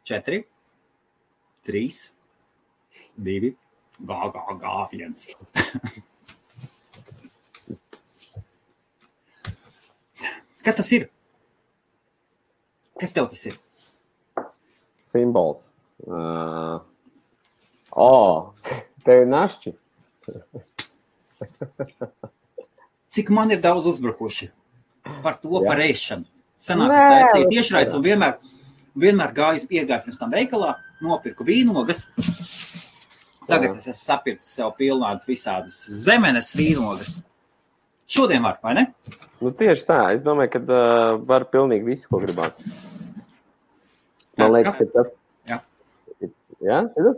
4, 3, 2, gā, 1. Kas tas ir? Kas tev tas ir? Simbols. Tev ir našķi. Cik man ir daudz uzbrukuši par to Jā. par ēšanu. Sanāk, es taisīju tiešraides un vienmēr gāju iegāju pirms tam veikalā, nopirku vīnogas. Tagad es esmu sapircis sev pilnādas visādas zemenes vīnogas. Šodien var, vai ne? Nu, tieši tā. Es domāju, ka var pilnīgi visu, ko gribāt. Man liekas, ka tas... Jā. Jā? Šitas?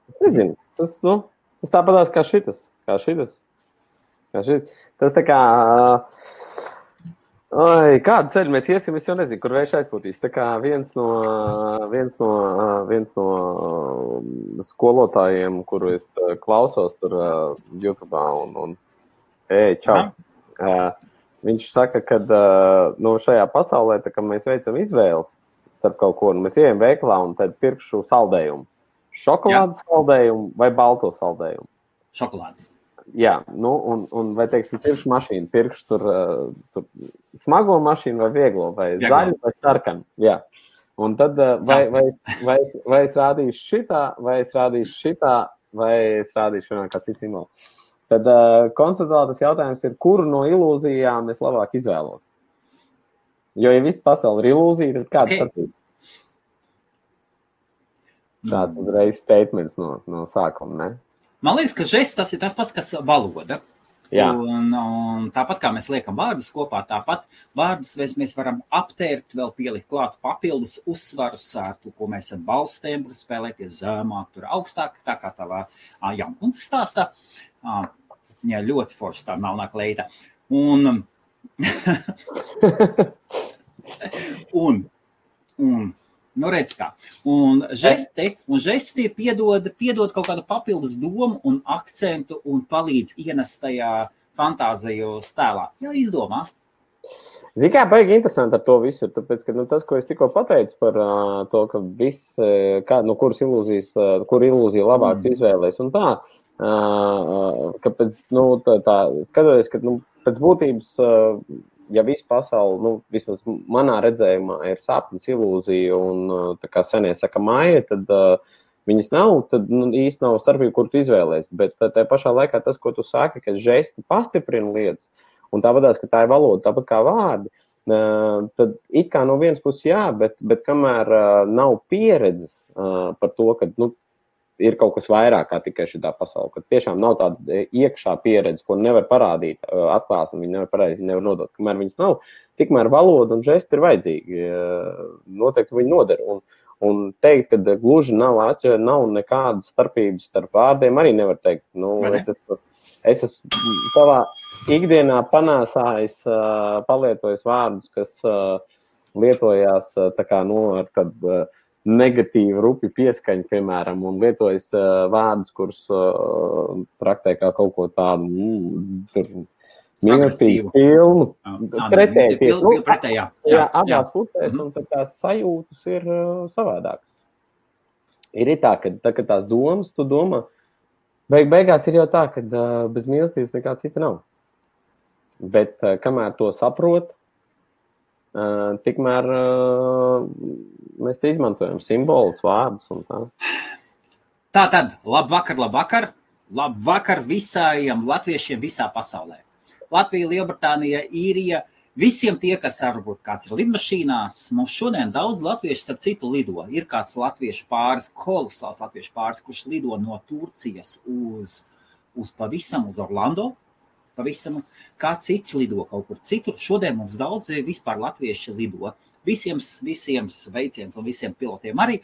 Es nezinu. Tas tāpatās kā šitas. Tas tā kā... kādu ceļu mēs iesim, es jau nezinu, kur vējš aizpūtīs. Tā kā viens no skolotājiem, kuru es klausos tur YouTube'ā un čau. Viņš saka, ka šajā pasaulē, tā kā mēs veicam izvēles starp kaut ko, mēs ejam veikalā un tad pirkšu saldējumu. Šokolādes saldējumu vai balto saldējumu? Šokolādes. Jā, un vai, teiksim, pirkšu mašīnu, pirkšu tur smago mašīnu vai vieglo, vai zaļu vai sarkanu, jā. Un tad vai es rādīšu šitā, vai es rādīšu kā cits simbolu. Tad konceptuāli tas jautājums ir, kuru no ilūzijām es labāk izvēlos. Jo, ja viss pasauli ir ilūzija, tad kāds starpība? Tāds uzreiz statements no sākuma, ne? Man liekas, ka žests tas ir tas pats, kas valoda. Jā. Un tāpat kā mēs liekam vārdus kopā, tāpat vārdus mēs varam aptērt, vēl pielikt klāt papildus uzsvarus ar to, ko mēs esam balstēm, spēlēties zemāk, tur augstāk, tā kā tavā jaunkundzes stāstā. Jā, ļoti forši tā melnā kleita. Nu, redz kā. Un žesti piedod kaut kādu papildus domu un akcentu un palīdz ienest tajā fantāziju stēlā. Jā, izdomā. Zini, kā baigi interesanti ar to visu, tāpēc, ka tas, ko es tikko pateicu par to, ka viss, kur ilūzija labāk izvēlēs un tā, kāpēc, skatoties, ka, pēc būtības, ja visu pasauli, vismaz manā redzējumā ir sapnis, ilūzija un, tā kā senie saka, māja, tad viņas nav, tad īsti nav starpība, kur tu izvēlēs, bet tā pašā laikā tas, ko tu saki, ka žesti pastiprina lietas, un tāpatās, ka tā ir valoda, tāpat kā vārdi, tad it kā no vienas puses jā, bet kamēr nav pieredzes par to, ka, ir kaut kas vairāk kā tikai šitā pasaule, ka tiešām nav tāda iekšā pieredze, ko nevar parādīt, atklāsmi, viņi nevar parādīt, nevar nodot. Kamēr viņas nav, tikmēr valoda un žesti ir vajadzīgi. Noteikti viņi noder. Un teikt, ka gluži nav nekādas starpības starp vārdiem, arī nevar teikt. Es esmu savā ikdienā panāsājis, palietojis vārdus, kas lietojās tā kā, ar tādu negatīvu rupi pieskaņu, piemēram, un lietojas vārdus, kurus traktē kā kaut ko tādu mīlestību pilnu. Pretēji. Jā, abās pusēs, un tad tās sajūtas ir savādākas. Ir tā, ka tās domas, tu domā, beigās ir jau tā, ka bez mīlestības nekā cita nav. Bet kamēr to saprot, tikmēr mēs te izmantojam simbolus, vārdus un tā. Tātad, labvakar. Labvakar visiem latviešiem visā pasaulē. Latvija, Lielbritānija, Īrija, visiem tie, kas varbūt kāds ir lidmašīnās. Mums šodien daudz latviešu starp citu lido. Ir kāds latviešu pāris, kolosāls latviešu pāris, kurš lido no Turcijas uz Orlando. Pavisam, kā cits lido kaut kur citur. Šodien mums daudz vispār latvieši lido. Visiem sveiciens un visiem pilotiem arī.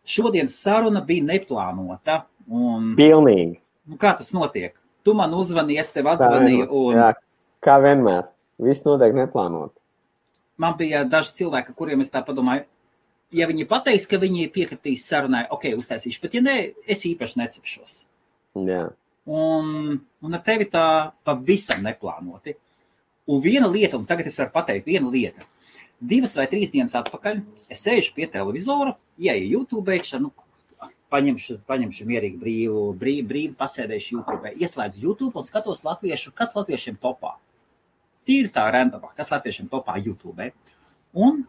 Šodienas saruna bija neplānota. Pilnīgi. Kā tas notiek? Tu man uzvani, es tev atzvanīju. Jā, kā vienmēr. Viss notiek neplānot. Man bija daži cilvēki, kuriem es tā padomāju, ja viņi pateiks, ka viņi piekritīs sarunai, uztaisīšu, bet ja ne, es īpaši necepšos. Jā. Un ar tevi tā pavisam neplānoti. Un viena lieta, un tagad es varu pateikt, viena lieta. 2 vai 3 dienas atpakaļ es sēžu pie televizora, ieju YouTube, paņemšu mierīgi brīvu pasēdēšu YouTube, ieslēdzu YouTube un skatos kas latviešiem topā. Tīri tā randomā, kas latviešiem topā YouTube. Un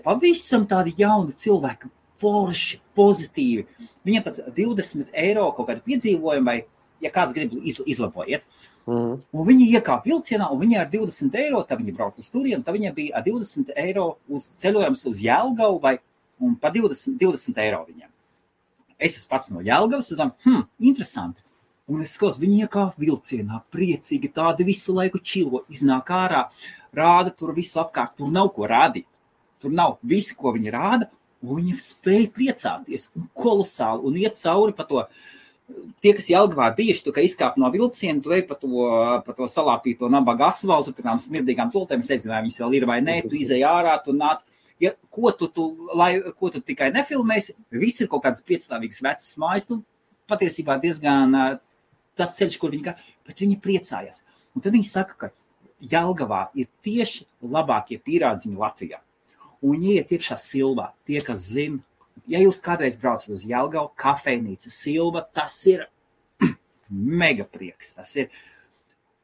pavisam tādi jauni cilvēki, forši, pozitīvi. Viņam tas 20 eiro kaut kādi piedzīvojumi, vai, ja kāds grib izlabojiet. Un viņi iekāp vilcienā, un viņi ar 20 eiro, tad viņi brauc uz turienu, tad viņiem bija 20 eiro uz ceļojums uz Jelgavu, un pa 20 eiro viņiem. Es esmu pats no Jelgavas, un domāju, interesanti. Un es skatos, viņi iekāp vilcienā, priecīgi, tādi visu laiku čilo, iznāk ārā, rāda tur visu apkārt, tur nav ko rādīt. Tur nav visi, ko viņi rāda, un viņi spēja priecāties, un kolosāli, un iet cauri pa to. Tie, kas Jelgavā bijuši, tu, ka izkāp no vilciena, tu ej pa to salāpīto nabaga asfaltu, tām smirdīgām tultēm, es nezinu, vai viņas vēl ir vai nē, tu izej ārā, tu nāc. Ja, ko tu tikai nefilmēsi, viss ir kaut kādas piecstāvīgas vecas mājas, patiesībā diezgan tas ceļš, kur viņi bet viņi priecājas. Un tad viņi saka, ka Jelgavā ir tieši labākie pīrādziņi Latvijā. Un ieiet iekšā Silvā, tie, kas zina, ja jūs kādreiz braucat uz Jelgavu, kafejnīca Silva, tas ir mega prieks, tas ir.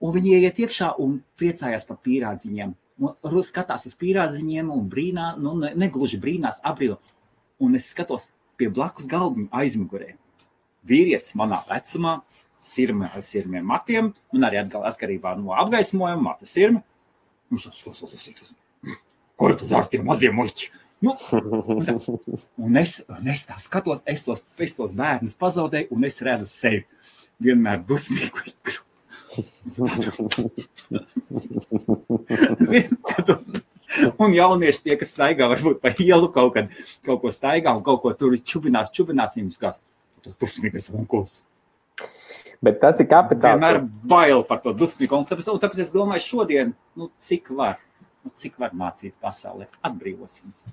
Un viņi ieiet iekšā un priecājās par pīrādziņiem. Un skatās uz pīrādziņiem un brīnā, negluži brīnās, abrīlo. Un es skatos pie blakus galdiņu aizmugurē. Vīrietis manā vecumā, sirmiem matiem, un arī atkarībā no apgaismojuma, mata sirmi. Ko tu dari tie mazie muļķi? Un es tā skatos, es tos bērnus pazaudēju, un es redzu sevi vienmēr dusmīgu. Un jaunieši tie, kas staigā, varbūt pa ielu kaut ko staigā un kaut ko tur čubinās, viņus kās, tas dusmīgais onkuls. Bet tas ir kapitāls. Vienmēr bail par to dusmīgu, un tāpēc es domāju šodien, cik var mācīt pasaulē, atbrīvosimies.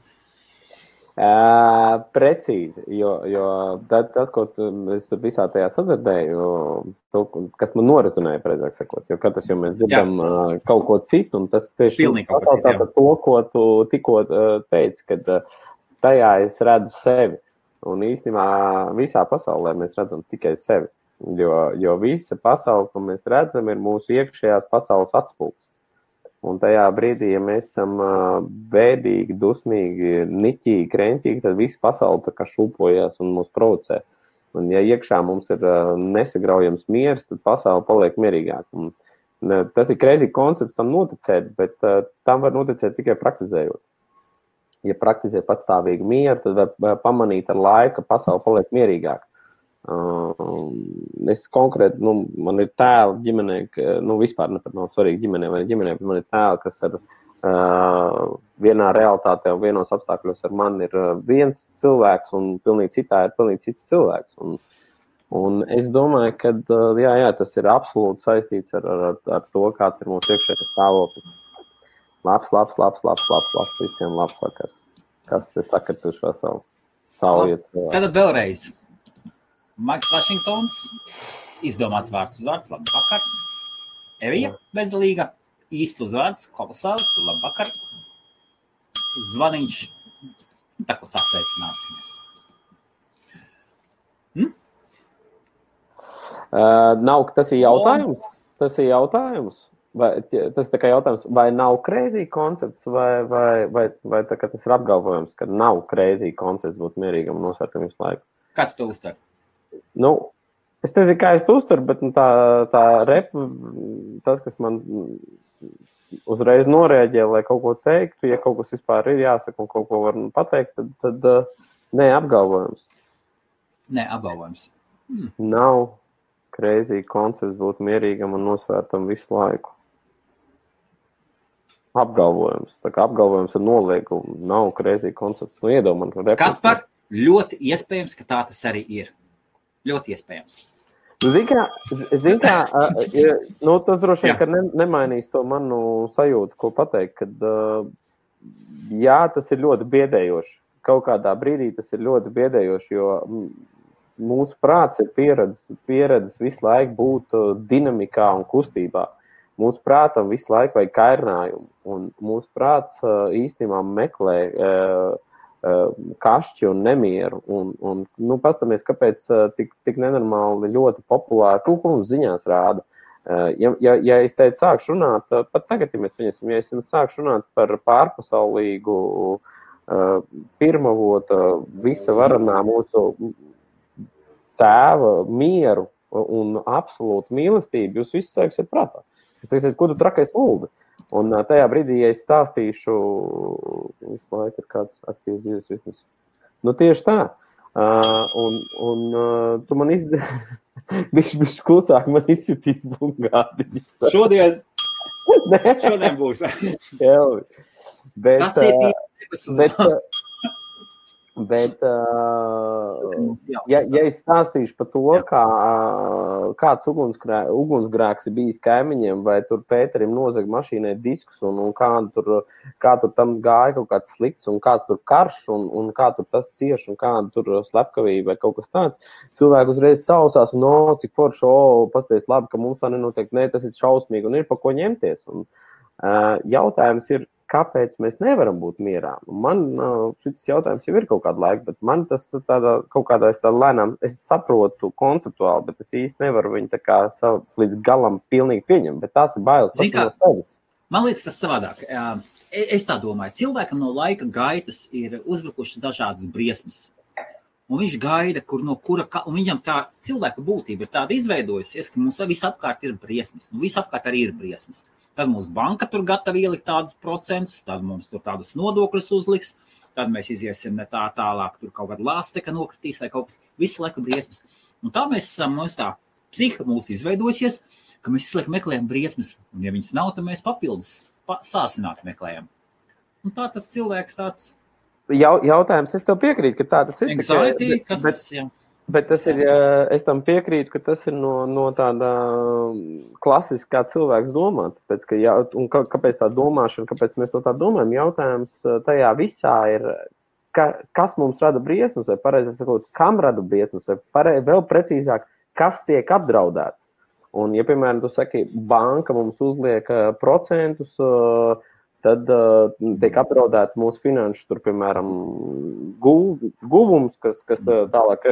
Precīzi, jo tas, ko es tur visā tajā sadzirdēju, kas man norazunēja, precīzāk sakot, jo katrs, mēs dzirdam kaut ko citu, un tas tieši tātad to, ko tu tikko teici, kad tajā es redzu sevi, un īstenībā visā pasaulē mēs redzam tikai sevi, jo visa pasaule, ko mēs redzam, ir mūsu iekšējās pasaules atspūgs. Un tajā brīdī, ja mēs esam bēdīgi, dusmīgi, niķīgi, kreņķīgi, tad visa pasaule tā kā šūpojas un mūs provocē. Un ja iekšā mums ir nesagraujams miers, tad pasaule paliek mierīgāk. Un tas ir crazy koncepts tam noticēt, bet tam var noticēt tikai praktizējot. Ja praktizē patstāvīgu mieru, tad var pamanīt ar laiku, ka pasaule paliek mierīgāk. Es konkrēti, man ir tēli ģimenē, vispār nav svarīgi ģimenē vai ģimenē, bet man ir tēli, kas ar vienā realitātē un vienos apstākļos ar mani ir viens cilvēks un pilnīgi citā ir pilnīgi cits cilvēks. Un es domāju, ka jā, tas ir absolūti saistīts ar to, kāds ir mūsu iekšējais stāvoklis. Labs, visiem labs vakars. Kas te saka tu šo savu iet? Tad vēlreiz. Maiks Vašingtons, izdomāts vārds uz vārds, labvakar. Evija bezdalīga, īsts uzvārds, kolosāls, labvakar. Zvaniņš, tā kā sasveicināsimies. Nav, tas ir jautājums. Vai, tas ir tā kā jautājums, vai nav crazy koncepts, vai tā kā tas ir apgalvojums, ka nav crazy koncepts būt mierīgam un nosvērtam visu laiku? Kā tu to uztver? Es nezinu, kā es to uztveru, bet tā tas, kas man uzreiz norēģē, lai kaut ko teiktu, ja kaut kas vispār ir jāsaka un kaut ko var pateikt, tad nē, apgalvojums. Nē, apgalvojums. Nav crazy koncepts būt mierīgam un nosvērtam visu laiku. Apgalvojums. Tā kā apgalvojums ar noliegumu nav crazy koncepts. Kaspar, ļoti iespējams, ka tā tas arī ir. Ļoti iespējams. Zini kā, tas droši vien, ka nemainīs to manu sajūtu, ko pateikt, kad jā, tas ir ļoti biedējoši. Kaut kādā brīdī tas ir ļoti biedējoši, jo mūsu prāts ir pieredzis visu laiku būt dinamikā un kustībā. mūsu prātam visu laiku vajag kairinājumu, un mūsu prāts īstenībā meklē kašķi un nemieru, un pastamies, kāpēc tik nenormāli ļoti populāri, ko mums ziņās rāda. Ja es teicu, sākšu runāt, pat tagad, ja mēs pieņemsim, ja es sākšu runāt par pārpasaulīgu pirmavota visa varanā mūsu tēva mieru un absolūtu mīlestību, jūs visi sāksiet prātā. Jūs teiksiet, ko tu trakais muldi? Un tajā brīdī, ja es stāstīšu, visu laiku ir kāds aktīvs dzīves ritms. Nu, tieši tā. Un tu man bišķi klusāk man izsitīs bungādiņas. Šodien būs. Tas ir tīpaši Bet, ja es stāstīšu par to, kāds ugunsgrēks ir bijis kaimiņiem, vai tur Pēterim nozag mašīnai diskus, un kā tur tam gāja kaut kāds slikts, un kāds tur karš, un kā tur tas cieš, un kāda tur slepkavība vai kaut kas tāds, cilvēki uzreiz sausās, un cik forši, pasties labi, ka mums tā nenotiek, tas ir šausmīgi, un ir pa ko ņemties. Un, jautājums ir, kāpēc mēs nevaram būt mierā? Man šis jautājums jau ir kaut kādu laiku, bet man tas kaut kādā lēnām, es saprotu konceptuāli, bet es īsti nevaru viņu tā kā līdz galam pilnīgi pieņemt, bet tās ir bailes pats no sevis. Man liekas tas savādāk. Es tā domāju, cilvēkam no laika gaitas ir uzbrukušas dažādas briesmas. Un viņš gaida, un viņam tā cilvēka būtība ir tāda izveidojusies, ka mums visapkārt ir briesmas. Nu, visapkārt arī ir briesmas. Tad mums banka tur gatava ielikt tādus procentus, tad mums tur tādus nodokļus uzliks, tad mēs iziesim ne tā tālāk, tur kaut kāda lāsteka nokritīs vai kaut kas, visu laiku briesmas. Un tā mēs esam, mums tā psiha mūs izveidosies, ka mēs visu laiku meklējam briesmas, un ja viņas nav, tad mēs papildus sāsināt meklējam. Un tā tas cilvēks tāds... Jautājums, es tev piekrītu, ka tā tas ir. Anxiety, kas tas, jā. Bet tas ir, es tam piekrītu, ka tas ir no tāda klasiskā cilvēks domā. Tāpēc, un kāpēc tā domāšana, kāpēc mēs to tā domājam, jautājums tajā visā ir, kas mums rada briesmas, vai pareizi sakot, kam rada briesmas, vai vēl precīzāk, kas tiek apdraudēts. Un, ja, piemēram, tu saki, banka mums uzliek procentus, tad tiek apdraudēti mūsu finanšu, tur, piemēram, guvums, kas tālāk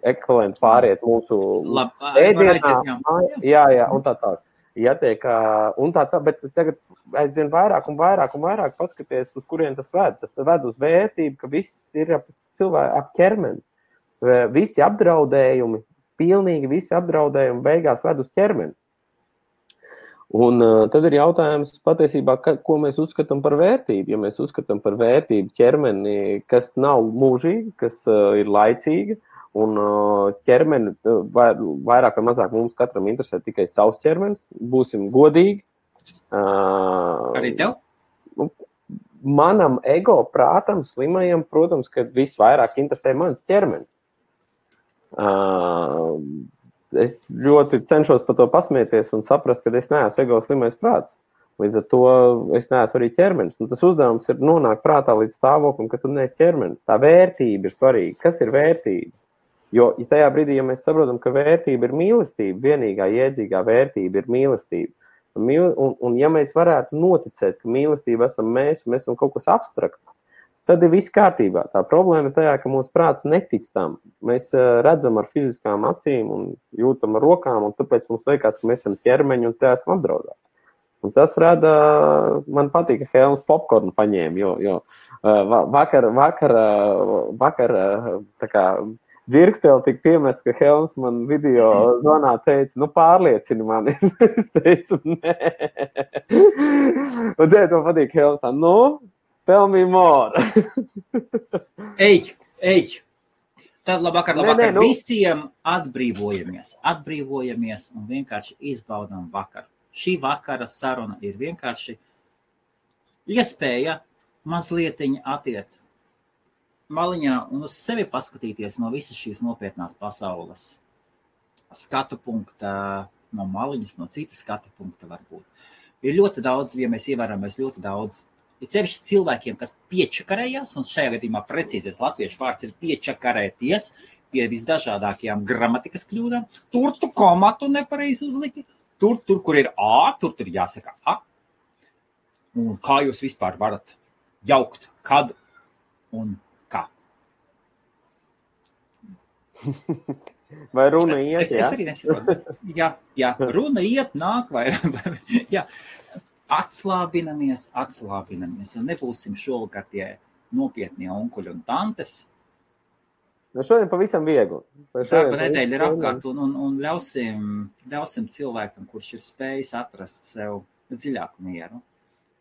ekvivalenti pāriet mūsu ēdienā. Jā, un tā tā. Ja tiek, un tā, bet tagad aizvien vairāk un vairāk paskaties, uz kurien tas ved. Tas ved uz vērtību, ka viss ir ap ķermeni. Visi apdraudējumi, pilnīgi visi apdraudējumi beigās ved uz ķermeni. Un tad ir jautājums patiesībā, ko mēs uzskatām par vērtību. Ja mēs uzskatām par vērtību ķermeni, kas nav mūžīga, kas ir laicīga, un ķermeni vairāk vai mazāk mums katram interesē tikai savs ķermenis, būsim godīgi. Arī tev? Manam ego prātam, slimajam, protams, ka visvairāk interesē mans ķermenis. Es ļoti cenšos par to pasmieties un saprast, ka es neesmu ego slimais prāts. Līdz ar to es neesmu arī ķermenis. Un tas uzdevums ir nonākt prātā līdz stāvoklim, ka tu neesi ķermenis. Tā vērtība ir svarīga. Kas ir vērtība? Jo tajā brīdī, ja mēs saprotam, ka vērtība ir mīlestība, vienīgā jēdzīgā vērtība ir mīlestība. Un ja mēs varētu noticēt, ka mīlestība esam mēs, un mēs esam kaut kas abstrakts, tad ir viss kārtībā. Tā problēma ir tajā, ka mūsu prāts netic tam. Mēs redzam ar fiziskām acīm un jūtam ar rokām, un tāpēc mums liekas, ka mēs esam ķermeņi un te esam apdraudēti. Un tas rada, man patīk, ka Helms popkornu paņēma, jo vakar tā kā dzirkstēli tika piemest, ka Helms man video zvanā teica, pārliecini mani. Es teicu, nē. Un te to patīk Helms tā, tell me more. Ej. Tad labvakar. Visiem atbrīvojamies un vienkārši izbaudām vakaru. Šī vakara saruna ir vienkārši iespēja mazlietiņa atiet maliņā un uz sevi paskatīties no visas šīs nopietnās pasaules skatu punkta, no maliņas, no citas skatu punkta varbūt. Ir ļoti daudz, ja mēs ievēramies ļoti daudz, ir sevišķi cilvēkiem, kas piečakarējās, un šajā gadījumā precīzais latviešu vārds ir piečakarēties pie visdažādākajām gramatikas kļūdām, tur tu komatu nepareizi uzliki, tur, kur ir A, tur jāsaka A. Un kā jūs vispār varat jaukt, kad un kā? Vai runa iet, Es arī nesaprotu. Jā, runa iet, nāk vai... jā. Atslābinamies, un nebūsim šovakar tie nopietnie onkuļi un tantes. Šodien pavisam viegli. Darba nedēļa ir apkārt un ļausim cilvēkam, kurš ir spējis atrast sev dziļāku mieru.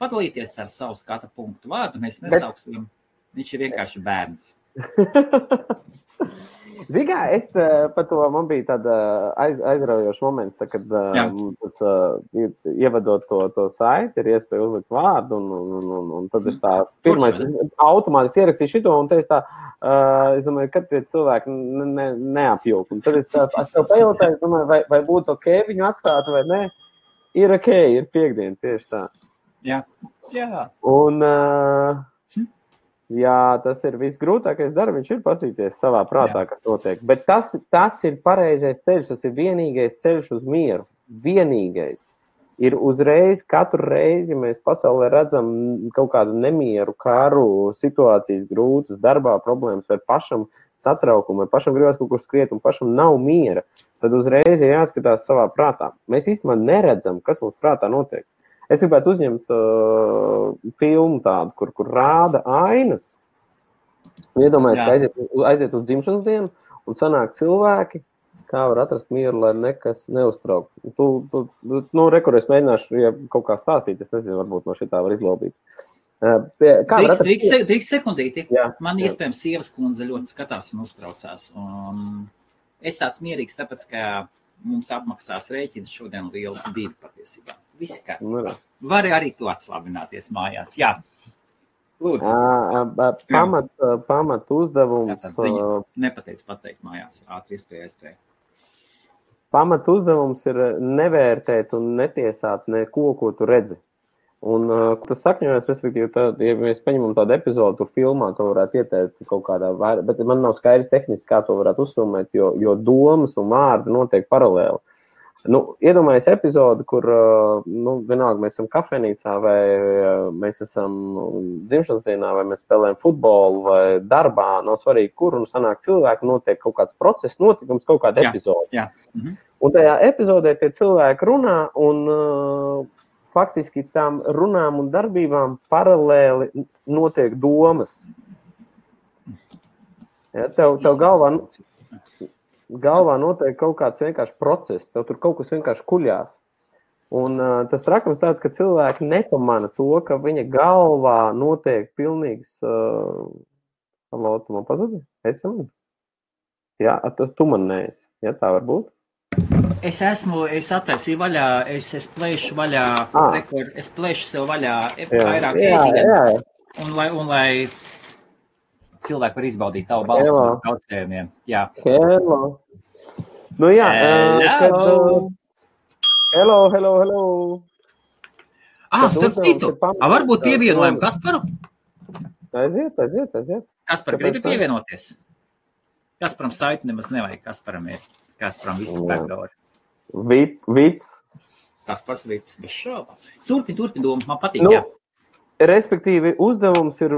Padalīties ar savu skata punktu vārdu, mēs nesauksim, viņš ir vienkārši bērns. Zini, es par to, man bija tāda aizraujoša moments, kad ievadot to saiti, ir iespēja uzlikt vārdu, un tad es tā pirmais automātiski ierakstīju šito, un te es tā, es domāju, kad tie cilvēki neapjūk. Un tad es tev pajautāju, es domāju, vai būtu ok viņu atstāt vai ne? Ir ok, ir piekdiena, tieši tā. Jā. Un... Jā, tas ir visgrūtākais darbs, viņš ir paskatīties savā prātā, kas notiek. Bet tas ir pareizais ceļš, tas ir vienīgais ceļš uz mieru. Vienīgais. Ir uzreiz, katru reizi, ja mēs pasaulē redzam kaut kādu nemieru, karu, situācijas grūtas, darbā problēmas, vai pašam satraukumu, vai pašam gribas kaut kur skriet, un pašam nav miera, tad uzreiz ir jāskatās savā prātā. Mēs īstenībā neredzam, kas mums prātā notiek. Es gribētu uzņemt filmu tādu, kur rāda ainas. Iedomājies, ka aiziet uz dzimšanas dienu un sanāk cilvēki, kā var atrast mieru, lai nekas neuztrauk. Rekur, es mēģināšu, ja kaut kā stāstīt, es nezinu, varbūt no šitā var izlobīt. Drīkst sekundīti. Man iespējams sievas kundze ļoti skatās un uztraucās. Es tāds mierīgs, tāpēc, ka mums apmaksās rēķins šodien lielas 2 patiesībā. Visi kā. Vari arī tu atslābināties mājās. Jā. Lūdzu. Pamat uzdevums. Nepateic pateikt mājās. Ātri iespēja. Pamat uzdevums ir nevērtēt un netiesāt neko, ko tu redzi. Un tas sakņojas, respektīvi, ja mēs paņemam tādu epizodu, tur filmā, to varētu ieteikt kaut kādā vairāk, bet man nav skaidrs tehniski, kā to varētu uzfilmēt, jo domas un vārdi notiek paralēli. Iedomājies epizodu, kur, vienalga, mēs esam kafejnīcā, vai mēs esam dzimšanas dienā, vai mēs spēlējam futbolu, vai darbā, nav svarīgi, kur, un sanāk cilvēki, notiek kaut kāds process, notikums, kaut kāda epizoda. Jā. Un tajā epizodē tie cilvēki runā, un faktiski tām runām un darbībām paralēli notiek domas. Ja, tev galvā notiek kaut kāds vienkārši process, tev tur kaut kas vienkārši kuļās. Un tas trakums tāds, ka cilvēki nepamana to, ka viņa galvā notiek pilnīgs... Halo, tu man pazudi? Es jau man? Jā, tu man neesi. Ja, tā var būt? Es attaisīju vaļā, es plēšu vaļā, es plēšu sev vaļā vairāk ēdienu, un lai cilvēki var izbaudīt tavu balsu uz traucējumiem. Jā. Hello. Jā. Hello. Starp citu. Varbūt pievienojam Kasparu? Aiziet. Kaspar, gribi pievienoties? Kasparam saiti nemaz nevajag. Kasparam visi backdoori. Vips. Kaspars vips, bez šauba. Turpin doma, man patīk, jā. Respektīvi, uzdevums ir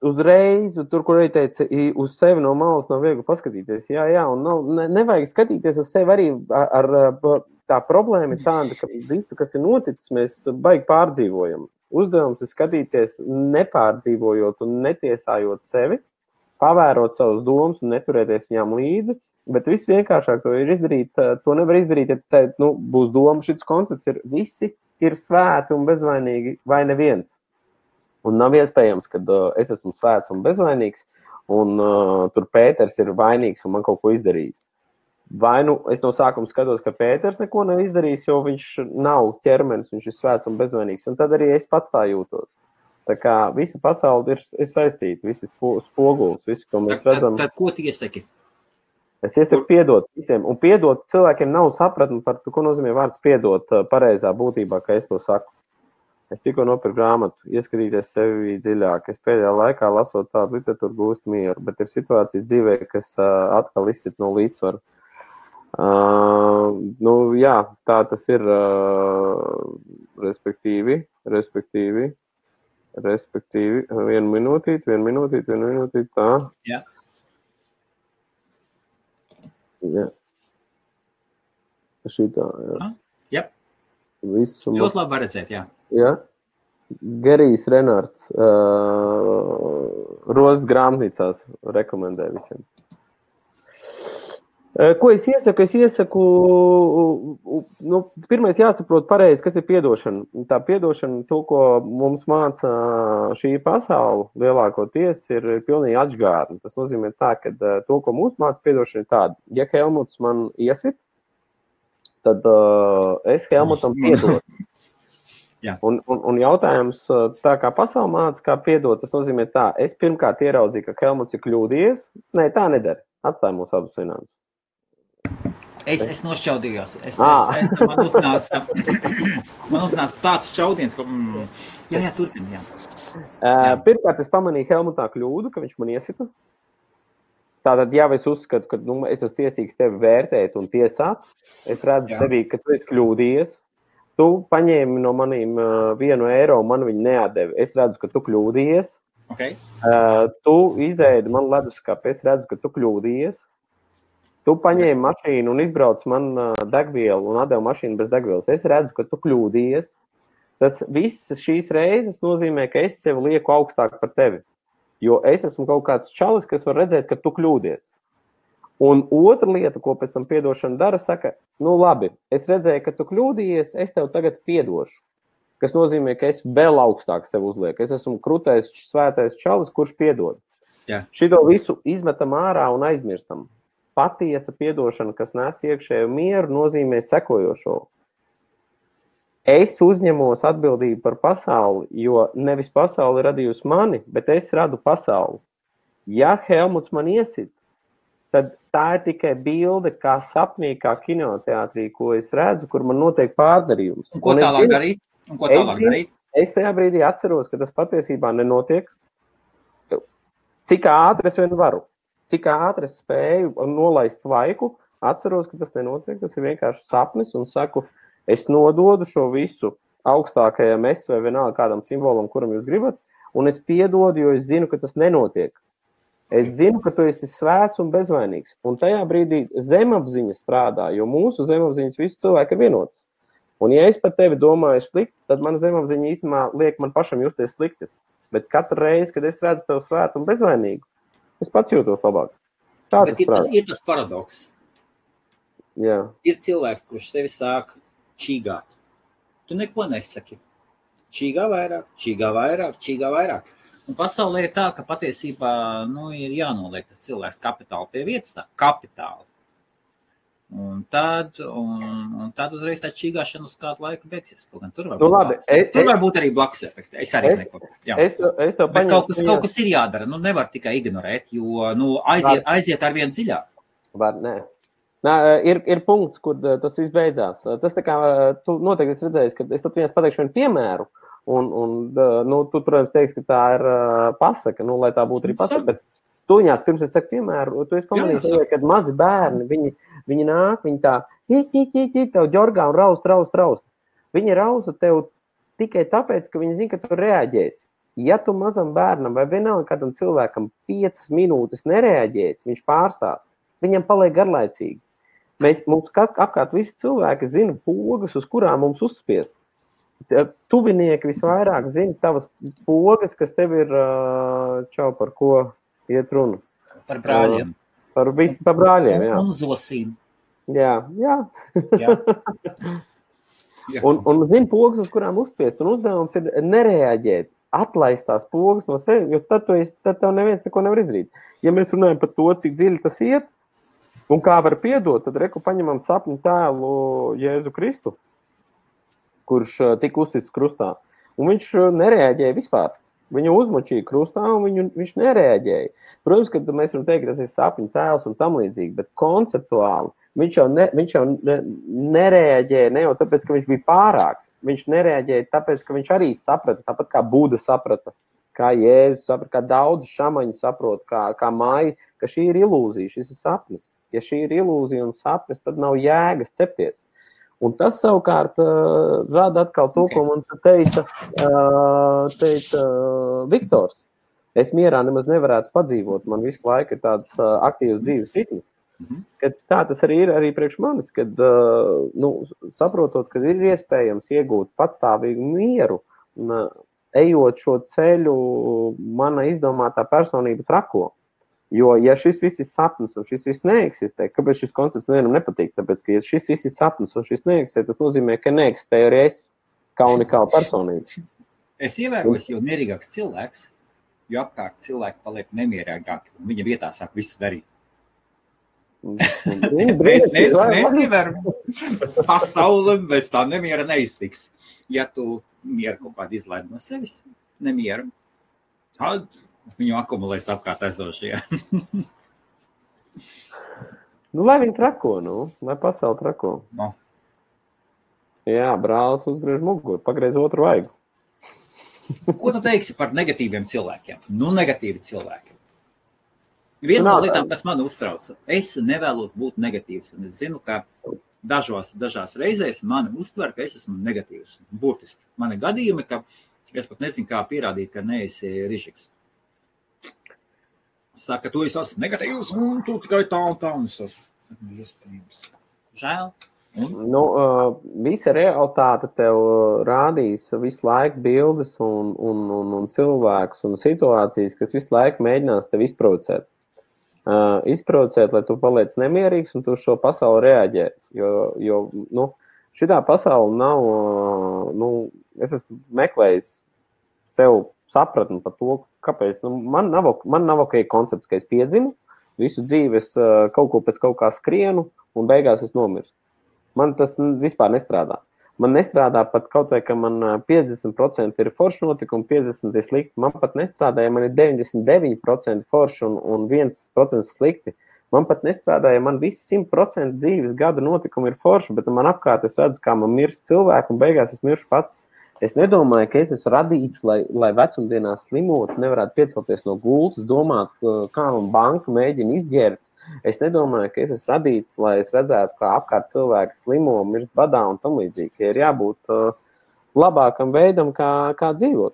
uzreiz, tur, kur arī teica, uz sevi no malas nav viegli paskatīties. Jā, un nevajag skatīties uz sevi arī ar tā problēma ir tāda, ka visu, kas ir noticis, mēs baigi pārdzīvojam. Uzdevums ir skatīties nepārdzīvojot un netiesājot sevi, pavērot savus domas un neturēties viņām līdzi, bet viss vienkāršāk to ir izdarīt, to nevar izdarīt, ja būs doma, šis koncepts ir, visi ir svēti un bezvainīgi vai neviens. Un nav iespējams, ka es esmu svēts un bezvainīgs, un tur Pēters ir vainīgs un man kaut ko izdarījis. Vai es no sākuma skatos, ka Pēters neko nav izdarījis, jo viņš nav ķermenis, viņš ir svēts un bezvainīgs, un tad arī es pats tā jūtos. Tā kā visa pasaule ir saistīta, visi spogulis, visu, ko mēs redzam. Tad ko tu iesaki? Es iesaku piedot visiem, un piedot cilvēkiem nav sapratni par to, ko nozīmē vārds piedot pareizā būtībā, ka es to saku. Es tikko nopirku grāmatu, ieskatīties sevi dziļāk. Es pēdējā laikā lasot tādu literatūru gūstu mieru, bet ir situācijas dzīvē, kas atkal izsit no līdzsvaru. Jā, tā tas ir, respektīvi, vienu minūtīti, tā. Jā. Jā. Šitā, jā. Jā. Visu. Ļoti labi var redzēt, jā. Jā. Gerijs Renārds, Rozes grāmatnīcās rekomendē visiem. Ko es iesaku? Pirmais jāsaprot pareizi, kas ir piedošana. Tā piedošana, to, ko mums māca šī pasaule, lielākoties ir pilnīgi atžgārni. Tas nozīmē tā, ka to, ko mums māca piedošana, ir tāda. Ja Helmuts man iesit, tad es Helmutam piedodu. Un jautājums, tā kā pasaule māca, kā piedot, tas nozīmē tā. Es pirmkārt ieraudzīju, ka Helmuts ir kļūdījies. Nē, tā nedara. Atstāj mūs abus vienādus. Es nošķaudījos. Man uznāca tāds šķaudiens, ka... Jā, turpin, jā. Pirmkārt, es pamanīju Helmutā kļūdu, ka viņš man iesita. Tātad, ja es uzskatu, ka es esmu tiesīgs tevi vērtēt un tiesāt, es redzu tevī, ka tu esi kļūdījies. Tu paņēmi no manīm €1, man viņu neatdevi. Es redzu, ka tu kļūdījies. Okay. Tu izēdi man leduskapi, es redzu, ka tu kļūdījies. Tu paņēmi mašīnu un izbrauc man degvielu un atdevi mašīnu bez degvielas. Es redzu, ka tu kļūdījies. Tas viss šīs reizes nozīmē, ka es sevi lieku augstāk par tevi. Jo es esmu kaut kāds čalis, kas var redzēt, ka tu kļūdies. Un otra lieta, ko pēc tam piedošana dara, saka, labi, es redzēju, ka tu kļūdījies, es tev tagad piedošu. Kas nozīmē, ka es vēl augstāk sevi uzlieku. Es esmu krutais, svētais čalis, kurš piedod. Jā. Šito visu izmetam ārā un aizmirstam. Patiesa piedošana, kas nes iekšēju mieru, nozīmē sekojošo. Es uzņemos atbildību par pasauli, jo nevis pasauli radījusi mani, bet es radu pasauli. Ja Helmuts man iesit, tad tā ir tikai bilde, kā sapnī, kā kinoteātrī, ko es redzu, kur man notiek pārdarījums. Un ko tālāk darīt? Es tajā brīdī atceros, ka tas patiesībā nenotiek. Cik ātri es vien varu. Cik ātri es spēju nolaist vaiku, atceros, ka tas nenotiek, tas ir vienkārši sapnis un saku, es nododu šo visu augstākajam es vai vienalga kādam simbolam, kuram jūs gribat, un es piedodu, jo es zinu, ka tas nenotiek. Es zinu, ka tu esi svēts un bezvainīgs, un tajā brīdī zemapziņa strādā, jo mūsu zemapziņas visu cilvēku ir vienotas. Un ja es par tevi domāju slikti, tad mana zemapziņa īstenībā liek man pašam justies slikti. Bet katru reizi, kad es redzu tev svētu un bezvainīgu, es pats jūtos labāk. Bet ir tas paradoks. Jā. Ir cilvēks, kurš tevi sāk čīgāt. Tu neko nesaki. Čīgā vairāk. Un pasaulē ir tā, ka patiesībā ir jānoliek tas cilvēks kapitāli pie vietas, tā kapitāli. Un tad uzreiz tā čīgāšana uz kādu laiku beigsies. Tur var būt arī blakus efekti. Es arī neko. Bet kaut kas ir jādara. Nevar tikai ignorēt, jo aiziet ar vienu dziļāk. Ir punkts, kur tas viss beidzās. Tas tā kā, tu noteikti esi redzējis, ka es tad vienas pateikšu vienu piemēru, un tu, protams, teiksi, ka tā ir pasaka, lai tā būtu arī pasaka, bet tu viņās, pirms es saku piemēru, tu esi pamanījis, kad mazi bērni, viņi nāk, viņi tā, tev ģorgā un raust. Viņi rausa tev tikai tāpēc, ka viņi zina, ka tu reaģēsi. Ja tu mazam bērnam vai vienalga kādam cilvēkam 5 minūtes nereaģēsi, viņš pārstās. Viņam paliek garlaicīgi. Mums apkārt visi cilvēki zina pogas, uz kurām mums uzspiest. Tuvinieki visvairāk zina tavas pogas, kas tev ir par ko iet runa. Par brāļiem. Par brāļiem, jā. Un zosīm. Jā. Un zina pogas, uz kurām uzspiest. Un uzdevums ir nereaģēt, atlaist tās pogas no sevi, jo tad tev neviens neko nevar izdarīt. Ja mēs runājam par to, cik dziļi tas iet, un kā var piedot, tad paņemam sapņu tēlu Jēzu Kristu, kurš tika uzsists krustā. Un viņš nereaģēja vispār. Viņu uzmočīja krustā, un viņš nereaģēja. Protams, ka mēs varam teikt, ka tas ir sapņu tēls un tam līdzīgi, bet konceptuāli viņš jau nereaģēja ne jau tāpēc, ka viņš bija pārāks. Viņš nereaģēja tāpēc, ka viņš arī saprata, tāpat kā Buda saprata, kā Jēzus saprata, kā daudzi šamaņi saprot, kā Maija, ka šī ir ilūzija, šis ir sapnis. ja šī ir ilūzija un sapnis, tad nav jēgas cepties. Un tas savukārt rada atkal to, ko man teica Viktors. Es mierā nemaz nevarētu padzīvot, man visu laiku ir tāds aktīvs dzīves ritms. Kad tā tas arī ir arī priekš manis, kad saprotot, ka ir iespējams iegūt patstāvīgu mieru un ejot šo ceļu, mana izdomātā personība trako. Jo, ja šis viss ir sapnis un šis viss neeksistē, kāpēc šis koncepts nevienam nepatīk? Tāpēc, ka ja šis viss ir sapnis un šis neeksistē, tas nozīmē, ka neeksistē arī es kā unikāla personība. Es ievēroju, jo mierīgāks cilvēks, jo apkārt cilvēki paliek nemierīgāki un viņa vietā sāk visu darīt. Mēs ievēram pasauli, bez tā nemiera neiztiks. Ja tu mieru kaut kādu izlaidi no sevis, nemieru, tad viņu akumulēs apkārt esošie. Lai viņi trako, lai pasauli trako. No. Jā, brālis uzgriež muguru, pagreiz otru vaigu. Ko tu teiksi par negatīviem cilvēkiem? Negatīvi cilvēki. Viena no lietām, kas man uztrauca, es nevēlos būt negatīvs, un es zinu, ka dažās reizēs mani uztver, ka es esmu negatīvs. Burtiski. Man ir gadījumi, ka es pat nezinu, kā pierādīt, ka neesi rižiks. Saka, tu esi negatīvs, un tu tikai tā un tā, un es esmu iespējams. Žēl. Visa realitāte tev rādīs visu laiku bildes un cilvēkus un situācijas, kas visu laiku mēģinās tev izprovocēt. Izprovocēt, lai tu paliec nemierīgs un tu šo pasauli reaģē. Jo šitā pasauli nav, es esmu meklējis sev sapratni par to, kāpēc. Man nav ok koncepts, ka es piedzimu, visu dzīves kaut ko pēc kaut kā skrienu un beigās es nomirstu. Man tas vispār nestrādā. Man nestrādā pat kaut vai, ka man 50% ir forši notikumi, 50% ir slikti. Man pat nestrādā, ja man ir 99% forši un 1% slikti. Man pat nestrādā, ja man visi 100% dzīves gada notikumi ir forši, bet man apkārt es redzu, kā man mirst cilvēku un beigās es miršu pats. Es nedomāju, ka es esmu radīts, lai vecumdienās slimot, nevarētu piecelties no gultas, domāt, kā man banka mēģina izģērt. Es nedomāju, ka es esmu radīts, lai es redzētu, kā apkārt cilvēki slimo, mirst badā un tam līdzīgi. Ja ir jābūt labākam veidam, kā dzīvot.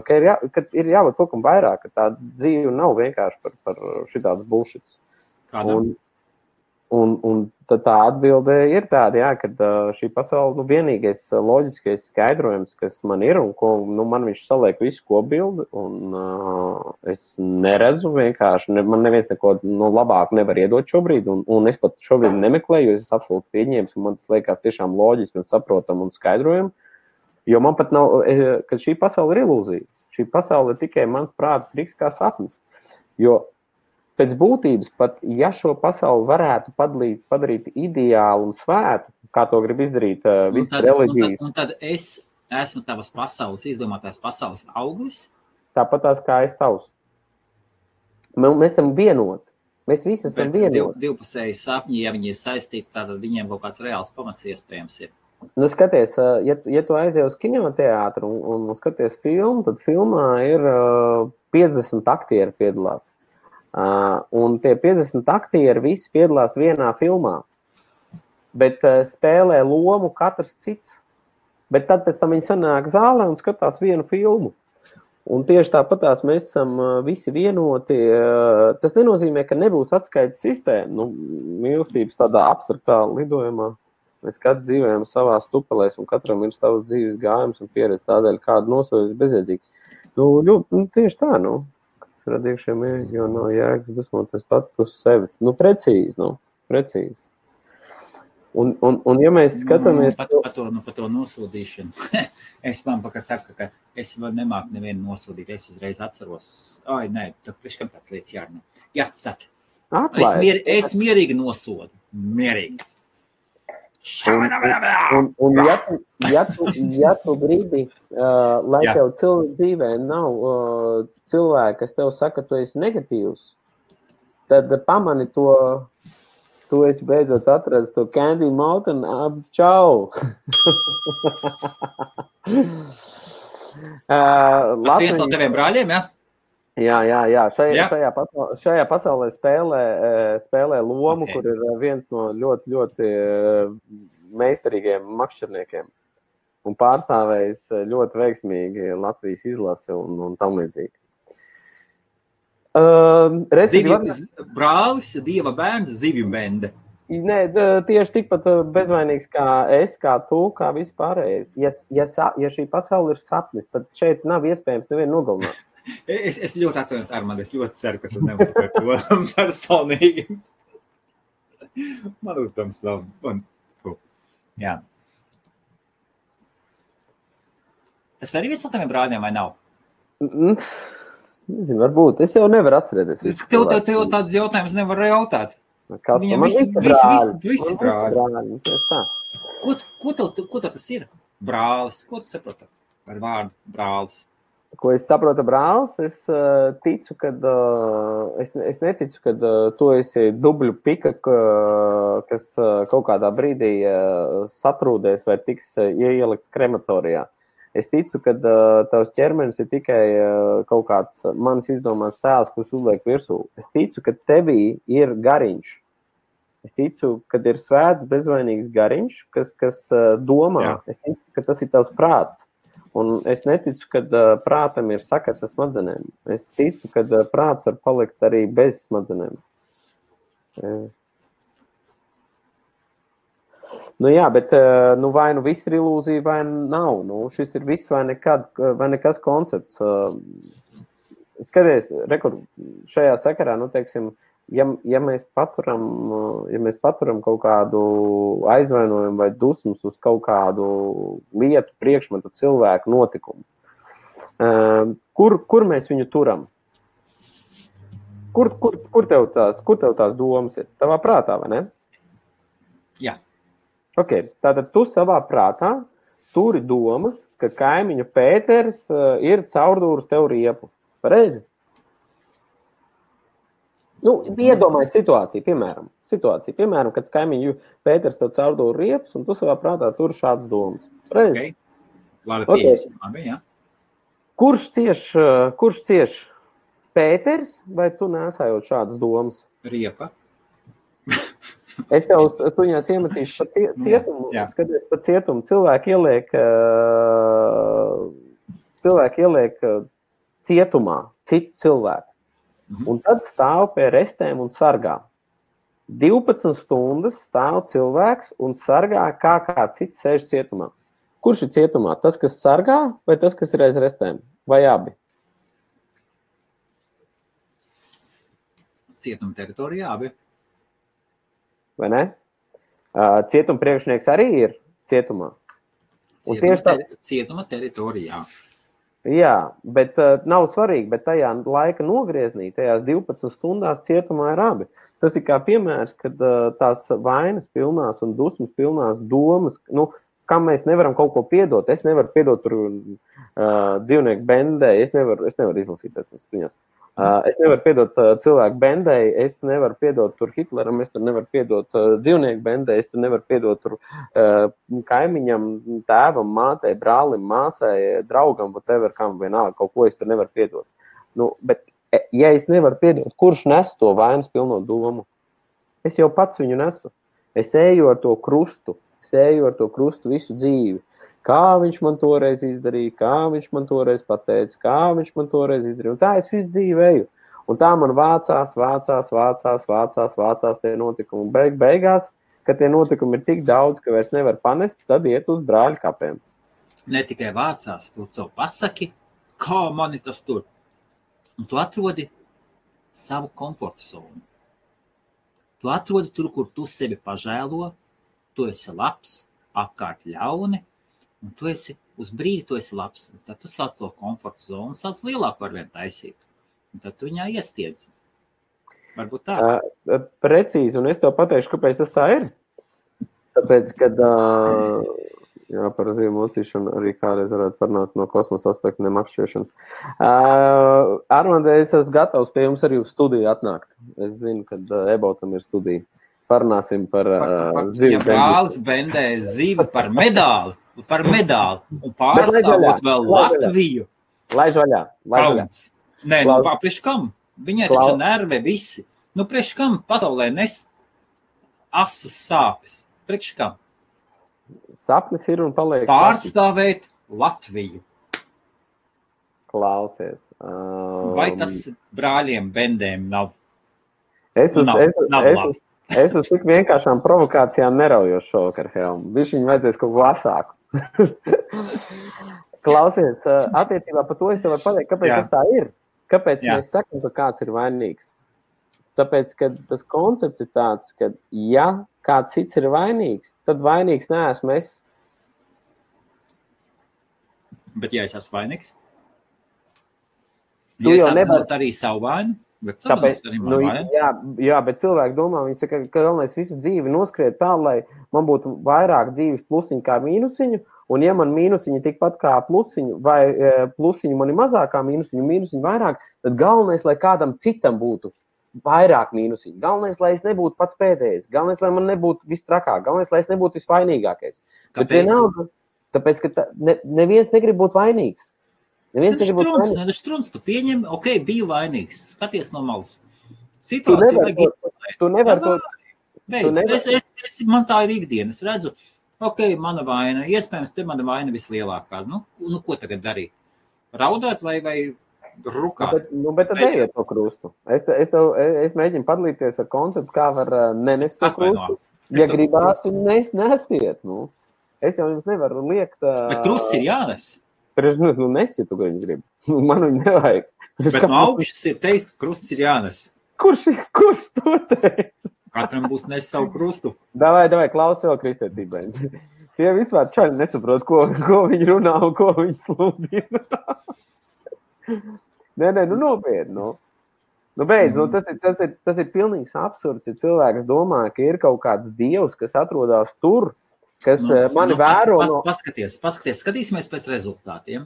Ka ir jābūt kaut kam vairāk, ka tā dzīve nav vienkārši par šitāds bullshits. Kādam? Un tad tā atbilde ir tāda, ka šī pasaule, vienīgais loģiskais skaidrojums, kas man ir, un ko man viņš saliek visu kopbildi, un es neredzu vienkārši, man neviens neko labāk nevar iedot šobrīd, un es pat šobrīd nemeklēju, jo es absolūti pieņēmu, un man tas liekas tiešām loģiski un saprotam un skaidrojam, jo man pat nav, ka šī pasaule ir ilūzija. Šī pasaule ir tikai mans prāta triks kā sapnis, jo pēc būtības, pat ja šo pasauli varētu padarīt ideālu un svētu, kā to grib izdarīt visas reliģijas. Un tad es esmu tavas pasaules, izdomātās pasaules auglis? Tāpat tās kā es tavs. Mēs esam vienoti. Mēs visi esam vienoti. Divpusēji sapņi, ja viņi ir saistīti, tātad viņiem kaut kāds reāls pamats iespējams ir. Skaties, ja tu aizies uz kinoteātru un skaties filmu, tad filmā ir 50 aktieri piedalās. Un tie 50 aktieri visi piedalās vienā filmā, bet spēlē lomu katrs cits. Bet tad pēc tam viņi sanāk zālē un skatās vienu filmu. Un tieši tāpatās mēs esam visi vienoti. Tas nenozīmē, ka nebūs atskaites sistēma. Mīlestības tādā abstraktā lidojumā. Mēs katrs dzīvojam savā stupelēs un katram ir savas dzīves gājums un pieredze tādēļ, kādu nosodīt bezjēdzīgi. Tieši tā, radījušiem ir, jo nav jēgas dusmoties pat uz sevi. Precīzi. Un ja mēs skatāmies... Par to nosodīšanu. Es man saku, ka es nemāku nevienu nosodīt. Es uzreiz atceros. Tad priekškam tāds lietas jārunā. Jā, saka. Es mierīgi nosodu. Mierīgi. Un ja tu gribi, lai tev dzīvē nav cilvēki, kas tev saka, tu esi negatīvs, tad pamani to, tu esi beidzot atradis to Candy Mountain, čau! Tas viens no teviem brāļiem, ja? Jā. Šajā pasaulē spēlē lomu, kur ir viens no ļoti, ļoti meistarīgiem makšķerniekiem un pārstāvējis ļoti veiksmīgi Latvijas izlasi un tam līdzīgi. Brālis, Dieva bērns, zivju bende. Nē, tieši tikpat bezvainīgs kā es, kā tu, kā visi pārējie. Ja šī pasaule ir sapnis, tad šeit nav iespējams nevienu nogalināt. Es ļoti atvainojos, Armand, es ļoti ceru, ka tu neuzsver to personīgi. Man uzdevums nav. Jā. Tas arī viss no taviem brāļiem vai nav? Nezinu, varbūt. Es jau nevaru atcerēties. Tev tāds jautājums nevar jautāt. Viņam visi brāļi. Ko tev tas ir? Brālis. Ko tu saproti par vārdu brālis? Ko es saprotu brālis? Es ticu, kad es neticu, kad tu esi dubļu pika, kas kaut kādā brīdī satrūdēs vai tiks ielikts krematorijā. Es ticu, ka tavs ķermenis ir tikai kaut kāds manis izdomāts tēls, kurš uzliek virsū. Es ticu, ka tevī ir gariņš. Es ticu, ka ir svēts, bezvainīgs gariņš, kas domā. Jā. Es ticu, ka tas ir tavs prāts. Un es neticu, ka prātam ir sakars ar smadzenēm. Es ticu, ka prāts var palikt arī bez smadzenēm. Nu jā, bet vai nu viss ir ilūzija, vai nav. Nu, šis ir viss vai nekas koncepts. Skaties, šajā sakarā, nu, teiksim, ja mēs paturam kaut kādu aizvainojumu vai dusmas uz kaut kādu lietu, priekšmetu, cilvēku, notikumu, kur mēs viņu turam? Kur tev tās domas ir? Tavā prātā, vai ne? Jā. Ok, tātad tu savā prātā turi domas, ka kaimiņu Pēters ir caurdūris tev riepu. Pareizi? Nu, iedomājies situāciju, piemēram, kad kaimiņu Pēters tev caurdūri riepas, un tu savā prātā tur šādas domas. Reizi? Labi, jā. Kurš cieš Pēters, vai tu nesājot šādas domas? Riepa. Es tu viņās iemetīšu pa cietumu, skaties pa cietumu. Cilvēki ieliek cietumā citu cilvēku. Un tad stāv pie restēm un sargā. 12 stundas stāv cilvēks un sargā, kā cits sēž cietumā. Kurš ir cietumā? Tas, kas sargā, vai tas, kas ir aiz restēm? Vai abi? Cietuma teritorijā abi. Vai ne? Cietuma priekšnieks arī ir cietumā. Cietuma teritorijā. Jā, bet nav svarīgi, bet tajā laika nogrieznī, tajās 12 stundās cietumā ir abi. Tas ir kā piemērs, kad tās vainas pilnās un dusmas pilnās domas, nu, kam mēs nevaram kaut ko piedot. Es nevaru piedot tur dzīvnieku bendē, es nevaru izlasīt viņas. Es nevaru piedot cilvēku bendē, es nevaru piedot tur Hitleram, es tur nevaru piedot dzīvnieku bendē, es tur nevaru piedot tur kaimiņam, tēvam, mātei, brālim, māsai, draugam, whatever, kam vienalga, kaut ko es tur nevaru piedot. Nu, bet, ja es nevaru piedot, kurš nes to vainas pilno domu? Es jau pats viņu nesu. Es eju ar to krustu visu dzīvi. Kā viņš man toreiz izdarīja, kā viņš man toreiz pateica, kā viņš man toreiz izdarīja. Un tā es visu dzīvi eju. Un tā man vācās tie notikumi. Beigās, kad tie notikumi ir tik daudz, ka vairs nevar panest, tad iet uz brāļu kapiem. Ne tikai vācās, tu savu pasaki, kā mani tas tur. Un tu atrodi savu komforta zonu. Tu atrodi tur, kur tu sevi pažēlo, tu esi labs, apkārt ļauni, un tu esi uz brīdi, tu esi labs. Un tad tu sāc to komforta zonu, sāc lielāku var vien taisīt. Un tad tu viņā iestiedzi. Varbūt tā. Precīzi, un es tev pateikšu, kāpēc tas tā ir. Tāpēc, kad par zīvu mocīšanu arī kādreiz varētu parunāt no kosmosa aspekta nemakšķiešanu. Armand, es esmu gatavs pie jums arī uz studiju atnākt. Es zinu, kad Ebautam ir studija. Parunāsim par zivi. Ja brālis bendē zivi par medāli, un pārstāvot vēl Latviju. Laiž vaļā. Nē, nu, priekš kam? Viņai taču nerve visi. Nu, priekš kam pasaulē asas sāpes? Priekš kam? Sapnis ir un paliek. Pārstāvēt Latviju. Klausies. Vai tas brāļiem Bendēm nav? Es uz tik vienkāršām provokācijām neraujos šovakar, Helm. Viņam vajadzēs kaut ko asāku. Klausies, attiecībā par to es tev varu pateikt, kāpēc tas tā ir. Kāpēc mēs sakam, ka kāds ir vainīgs? Tāpēc, ka tas koncepts ir tāds, ka ja kāds cits ir vainīgs, tad vainīgs neesmu es. Bet ja es esmu vainīgs? Ja es apzinot arī savu vainu? Tāpēc, jā, bet cilvēki domā, viņi saka, ka galvenais visu dzīvi noskriet tā, lai man būtu vairāk dzīves plusiņu kā mīnusiņu, un ja man mīnusiņi tikpat kā plusiņu, vai plusiņu man ir mazāk kā mīnusiņu vairāk, tad galvenais, lai kādam citam būtu vairāk mīnusiņu. Galvenais, lai es nebūtu pats pēdējais. Galvenais, lai man nebūtu viss trakāk. Galvenais, lai es nebūtu visvainīgākais. Kāpēc? Tāpēc, ka neviens negrib būt vainīgs. Strunts, tu pieņem, biju vainīgs. Skaties no malas. Situācija tu nevar to. Man tā ir ikdiena. Es redzu, mana vaina. Iespējams, te mana vaina vislielākā. Nu, ko tagad darīt? Raudāt vai rukāt? Bet tad ejiet to krustu. Es mēģinu padalīties ar konceptu, kā var nenest to krustu. Ja gribās, tu nesiet. Nu. Es jau jums nevaru liekt. Bet krusts ir jānes. Nesi, tu gribi. Man viņu nevajag. Bet no augšas ir teikt, ka krusts ir jānes. Kurš to teica? Katram būs nes savu krustu. Davai, klaus vēl kristētībai. Tie vispār čaļi nesaprot, ko viņi runā un ko viņi sludina. Nē, nopietni. Beidz, tas ir pilnīgs absurds, ja cilvēks domā, ka ir kaut kāds dievs, kas atrodas tur, kas mani vēro. Skatīsimies pēc rezultātiem.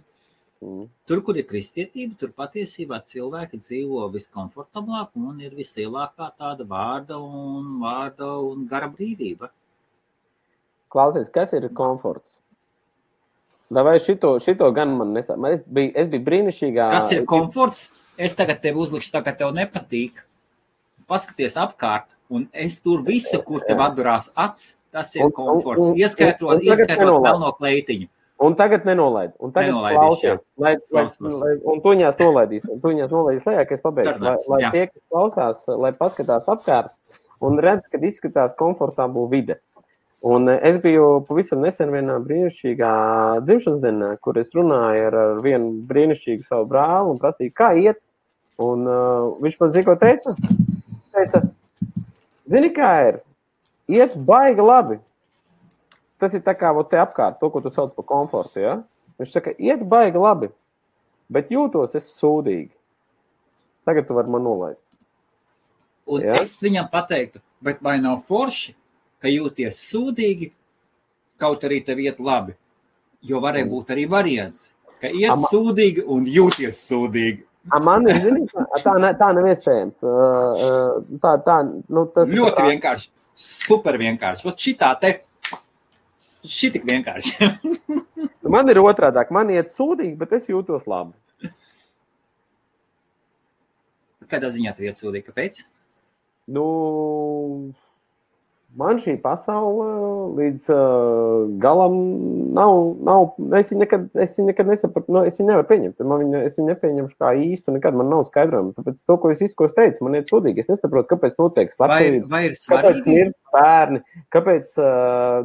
Tur, kur ir kristietība, tur patiesībā cilvēki dzīvo viskomfortablāk un ir vislielākā tāda vārda un gara brīvība. Klausies, kas ir komforts? Vai šito gan man nesā? Es biju brīnišķīgā. Kas ir komforts? Es tagad tev uzlikšu tā, ka tev nepatīk. Paskaties apkārt, un es tur visu, kur tev atdurās acs, tas ir komforts. Ieskaitot melno kleitiņu. Un tagad nenolaid. Un tagad klausies. Un tuņās nolaidīs lejā, ka es pabeigšu. Lai tie, kas klausās, lai paskatās apkārt un redz, kad izskatās komfortabla vide. Un es biju pavisam nesen vienā brīnišķīgā dzimšanas dienā, kur es runāju ar vienu brīnišķīgu savu brāli un prasīju, kā iet. Un viņš man zina, ko teica? Zini, kā ir? Iet baigi labi. Tas ir tā kā te apkārt, to, ko tu sauc par komfortu, ja? Viņš saka, iet baigi labi, bet jūtos es sūdīgi. Tagad tu vari man nolaist. Un es viņam pateiktu, bet vai nav forši, ka jūties sūdīgi, kaut arī tev iet labi? Jo varēja būt arī variants, ka iet sūdīgi un jūties sūdīgi. Man ir, zini, tā nav iespējams. Tas ļoti vienkārši, super vienkārši. Ot šitā te, šitik vienkārši. Man ir otrādāk, man iet sūdīgi, bet es jūtos labi. Kādā ziņā tev iet sūdīgi, kāpēc? Man šī pasaule līdz galam nav, es viņu nekad nesapratu, es viņu nevaru pieņemt, es viņu nepieņemšu kā īstu, nekad man nav skaidrojumi, tāpēc to, ko es teicu, man iet sūdīgi, es nesaprotu, kāpēc notiek slepkavības, vai ir svarīgi? Kāpēc ir bērni, kāpēc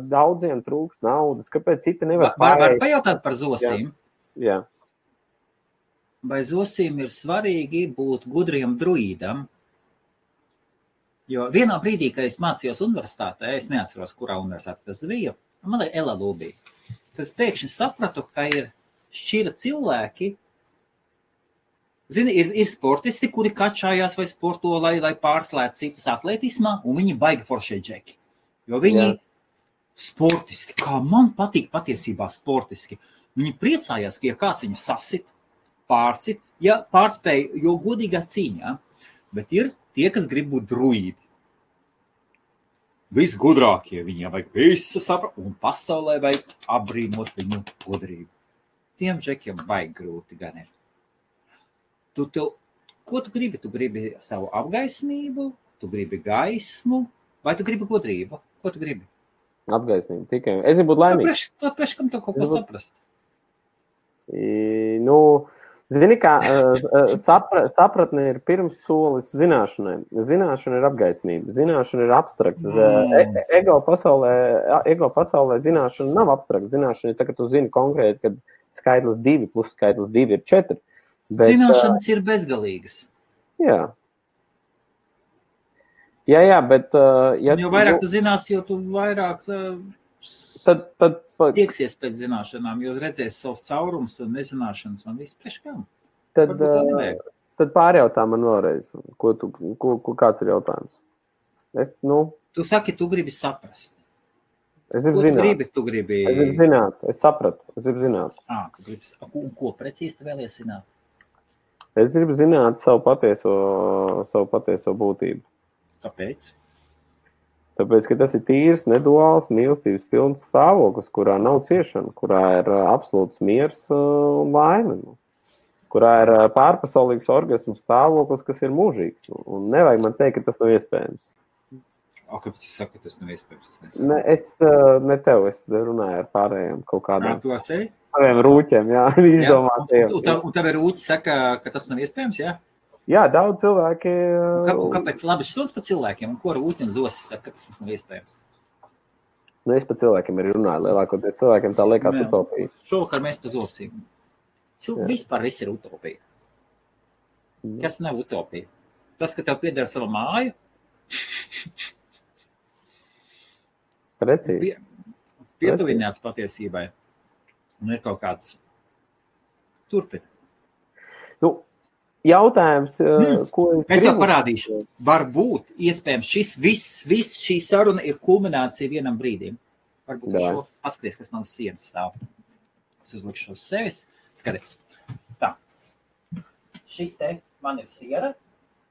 daudziem trūks naudas, kāpēc citi nevar pārējāt. Var pajautāt par zosīm? Jā. Vai zosīm ir svarīgi būt gudriem druīdam? Jo vienā brīdī, kad es mācījos universitātē, es neatceros, kurā universitātē tas bija, man ir LLU bija. Tad es pēkšņi sapratu, ka ir šķira cilvēki, zini, ir sportisti, kuri kačājās vai sporto, lai pārslētu citus atletismā, un viņi baigi foršie džeki. Jo viņi sportisti, kā man patīk patiesībā sportiski, viņi priecājās, ka ja kāds viņu sasit, pārsit, ja pārspēja, jo godīgā cīņā, bet ir tie, kas grib būt druīdi. Visgudrākie viņiem vajag visu saprast, un pasaulē vajag apbrīnot viņu gudrību. Tiem džekiem baigi grūti gan ir. Tu Ko tu gribi? Tu gribi savu apgaismību, tu gribi gaismu, vai tu gribi gudrību? Ko tu gribi? Apgaismību tikai. Es gribu būt laimīgs. Tāpēc, kam tev kaut ko saprast? Nu, zini kā, sapratne ir pirms solis zināšanai. Zināšana ir apgaismība. Zināšana ir abstrakta. Ego pasaulē zināšana nav abstrakta. Zināšana ir tā, ka tu zini konkrēti, kad skaitlis 2 plus skaitlis 2 ir 4. Bet, zināšanas ir bezgalīgas. Jā. Jā, bet... jo vairāk tu zināsi, jo tu vairāk tad tieksies pēc zināšanām, jo redzēsi savus caurumus un nezināšanas un visu priekš kam. Tad pārjautā man vēlreiz, kāds ir jautājums. Tu saki, tu gribi saprast. Es gribu zināt. Tu gribi... Es gribu zināt, es sapratu, es gribu zināt. Tu gribi... Ko precīzi tu vēlies zināt? Es gribu zināt savu patieso būtību. Kāpēc? Tāpēc, ka tas ir tīrs, neduāls, mīlestības pilns stāvoklis, kurā nav ciešana, kurā ir absolūts miers un laime, kurā ir pārpasaulīgs orgasms stāvoklis, kas ir mūžīgs. Un nevajag man teikt, ka tas nav iespējams. Kāpēc es saku, ka tas nav iespējams? Ne tev, es runāju ar pārējiem kaut kādām. Tu esi? Taviem rūķiem, jā, izdomātiem. Un tev ir rūķi saka, ka tas nav iespējams, jā? Jā, daudz cilvēki... Kāpēc labi šķiet par cilvēkiem? Un ko rūķi un zosis saka, kāpēc tas nav iespējams? Es par cilvēkiem arī runāju. Lielākoties cilvēkiem tā liekas utopija. Šovakar mēs par zosīm. Vispār viss ir utopija. Kas nav utopija? Tas, ka tev pieder sava māju? Precīzi. Pietuvināts patiesībai. Un ir kaut kāds turpina. Jautājums, ko es gribu? Es tev parādīšu. Varbūt, iespējams, viss šī saruna ir kulminācija vienam brīdim. Varbūt šo paskaties, kas man uz sienas stāv. Es uzlikšu uz sevis. Skaties. Tā. Šis te man ir siena,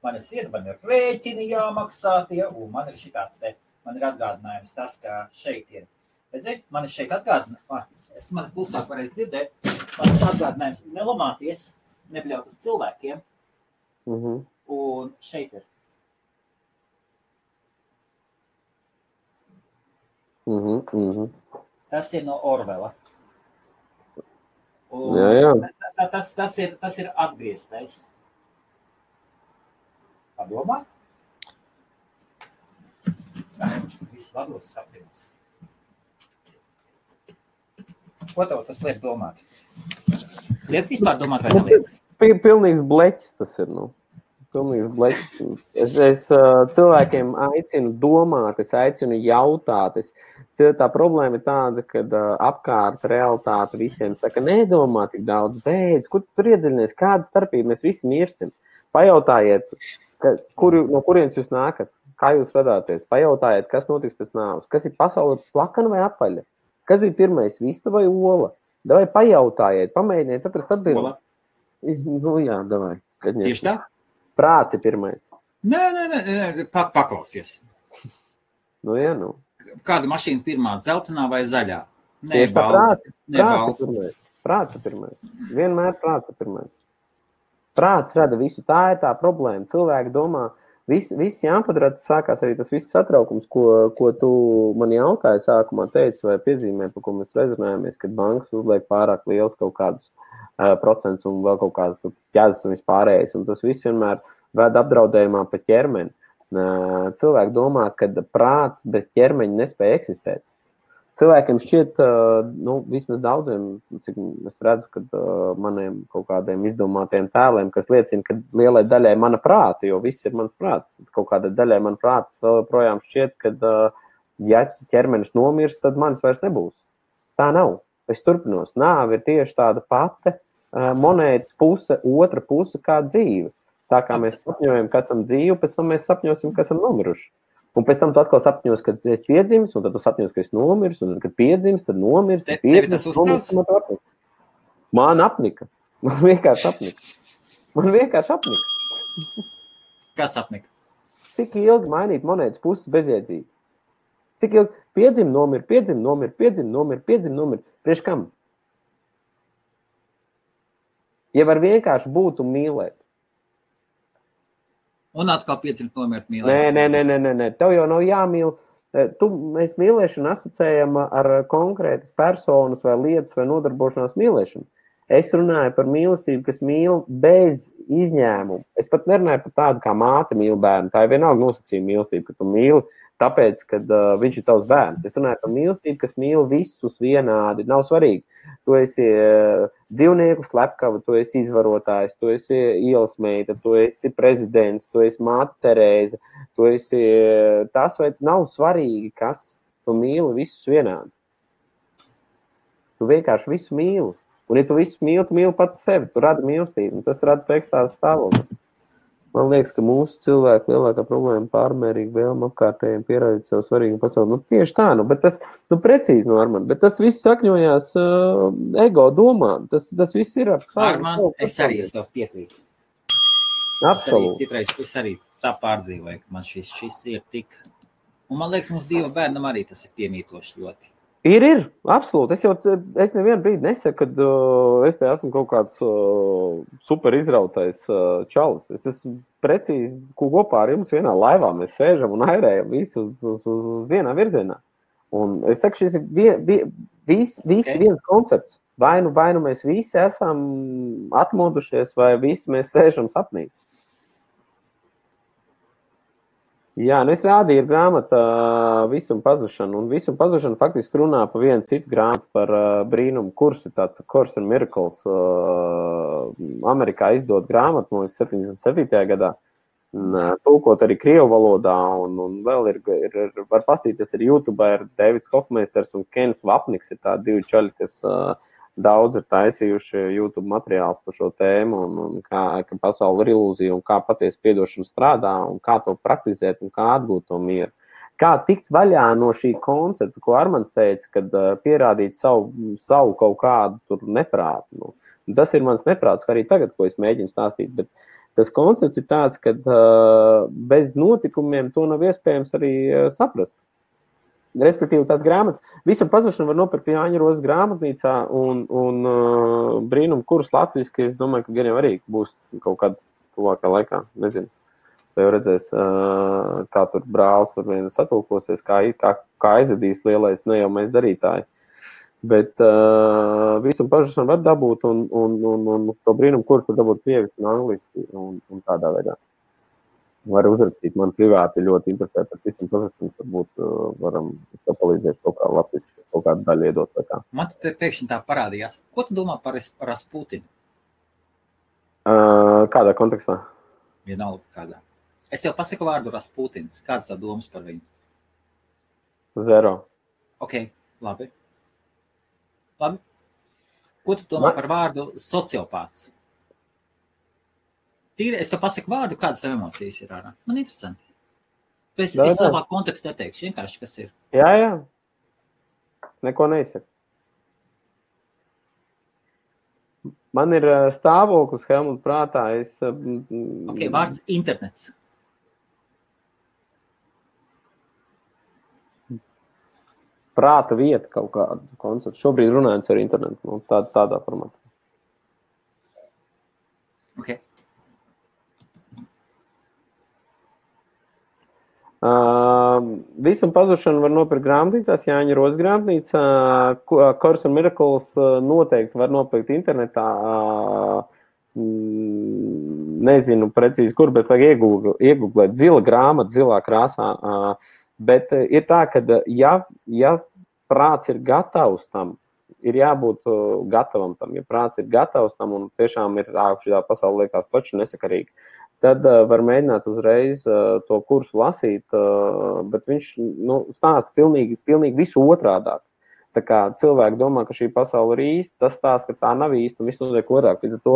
man ir rēķini jāmaksā tie, un man ir šitāds te. Man ir atgādinājums tas, ka šeit ir. Redzi, man ir šeit atgādinājums. Man klusāk varēs dzirdēt. Man ir atgādinājums nelamāties. Nebļaut uz cilvēkiem, un šeit ir. Tas ir no Orvela. Jā. Tas ir atgrieztais. Padomā? Viss vados sapņos. Ko tev tas liek domāt? Liek vispār domāt vai neliek? Pilnīgs bleķis tas ir, Pilnīgs bleķis. Es cilvēkiem aicinu domāt, es aicinu jautāt. Tā problēma ir tāda, kad apkārt realitāte visiem saka, nedomā tik daudz, beidz, kur tur iedziļinies, kāda starpība, mēs visi mirsim. Pajautājiet, no kurienes jūs nākat, kā jūs radāties, pajautājiet, kas notiks pēc nāves, kas ir pasaule plakana vai apaļa, kas bija pirmais, vista vai ola. Davai pajautājiet, pamēģiniet atrast atbildes. Jā, davai. Tieši tā? Prāts ir pirmais. Nē, paklausies. Jā. Kāda mašīna pirmā, dzeltenā vai zaļā? Tieši tā, prāts ir pirmais. Vienmēr prāts ir pirmais. Prāts rada visu, tā ir tā problēma. Cilvēki domā, viss jāpadara, tas sākās arī tas viss satraukums, ko tu man jautāji sākumā teici vai piezīmē, par ko mēs rezonējāmies, kad bankas uzliek pārāk liels kaut kādus procents un vēl kaut kādas ķēdes un vispārējais. Un tas viss vienmēr ved apdraudējumā pa ķermeni. Cilvēki domā, ka prāts bez ķermeņa nespēja eksistēt. Cilvēkiem šķiet, vismaz daudziem, cik es redzu, kad maniem kaut kādiem izdomātiem tēliem, kas liecina, ka lielai daļai mana prāta, jo viss ir mans prāts. Kaut kādai daļai man prāts vēl projām šķiet, ka ja ķermenis nomirs, tad manis vairs nebūs. Tā nav. Es turpinos. Nāve ir tieši tāda pati monētas puse, otra puse kā dzīve. Tā kā mēs sapņojam, ka esam dzīvi, pēc tam mēs sapņosim, ka esam nomiruši. Un pēc tam tu atkal sapņos, kad es piedzims, un tad tu sapņos, ka es nomirs, un tad, kad piedzims, tad nomirs, tad piedzims, nomirs. Man apnika. Man vienkārši apnika. Kas apnika? Cik ilgi mainīt monētas puses bezjēdzīgi? Cik ilgi piedzim, nomir. Priekš kam? Ja var vienkārši būt un mīlēt. Un atkal pieciņu nomirt mīlēt. Nē. Tev jau nav jāmīl. Mēs mīlēšanu asociējam ar konkrētas personas vai lietas vai nodarbošanās mīlēšanu. Es runāju par mīlestību, kas mīl bez izņēmumu. Es pat nerunāju par tādu, kā māte mīl bērnu. Tā ir vienalga nosacījuma mīlestība, ka tu mīli tāpēc, ka viņš ir tavs bērns. Es runāju par mīlestību, kas mīl visus vienādi. Nav svarīgi. Tu esi dzīvnieku slepkava, tu esi izvarotājs, tu esi ielas meita, tu esi prezidents, tu esi māte Terēza, tu esi tas, vai nav svarīgi, kas tu mīli visus vienādi. Tu vienkārši visu mīli. Un, ja tu visu mīli, tu mīli pats sevi, tu radi mīlestību, un tas rada ekstāzi stāvokli. Man liekas, ka mūsu cilvēku lielākā problēma pārmērīgi vēlme apkārtējiem pierādīt sev svarīgu pasauli. Tieši tā, bet tas, precīzi, Armand, bet tas viss sakņojās ego domā. Tas viss ir ar savu. Armand, es arī es tev piekrītu. Absolūti. Es arī tā pārdzīvoju, ka man šis ir tik... Un man liekas, mums divu bērnam arī tas ir piemītoši ļoti. Ir, absolūti. Es nevienu brīdi nesaku, ka es te esmu kaut kāds super izrautais čalis. Es esmu precīzi kopā ar jums vienā laivā. Mēs sēžam un airējam visu uz vienā virzienā. Un es saku, šis ir viens koncepts. Vai nu mēs visi esam atmodušies, vai visi mēs sēžam sapnī. Jā, es rādīju grāmata Visuma pazušana, un Visuma pazušana faktiski runā par vienu citu grāmatu par brīnumu kursi, tāds Course in Miracles, Amerikā izdot grāmatu, no 77. gadā, tulkot arī krievu valodā, un vēl var pastīties ar YouTube, ir Davids Hofmeisters un Kens Vapniks, ir tādi divi čaļi, kas daudz ir taisījuši YouTube materiāls par šo tēmu, un kā pasaule ir ilūzija, un kā patiesi piedošana strādā, un kā to praktizēt, un kā atgūt to mieru. Kā tikt vaļā no šī koncepta, ko Armands teica, kad pierādīt savu kaut kādu tur neprātu. Tas ir mans neprāts, arī tagad, ko es mēģinu stāstīt, bet tas koncepts ir tāds, ka bez notikumiem to nav iespējams arī saprast. Respektīvi, tās grāmatas, Visuma pazušana var nopirkt Jāņa Rozes grāmatnīcā un brīnumu kurus latviski, es domāju, ka gan jau arī būs kaut kādā tuvākā laikā, nezinu. Tā jau redzēs, kā tur brālis ar vienu satulkosies, kā aizvedīs lielais ne jau mēs darītāji. Bet Visuma pazušana var dabūt un to brīnumu kurus var dabūt krieviski un angliski un tādā veidā. Var uzrakstīt, man privāti ļoti interesē par Visuma pazušanu, varbūt varam palīdzēt kaut kā latviski, kaut kādu daļu iedot vai kā. Man te pēkšņi tā parādījās. Ko tu domā par Rasputinu? Kādā kontekstā? Vienalga kādā. Es tev pasaku vārdu Rasputins. Kāds tā domas par viņu? Zero. Ok, labi. Ko tu domā par vārdu sociopāts? Tīri, es tev pasaku vārdu, kādas tev emocijas ir ārā. Man interesanti. Es labāk kontekstu neteikšu, vienkārši kas ir. Jā. Neko neizsaka. Man ir stāvoklis Helmut prātā. Ok, vārds internets. Prāta vieta kaut kādu konceptu. Šobrīd runājot ar internetu, tādā formātā. Ok. Visuma pazušanu var nopirkt grāmatnīcās, Jāņa Rozes grāmatnīcā, Course in Miracles noteikti var nopirkt internetā, nezinu precīzi kur, bet vajag iegooglēt zila grāmata, zilā krāsā, bet ir tā, ka ja prāts ir gatavs tam, ir jābūt gatavam tam, ja prāts ir gatavs tam un tiešām ir šī pasaule liekas toči nesakarīgi. Tad var mēģināt uzreiz to kursu lasīt, bet viņš stāsta pilnīgi visu otrādāk. Tā kā cilvēki domā, ka šī pasaule ir īsta, tas stāsta, ka tā nav īsta un viss notiek otrāk. Līdz ar to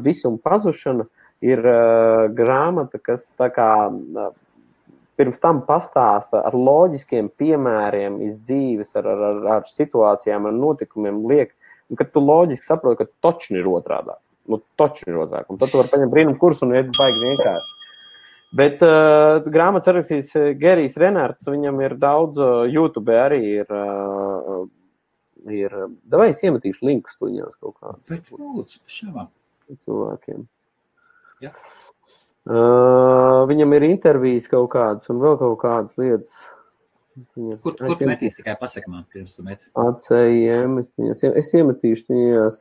Visuma pazušana ir grāmata, kas tā kā pirms tam pastāsta ar loģiskiem piemēriem iz dzīves, ar situācijām, ar notikumiem liek, un kad tu loģiski saproti, ka točni ir otrādāk. Točni ir otrāk. Un tad tu vari paņemt brīnumu kursu un iet baigi vienkārši. Bet grāmatas sarakstīs Gerijs Renārds, viņam ir daudz, YouTube arī ir davai es iemetīšu linkus tuņās kaut kādus. Bet lūdzu, šāvā. Cilvēkiem. Ja. Viņam ir intervijas kaut kādas un vēl kaut kādas lietas. Kur tu metīs, tikai pasaki man, pirms tu meti? ACIM, es iemetīšu viņas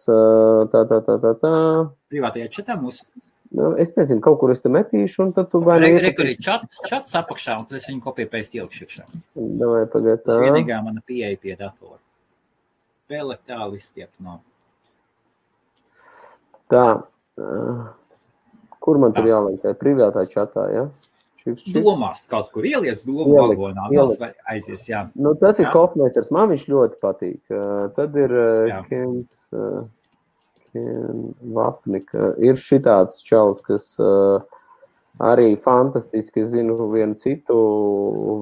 tā. Privātajā čatā mūsu? Es nezinu, kaut kur es te metīšu, un tad tu vai Rekur ir čats apakšā, un tad es viņu kopiju pēc ielkšu iekšā. Davai, pagad tā. Tas vienīgā mana pieeja pie datora. Vēl tālu izstiep no. Tā. Kur man tur jāliek? Tā privātā čatā, ja? Domās kaut kur ieliec domu vagonā, aizies, jā. Nu, tas ir Kofmeters, man viņš ļoti patīk. Tad ir Kens Vapnika. Ir šitāds čalis, kas arī fantastiski, es zinu, vienu citu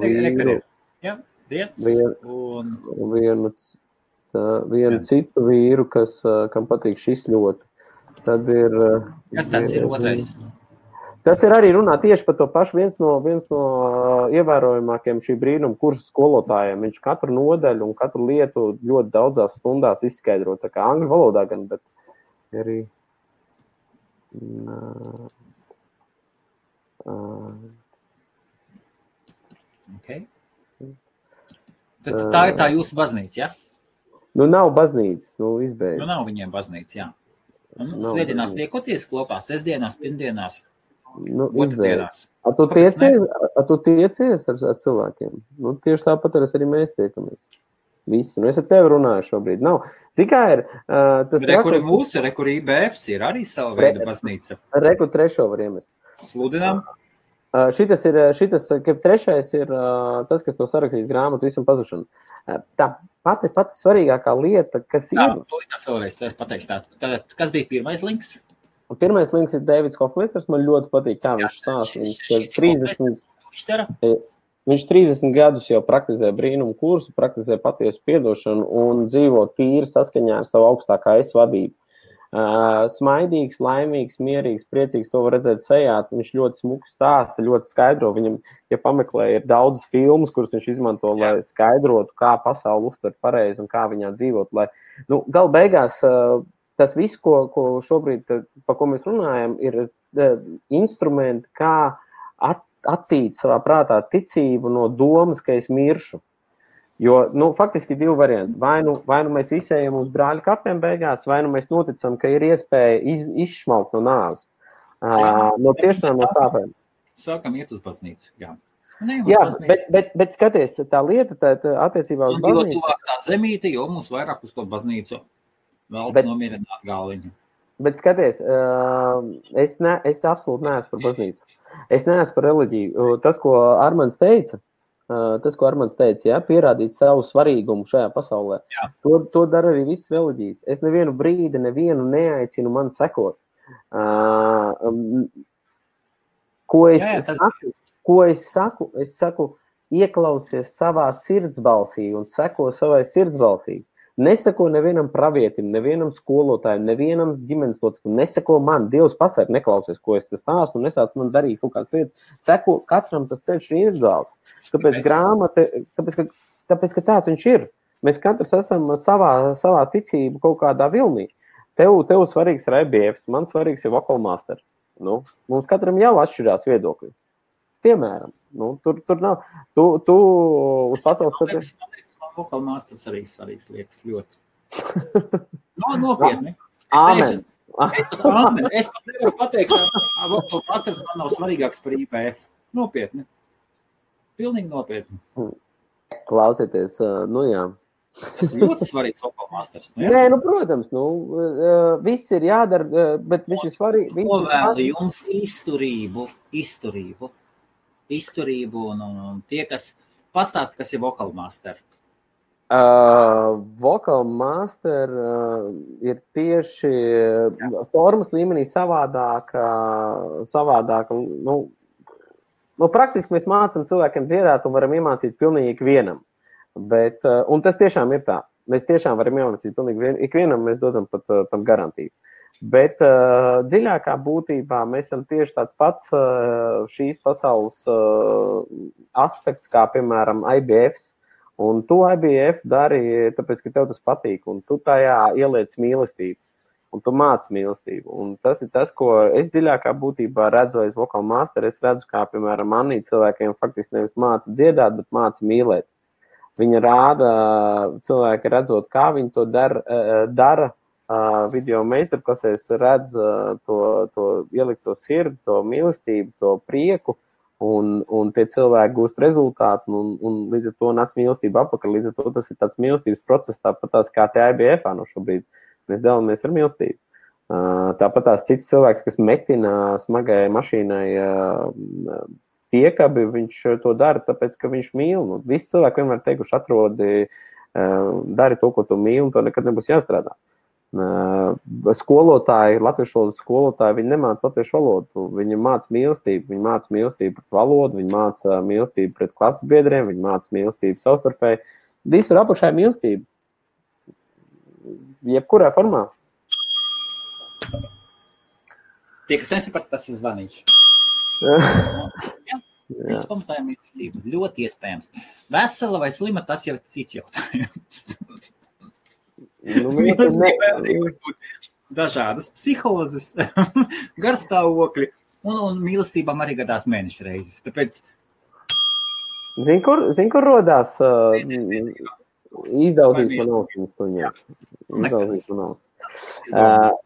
vīru. Jā, Diets. Vienu citu vīru, kam patīk šis ļoti. Tad ir... Kas tāds ir otrais? Tas ir arī runā tieši par to pašu viens no ievērojamākiem šī brīnuma kursa skolotājiem. Viņš katru nodaļu un katru lietu ļoti daudzās stundās izskaidro. Tā kā angļu valodā gan, bet arī... Okay. Tad tā ir tā jūsu baznīca, ja? Nu, nav baznīcas, izbeidz. Nu, nav viņiem baznīca, jā. Svētdienās tiekoties kopā, sestdienās, pirmdienās. Otrdienās. Tu tiecies ar cilvēkiem? Tieši tāpat arī mēs tiekamies. Visi. Es ar tevi runāju šobrīd. Nav. Zikā ir... Rekur ir mūsu, rekur IBFs ir arī sava veida baznīca. Rekur trešo var iemest. Sludinām. Šitas, ka trešais ir tas, kas to sarakstīs grāmatu visam pazušanu. Tā pati svarīgākā lieta, kas ir... Tas vēlreiz, es pateikšu tā. Kas bija pirmais links? Pirmais links ir Davids Hofmeisters. Man ļoti patīk, kā viņš stāsta. Viņš 30 gadus jau praktizē brīnumu kursu, praktizē patiesu piedošanu un dzīvo tīri saskaņā ar savu augstākā es vadību. Smaidīgs, laimīgs, mierīgs, priecīgs, to var redzēt sejā. Viņš ļoti smuki stāsta, ļoti skaidro. Viņam, ja pameklē, ir daudz filmas, kuras viņš izmanto, lai skaidrotu, kā pasauli uztver pareizi un kā viņā dzīvot. Lai, gal beigās tas viss, ko šobrīd, pa ko mēs runājam, ir instrumenti, kā attīt savā prātā ticību no domas, ka es miršu. Jo, faktiski divi varianti. Vai nu mēs visi ejam uz brāļu kapiem beigās, vai nu mēs noticam, ka ir iespēja izšmaukt no nāves. No ciešanām, no sāpēm. Sākam iet uz baznīcu, jā. Bet skaties, tā lieta attiecībā uz baznīcu. Jo tuvāk tā zemīte, jo mums vairāk uz to baznīcu vēl nomierināt galviņu. Bet skaties, es absolūti neesmu par baznīcu. Es neesmu par reliģiju. Tas, ko Armands teica, pierādīt savu svarīgumu šajā pasaulē. To dara arī visas reliģijas. Es nevienu brīdi, neaicinu man sekot. Ko es saku? Es saku, ieklausies savā sirdsbalsī un seko savai sirdsbalsī. Neseko nevienam pravietim, nevienam skolotājiem, nevienam ģimenes loceklim, neseko man. Dievs pasaka, neklausies, ko es stāstu, un nesāc man darīt kaut kādas lietas. Seko katram tas ceļš ir individuāls. Tāpēc grāmata, tāpēc, ka tāds viņš ir. Mēs katrs esam savā ticību kaut kādā vilnī. Tev svarīgs ir IBFs, man svarīgs ir Vocal Master. Mums katram jau atšķirās viedokļi. Piemēram, tur nav. Tu uz pasaules... Man Vocal Masters arī svarīgs liekas ļoti. Nopietni. Āmen. Es pat nevaru pateikt, ka Vocal Masters man nav svarīgāks par IBF. Nopietni. Pilnīgi nopietni. Klausieties, jā. Tas ir ļoti svarīgs Vocal Masters. Nē, protams, viss ir jādara, bet viņš ir svarīgi. Novēlu jums izturību un tie, kas pastāst, kas ir Vocal Master. Vocal Master ir tieši formas līmenī savādāka. Praktiski mēs mācam cilvēkiem dziedāt un varam iemācīt pilnīgi ikvienam. Un tas tiešām ir tā. Mēs tiešām varam iemācīt pilnīgi ikvienam, mēs dodam pat tam garantiju. Bet dziļākā būtībā mēs esam tieši tāds pats šīs pasaules aspekts, kā piemēram IBFs. Un tu IBF dari, tāpēc, ka tev tas patīk, un tu tajā ieliec mīlestību. un tu māci mīlestību. Un tas ir tas, ko es dziļākā būtībā redzu aiz vokāla māstera. Es redzu, kā, piemēram, manī cilvēkiem faktiski nevis māca dziedāt, bet māca mīlēt. Viņa rāda cilvēki redzot, kā viņi to dara video meistarklasēs, redz to ielikto sirdi, to mīlestību, to prieku, un tie cilvēki gūst rezultātu, un līdz ar to nes mīlestību apakaļ. Līdz ar to tas ir tāds mīlestības process, tāpat tās kā te IBF-ā no šobrīd. Mēs dalāmies ar mīlestību. Tāpat tās cits cilvēks, kas metina smagai mašīnai piekabi, viņš to dara, tāpēc, ka viņš mīl. Nu, visi cilvēki vienmēr teikuši, atrodi, dari to, ko tu mīli, un to nekad nebūs jāstrādā. Skolotāji, latviešu valodas skolotāji, viņi nemāca latviešu valodu, viņi māca mīlestību, viņi māca mīlestību pret valodu, viņi māca mīlestību pret klases biedriem, viņi māca mīlestību savstarpēji. Visur apakšā ir mīlestība. Jebkurā formā. Tie, kas nesaprata, tas ir zvanīgs. Jā, es pamatāju mīlestību. Ļoti iespējams. Vesela vai slima, tas jau ir cits jautājums. Mīlestībā var būt dažādas psihozes, garstāvokļi, un mīlestībām arī gadās mēneša reizes. Tāpēc... Zini, kur rodās izdaudzīs man austiņas tuņās? Izdaudzīs man austiņas.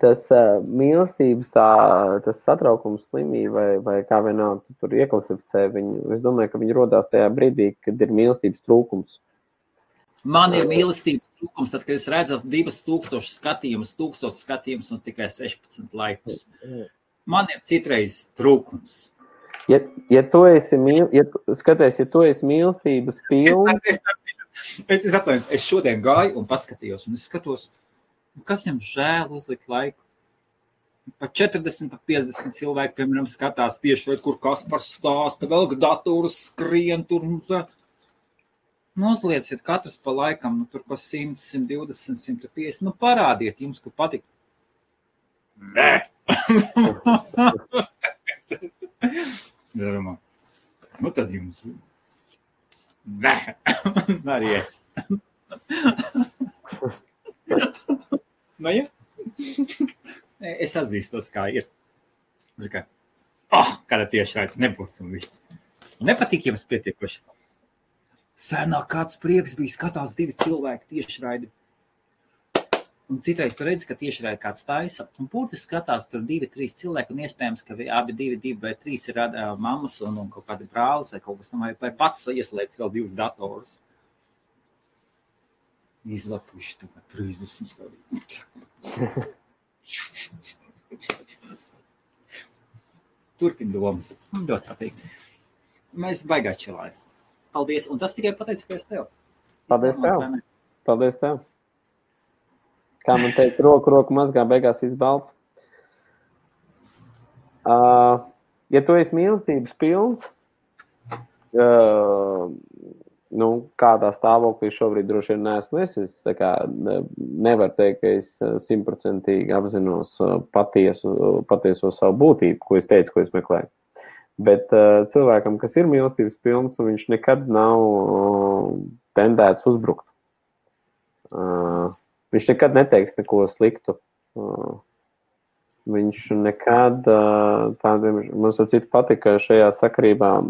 Tas mīlestības, tas satraukums, slimība vai kā vienalga tu tur ieklasificē viņu, es domāju, ka viņi rodās tajā brīdī, kad ir mīlestības trūkums. Man ir mīlestības trūkums, tad, kad es redzu 2000 skatījumus un tikai 16 laikus. Man ir citreiz trūkums. Ja tu esi mīlestības pilns... Es atvainojos, es šodien gāju un paskatījos, un es skatos, kas viņam žēl uzlikt laiku. Pa 40, pa 50 cilvēki, piemēram, skatās tieši, kur Kaspars stāsta, vēl dators skrien tur un tā. Nozlieciet katrs pa laikam, nu tur ko 100, 120, 150, nu parādiet jums, ka patīk. Nē! Darumā. Nu tad jums. Nē! Arī es. Nu ja? Es atzīstos, kā ir. Kā, kāda tieši raida, nebūs un viss. Nepatīk jums pietiekoši. Senāk kāds prieks bija, skatās 2 cilvēki tiešraidi. Un citreiz tu redzi, ka tiešraidi kāds taisa. Un būtiski skatās tur 2-3 cilvēki, un iespējams, ka abi 2 vai 3 ir mammas un kaut kādi brālis vai kaut kas tam, vai pats ieslēdz vēl 2 datorus. Izlapuši tagad 30 stādī. Turpin domu. Ļoti patīk. Mēs baigā čilājas. Paldies, un tas tikai pateicoties tev. Paldies tev. Kā man teikt, roku mazgā, beigās viss balts. Ja tu esi mīlestības pilns, nu, kādā stāvoklī šobrīd droši vien neesmu es tā kā nevaru teikt, ka es 100% apzinos patieso savu būtību, ko es teicu, ko es meklēju. Bet cilvēkam, kas ir mīlestības pilns, viņš nekad nav tendēts uzbrukt. Viņš nekad neteiks neko sliktu. Viņš nekad tādiem, mums ar citu patika šajā sakarībā.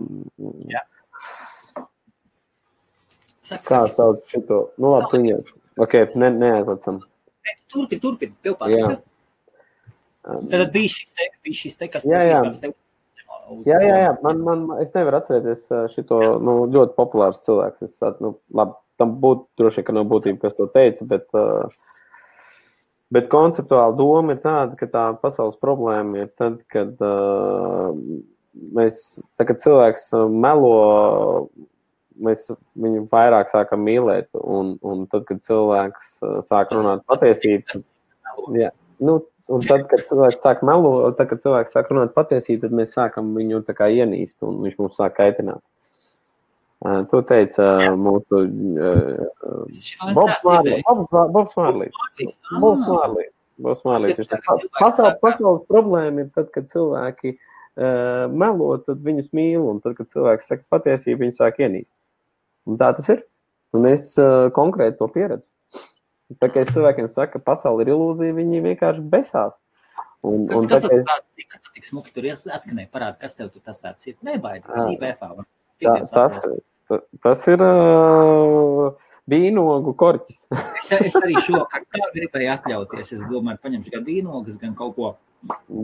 Jā. Kā sauc šito? Nu labi, tu ņem. Ok, neaizlacam. Turpin, tev patika. Tad bija šis te, kas tev Jā, es nevaru atcerēties šito, nu, ļoti populārs cilvēks. Labi, tam būtu droši, ka nav būtība, kas to teica, bet konceptuāli doma ir tāda, ka tā pasaules problēma ir tad, kad kad cilvēks melo, mēs viņu vairāk sākam mīlēt, un tad, kad cilvēks sāk runāt patiesību, un tad, kad cilvēks sāk melot, tad, kad cilvēks sāk runāt patiesību, tad mēs sākam viņu tā kā ienīst, un viņš mums sāk kaitināt. To teica mūsu Bobs Mārlīs. Pasaules problēma ir tad, kad cilvēki melo, tad viņus mīl, un tad, kad cilvēks saka patiesību, viņi sāk ienīst. Un tā tas ir. Un es konkrēti to pieredzu. Tā kā es cilvēkiem saku, ka pasaule ir ilūzija, viņi vienkārši besās. Kas tik smuki tur atskanēja? Parāda, kas tev tur tas tāds ir? Nebaidīgs, IBFā. Tas ir vīnogu korķis. Es arī šokar tā gribēju atļauties. Es domāju, paņemšu gan vīnogas, gan kaut ko.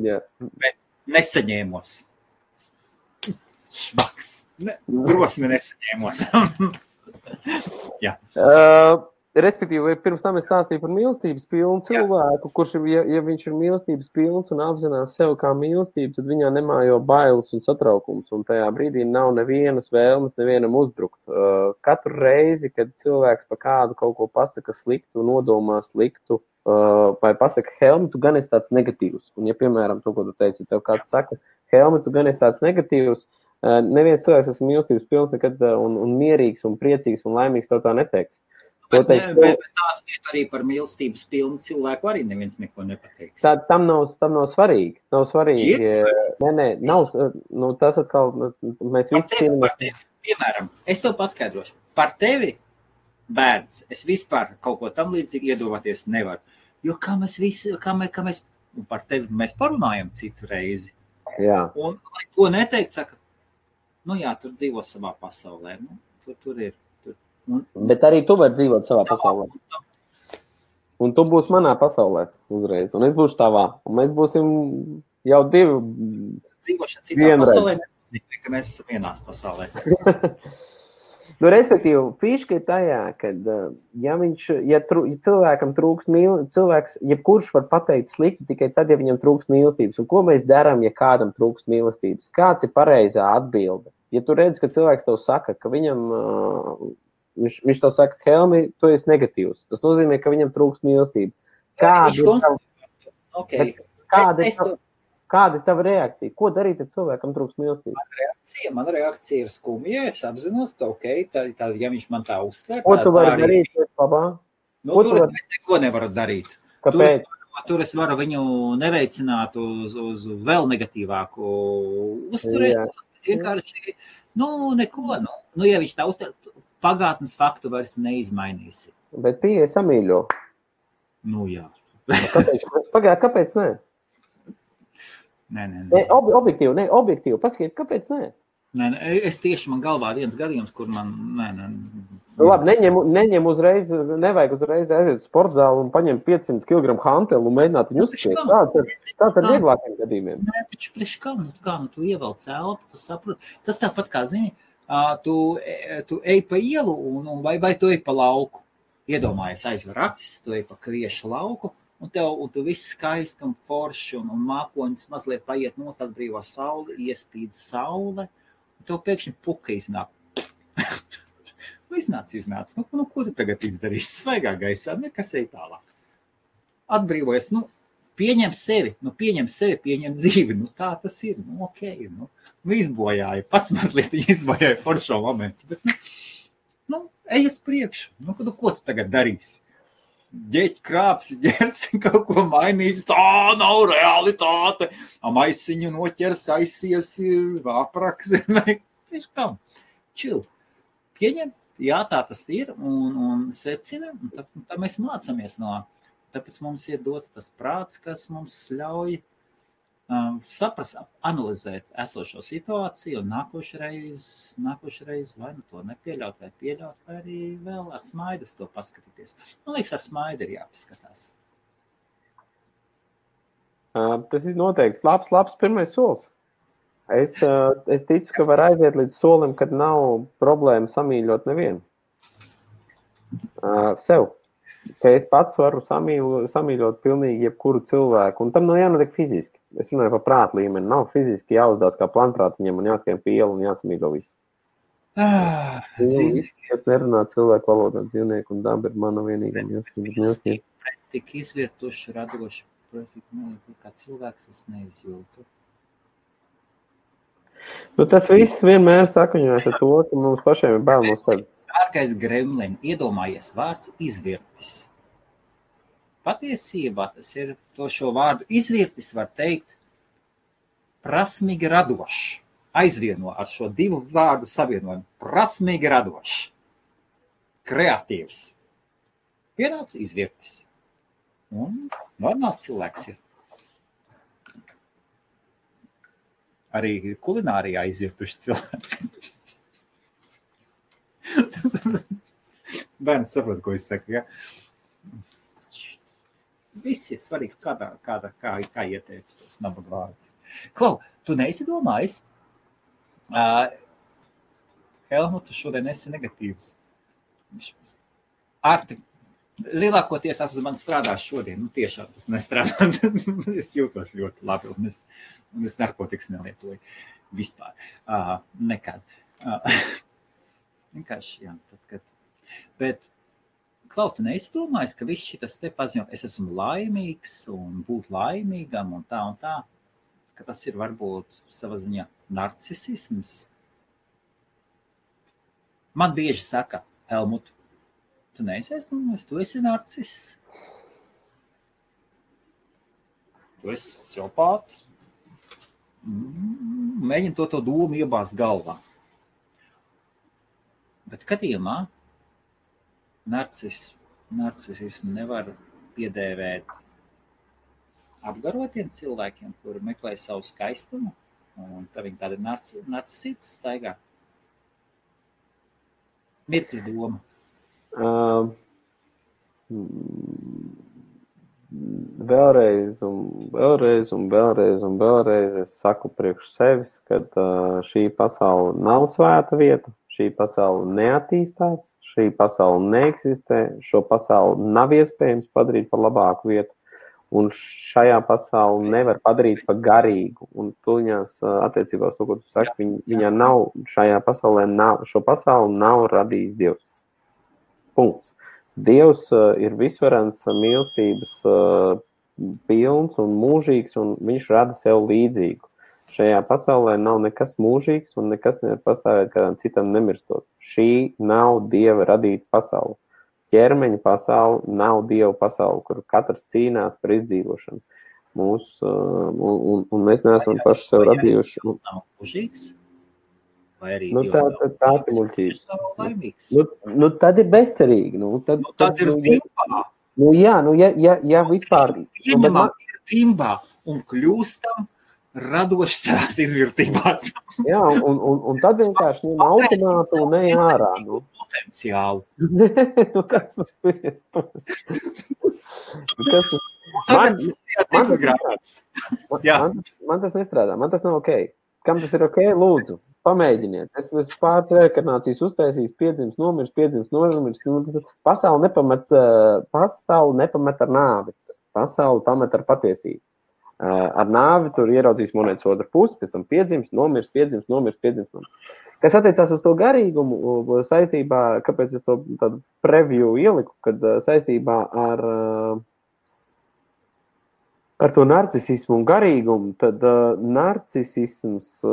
Jā. Bet nesaņēmos. Švaks. Drosmi nesaņēmos. Jā. Respektīvi, pirms tam es stāstīju par mīlestības pilnu cilvēku, kurš, ja viņš ir mīlestības pilns un apzinās sev kā mīlestību, tad viņā nemājo bailes un satraukums, un tajā brīdī nav nevienas vēlmes nevienam uzbrukt. Katru reizi, kad cilvēks pa kādu kaut ko pasaka sliktu, nodomā sliktu, vai pasaka, Helmi, tu gan esi tāds negatīvs. Un ja, piemēram, to, ko tu teici, tev kāds saka, Helmi, tu gan esi tāds negatīvs, neviens cilvēks esmu mīlestības pilns nekad un mierīgs un priecīgs un laimīgs to tā neteiks. Bet tādu arī par mīlestības pilnu cilvēku arī neviens neko nepateiks. Tam nav svarīgi. Nav svarīgi. Nav. Nu, tas atkal, mēs visi cīnāmies. Piemēram, es to paskaidrošu. Par tevi, bērns, es vispār kaut ko tam līdzīgi iedomāties nevaru. Jo kā mēs par tevi mēs parunājam citu reizi. Jā. Un ko neteikt, saka, nu jā, tur dzīvo savā pasaulē. Nu, tur ir. Bet arī tu vari dzīvot savā pasaulē. Un tu būsi manā pasaulē uzreiz. Un es būšu tavā. Un mēs būsim jau divi. Dzīvošana citā pasaulē nenozīmē, ka mēs esam vienās pasaulēs. Nu, respektīvi, fīška ir tajā, ka ja cilvēkam trūkst cilvēks, jebkurš var pateikt sliktu tikai tad, ja viņam trūkst mīlestības. Un ko mēs darām, ja kādam trūkst mīlestības? Kāds ir pareizā atbilde? Ja tu redzi, ka cilvēks tev saka, ka viņam... Viņš tev saka, Helmi, tu esi negatīvs. Tas nozīmē, ka viņam trūkst mīlestība. Kāda ir tava reakcija? Ko darīt, ja cilvēkam trūkst mīlestība? Man reakcija ir skumja. Es apzinos, ka ja viņš man tā uztver... Ko tu vari darīt? Labā? Nu, tur es neko nevaru darīt. Kāpēc? Tur es varu viņu neveicināt uz vēl negatīvāku uzturēt. Vienkārši, neko. Nu, ja viņš tā uztver... Pagātnes faktu vairs neizmainīsi. Bet pieeja samīļo. Nu, jā. Kāpēc nē? Nē. Objektīvi. Paskiet, kāpēc nē? Nē, es tieši man galvā viens gadījums, kur man... Nē. Labi, neņem uzreiz, nevajag uzreiz aiziet sportzālu un paņemt 500 kg hantelu un mēģināt viņu uzskriet. Tāds ar vieglākiem gadījumiem. Nē, taču priekš kā tu ievelc elpu, tu saproti. Tas tāpat kā zini, tu ej pa ielu vai tu ej pa lauku. Iedomājies, aizver acis, tu ej pa kviešu lauku, un tu viss skaisti un forši un mākoņas mazliet paiet nost atbrīvā saule, iespīd saule, un tev pēkšņi puka iznāk. Iznāc. Nu, ko tu tagad izdarīsi? Svaigā gaisā, nekas ej tālāk. Atbrīvojies, pieņem sevi, pieņem dzīvi, tā tas ir, okei, izbojāja, pats mazliet izbojāja foršo momentu, bet, ej uz priekšu, ko tu tagad darīsi? Ģeķi krāpsi, ģerci, kaut ko mainīs, tā nav realitāte, maisiņu noķers, aizies, apraks, čil, pieņem, jā, tā tas ir, un secina, un tā mēs mācamies no. Tāpēc mums ir dots tas prāts, kas mums ļauj saprast, analizēt esošo situāciju un nākošreiz vai to nepieļaut, vai pieļaut, vai arī vēl ar smaidu to paskatīties. Man liekas, ar smaidu ir jāpaskatās. Tas ir noteikti labs pirmais solis. Es ticu, ka var aiziet līdz solim, kad nav problēma samīļot nevienu. Sev. Ka es pats varu samīļot pilnīgi jebkuru cilvēku, un tam nav jānotiek fiziski. Es runāju par prātu līmeni. Nav fiziski jāuzdās kā planprātiņam un jāskrien pie ielu un jāsamīļo visu. Es nerunāju cilvēku valodā, dzīvnieku un daba ir mana vienīgā mīlestība. Tik izvirtuši, radoši, kā cilvēks es neizjūtu. Tas viss vienmēr sakaņojas ar to, ka mums pašiem ir bail no sevis. Dārgais Gremlin, iedomājies vārds izvirtis. Patiesībā tas ir to šo vārdu izvirtis, var teikt, prasmīgi radošs. Aizvieno ar šo divu vārdu savienojumu. Prasmīgi radošs. Kreatīvs. Pienāca izvirtis. Un normāls cilvēks ir. Arī kulinārijā izvirtuši cilvēki. Bērns saprot, ko es saku, ja? Viss ir svarīgs, kā ieteikt tos nabaga vārdus. Klau, tu neesi domājis? Helmuta šodien esi negatīvs. Arti, lielākoties man strādās šodien, tiešām tas nestrādā. Es jūtos ļoti labi, un es narkotikas nelietoju vispār. Nekad. Vienkārši, jā. Bet, Klau, tu neesi domājis, ka viss šitas te paziņo, es esmu laimīgs un būt laimīgam un tā, ka tas ir varbūt sava ziņā narcisisms? Man bieži saka, Helmut, tu neesi aizdomājis, tu esi narciss. Tu esi sociopāts. Mēģini to domu iebāzt galvā. Bet gadījumā narcisismu nevar piedēvēt apgarotiem cilvēkiem, kuri meklē savu skaistumu, un tā viņi tādi narcisītas staigā. Mirkļa doma. Vēlreiz es saku priekš sevis, ka šī pasaule nav svēta vieta, šī pasaule neattīstās, šī pasaule neeksistē, šo pasauli nav iespējams padarīt par labāku vietu, un šajā pasauli nevar padarīt par garīgu, un tuļņās attiecībā uz to, ko tu saki, viņa nav, šajā pasaulē nav, šo pasauli nav radījis Dievs. Punkts. Dievs ir visvarens, mīlestības pilns un mūžīgs, un viņš rada sev līdzīgu. Šajā pasaulē nav nekas mūžīgs, un nekas nevar pastāvēt kādam citam nemirstot. Šī nav Dieva radīta pasaule. Ķermeņa pasaule nav Dieva pasaule, kur katrs cīnās par izdzīvošanu. Un mēs neesam paši sev radījuši. Dievs nav mūžīgs? Vai arī tāds ir muļķības. Tad ir bezcerīgi. Tad ir vimbā. Ja vispār... Ieņemam ir vimbā un kļūstam radoši savās izvirtībās. Jā, un tad vienkārši ņem automātu un ej ārā. Potenciālu. Kas man tas nestrādā, man tas nav ok. Kam tas ir ok? Lūdzu, pamēģiniet. Es pār reinkarnācijas uztaisīs, piedzims, nomirs. Pasauli nepamet ar nāvi. Pasauli pamet ar patiesību. Ar nāvi tur ieraudzīs monētas otru pusi, pēc tam piedzims, nomirs. Kas attiecās uz to garīgumu saistībā, kāpēc es to tādu preview ieliku, kad saistībā ar to narcisismu un garīgumu, tad narcisisms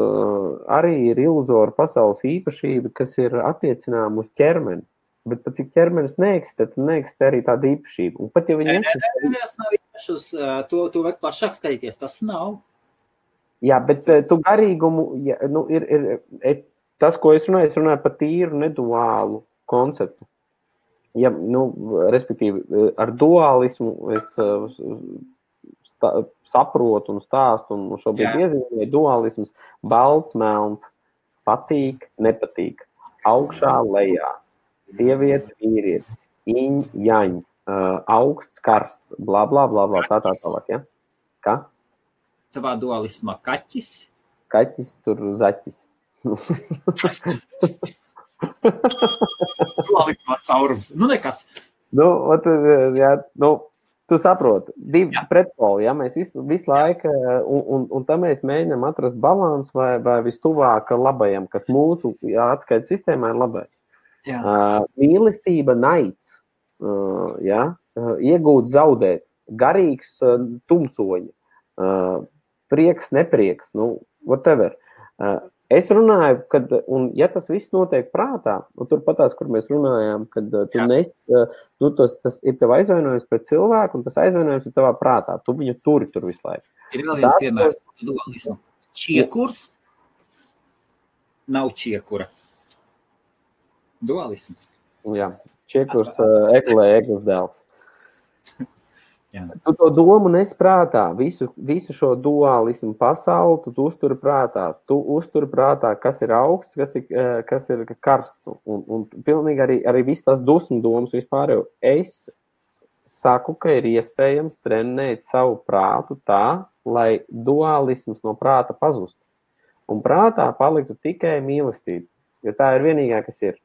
arī ir iluzora pasaules īpašība, kas ir attiecinām uz ķermeni. Bet pat cik ķermenis neeksistē, tad neeksistē arī tāda īpašība. Un pat ja viņi eksistē... Tas nav īpašs, to vajag plašāk skatīties, tas nav. Jā, bet tu garīgumu, ir tas, ko es runāju par tīru neduālu konceptu. Ja, respektīvi, ar dualismu es saprotu un stāstu, un šobrīd iezīmēju dualisms, balts, melns, patīk, nepatīk, augšā, lejā, sieviete, vīrietis, iņ, jaņ, augsts, karsts, blā, tā tālāk, ja? Kā? Tavā dualismā kaķis? Kaķis, tur zaķis. Dualismā caurums. Nekas. Tu saproti, divi pretpoli, ja mēs visu laiku, un tā mēs mēģinām atrast balansu vai vistuvāk labajam, kas mūsu atskaites sistēmā ir labais. Mīlestība, naids, iegūt, zaudēt, garīgs, tumsoņa, prieks, neprieks, whatever. Es runāju, un ja tas viss notiek prātā, turpatās, kur mēs runājām, kad tas ir tev aizvainojums pret cilvēku, un tas aizvainojums ir tavā prātā. Tu viņu turi tur visu laiku. Ir vēl viens piemērs dualismu. Čiekurs nav čiekura. Dualisms. Jā. Čiekus eglis dēls. Tu to domu nesprātā, visu šo dualismu pasauli, tu uzturi prātā. Tu uzturi prātā, kas ir augsts, kas ir karsts. Un pilnīgi arī viss tās dusmu domas vispār jau. Es saku, ka ir iespējams trenēt savu prātu tā, lai dualisms no prāta pazustu. Un prātā paliktu tikai mīlestība, jo tā ir vienīgā, kas ir.